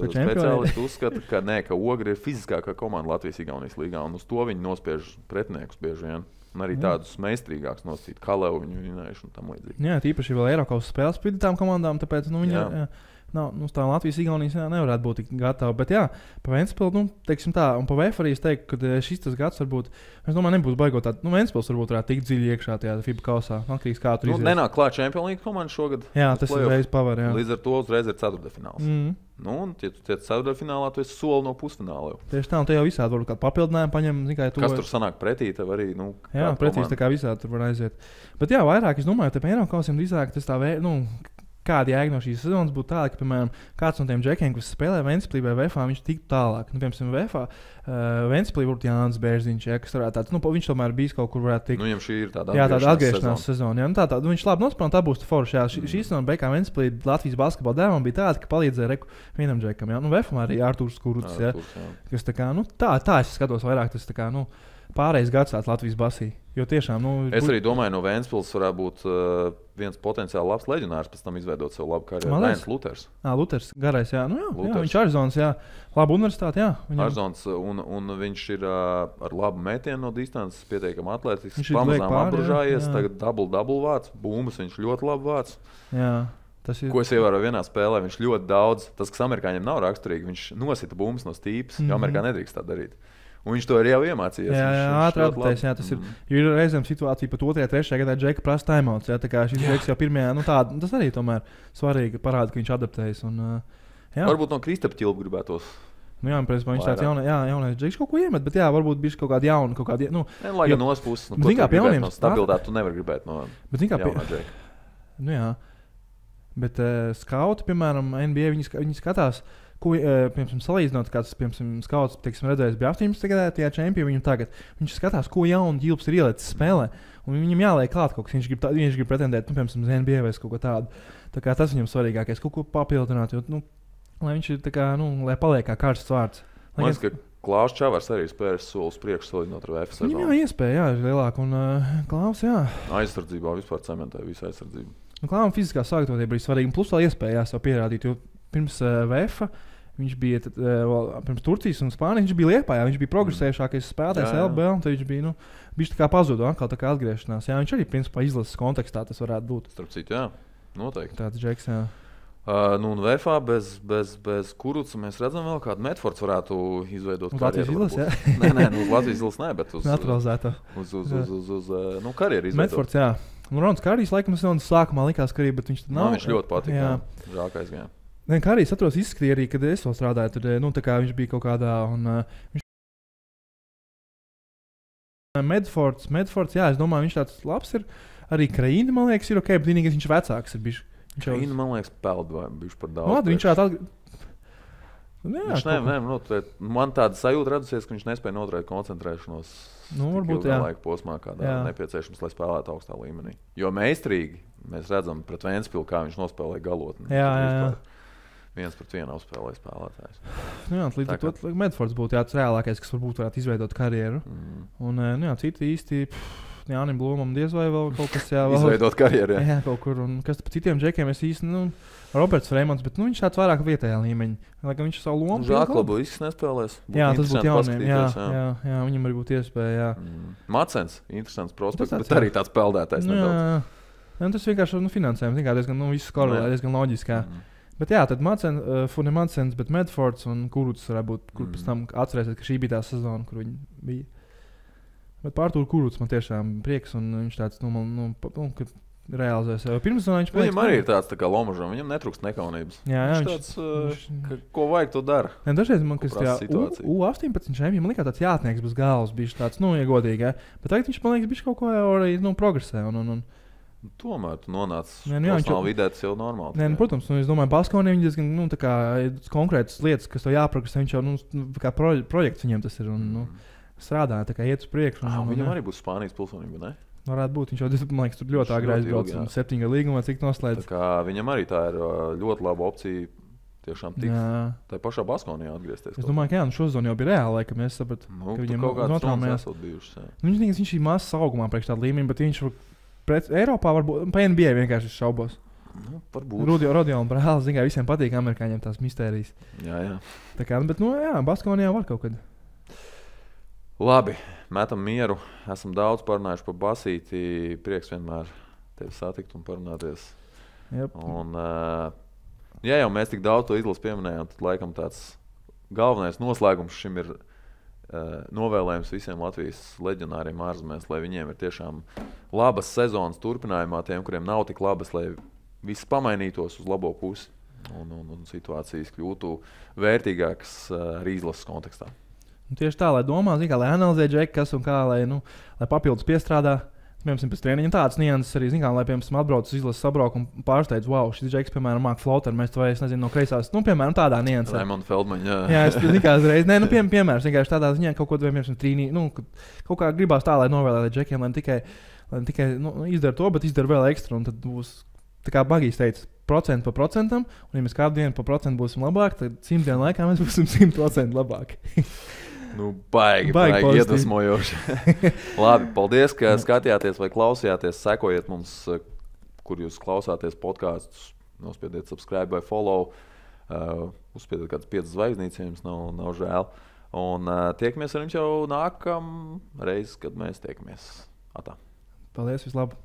speciālisti uzskata, ka Ogra ir fiziskākā komanda Latvijas-Igaunijas līgā, un uz to viņi nospiež pretiniekus bieži vien. Un arī tādus meistrīgākus nosacīt, Kalevu viņu vinējuši un tam līdzīgi. Jā, tīpaši vēl Eiropas spēles pret tām komandām, tāpēc viņi nav, tā Latvijas-Igaunijas nevarētu būt tik gatava. Bet jā, pa Ventspili, teiksim tā, un pa VF arī es teiktu, ka šis tas gads varbūt, es domāju, nebūs baigot tādu, Ventspils varbūt varētu tikt dziļi iekšā tajā FIBA kausā. Atkarīgs kā tur izies. Nenāk klāt Champions League komanda šogad. Jā, tas uzreiz pavar, jā. Līdz ar to uzreiz ir ceturtdaļfināls. Un, ja tu tiec ceturtdaļfinālā, tu esi soli no pusfināla jau. Tieši tā, un te jau visādi varbūt kādu papildinājumu paņem. Kas tur sanāk pretī, tev arī, jā, pretīs tā kā visādi tur var aiziet. Bet jā, vairāk, es domāju, te Eiropas kausiem drīzāk tas tā kāda jēga no šīs sezonas būtu tāda, ka, piemēram, kāds no tiem džekiem, kas spēlē Ventspilī vai VFā, viņš tiktu tālāk. Piemēram, VFā Ventspilī būtu Jānis Bērziņš, kas varētu tāds, viņš tomēr bijis kaut kur varētu tikt. Viņam šī ir tāda atgriešanās sezona. Jā, tā, viņš labi nospēlēja, tā būs forša. Šī sezona beigās Ventspilī Latvijas basketbola dēvam bija tāda, ka palīdzēja vienam džekam. VFā arī Artūrs Kuruts, kas tā kā, tā es skatos vairāk, tas tā kā, pārējais gads tāds Latvijas basī. Jo tiešām, es arī domāju, no Ventspils varētu būt viens potenciāli labs leģionārs, pēc tam izveidot savu labu karjeru. Rēns Luters. Luters, garais, jā. Viņš ir Arizonas, jā. Laba universitāte, jā. Arizonas, un viņš ir ar labu metienu no distances, pietiekami atletisks, pamazām apbružājies, tagad double vāc, bumbas viņš ļoti labi vāc. Jā. Ko es ievēroju vienā spēlē, viņš ļoti daudz, tas, kas amerikāņiem nav raksturīgi, viņš nosita bumbas no stīpas, jo Amerikā nedrīkst tā darīt. Un viņš to arī jau iemācījās. Jā, ātri atpūties. Tas ir. Jo ir reizēm situācija pat 2. un 3. gadā Džeka prasa timeouts. Tā kā šis Džeks jau pirmajā, tas arī tomēr svarīgi parāda, ka viņš adaptējas. Varbūt no Kristapa ķilpa gribētos. Jā, viņš tāds jaunais Džeks kaut ko iemet, bet jā, varbūt bija kaut kāda jauna. Lai gan no puses, no stabilitāti tu nevar gribēt no jaunā Džeka. Jā. Bet skauti, piemēram, NBA, viņi skatās. Ko, piemēram, salīdzinot, kāds, piemēram, skauts, redzējis bija 18. gadā, tajā čempionu viņam tagad. Viņš skatās, ko jaunu ģilps ir ielicis spēlē, un viņam jāliek klāt kaut kas. Viņš grib pretendēt, piemēram, uz NBA vai kaut ko tādu. Tā kā tas viņam svarīgākais, kaut ko papildināt, jo, lai viņš ir tā kā, lai paliek kā karsts vārds. Man liekas, ka Klaus Čavars arī spējas soli uz priekšu salīdzinot ar VF sezonu. Viņam iespēja, ir lielāka, un Klaus, jā. Aizsardzībā vispār cementē visu aizsardzību. Klaus fiziskā sagatavotība bija svarīga, un plus vēl iespēja sev pierādīt, jo pirms VF viņš bija pirms Turcijas un Spānijas, viņš bija Liepājā, viņš bija progresējušākais spēlētājs LBL, un tad viņš bija, viņš tā kā pazuda, atkal tā kā atgriešanās. Jā, viņš arī principā izlases kontekstā tas varētu būt. Starp citu, jā, noteikti. Tāds Džeks, jā. Un VFā bez Kuruca mēs redzam vēl kādu Medfords varētu izveidot karjeru. Latvijas izlases, jā? Nē, uz Latvijas izlases nē, bet uz naturalizētā. Uz karjeru izveidot. Medfords, jā. Rons Kārijs, laikam, sākumā likās, ka arī, bet viņš tad nav. Viņš ļoti patīk, jā. Žākais gājā. Kā arī es atceros, izskatīja arī, kad es vēl strādāju, tad viņš bija kaut kādā. Medfords, jā, es domāju, viņš tāds labs ir. Arī Kraīna, man liekas, ir ok, bet vienīgais viņš vecāks ir bijis. Kraīna, man liekas, peld vai bijuši par daudz. Viņš šādi man tāda sajūta radusies, ka viņš nespēja noturēt koncentrēšanos varbūt laika posmā, kādā nepieciešams, lai spēlētu augstā līmenī. Jo meistarīgi mēs redzam pret Ventspilu, kā viņš nospēlē galotni. Jā. 1-1 uzspēlēja spēlētājs. Līdz ar to Medfords būtu tāds reālākais, kas varētu izveidot karjeru. Un citi īsti Jānim Blūmam diez vai vēl kaut kas izveidot karjeru. Jā, kaut kur. Un kas par citiem džekiem es īsti, Roberts Freimans, bet viņš tāds vairāk vietējā līmeņa. Lai gan viņš savu lomu. Žāklabu viss nespēlēs. Jā, tas būtu jauniem. Jā, viņam arī būtu iespēja. Macens, interesants prospekts, bet arī tāds peldētājs nedaudz. Tas vienkārši finansējums, diezgan viss korelē, diezgan loģiski. Bet jā, tad Macens, bet Medfords un Kuruts varētu būt, kur pēc tam atcerēsies, ka šī bija tā sezona, kur viņi bija. Bet par Artūru Kuruts man tiešām prieks, un viņš tāds, kad realizēs. Pirms tam viņš viņam arī ir tāds tā kā Lomažam, viņam netrūkst nekaunības. Jā, viņš tāds, ko vajag, to dara. Dažreiz man, kas tajā U18 šajiem, man likās tāds jātnieks bez galvas, bija tāds, ja godīgi, bet tagad viņš, man liekas, bija kaut ko arī, progresē, un tomēr tu nonāc profesionālā vidē, tas jau normāli. Nē, protams, es domāju, Baskonī viņi diezgan konkrētas lietas, kas tev jāprogresē. Viņš jau kā projekts viņiem tas ir un strādā, tā kā iet uz priekšu. Viņam arī būs Spānijas pilsonība, ne? Varētu būt, viņš jau, man liekas, tur ļoti āgri aizbrauc un 7 gadu līgumā, cik noslēdz. Tā kā viņam arī tā ir ļoti laba opcija tiešām tikt tā pašā Baskonijā atgriezties. Es domāju, ka jā, šo zonu jau bija reāli, ka mēs saprat, ka viņam notraumējās. Viņš ir mazs augumā priekš tādu līmeni, bet viņš Eiropā varbūt pa NBA vienkārši šaubos. Rodion brālis, zin kā visiem patīk amerikāņiem tās mistērijas. Jā. Tā kā, bet, Baskonijā var kaut kad. Labi, metam mieru. Esam daudz parunājuši par basīti. Prieks vienmēr tevi satikt un parunāties. Yep. Un Ja jau mēs tik daudz to izlasu pieminējām, tad laikam tāds galvenais noslēgums šim ir novēlējums visiem Latvijas leģionāriem ārzemēs, lai viņiem ir tiešām labas sezonas turpinājumā, tiem, kuriem nav tik labas, lai viss pamainītos uz labo pusi un situācijas kļūtu vērtīgākas arī izlases kontekstā. Tieši tā, lai domā, lai analizē džeki, kas un kā, lai papildus piestrādā. Piemēram, pēc treniņa tādas nianses arī, lai, piemēram, atbrauc uz izlases sabraukumu un pārsteidz, wow, šis džeks, piemēram, māk floateru, mēs to es nezinu no kreisās, piemēram, tādā niansē. Raimond Feldmaņa, jā, es uzreiz, piemēram, vienkārši tādā ziņā kaut ko, piemēram, trīnī, kaut kā gribās tā, lai novēlētu džekiem, lai tikai izdara to, bet izdara vēl ekstra, un tad būs, tā kā Bagijs teica, procentu pa procentam, un ja mēs kādu dienu pa procentu būsim labāki, tad 100 dienu laikā mēs būsim 100% labāki. Baigi iedvesmojoši. Labi, paldies, ka skatījāties vai klausījāties. Sekojiet mums, kur jūs klausāties podkastus. Nospiediet subscribe vai follow. Uzspiediet kādas 5 zvaigznītes, ja jums nav žēl. Un tiekamies ar jums jau nākamreiz, kad mēs tiekamies. Atā. Paldies, vislabāk!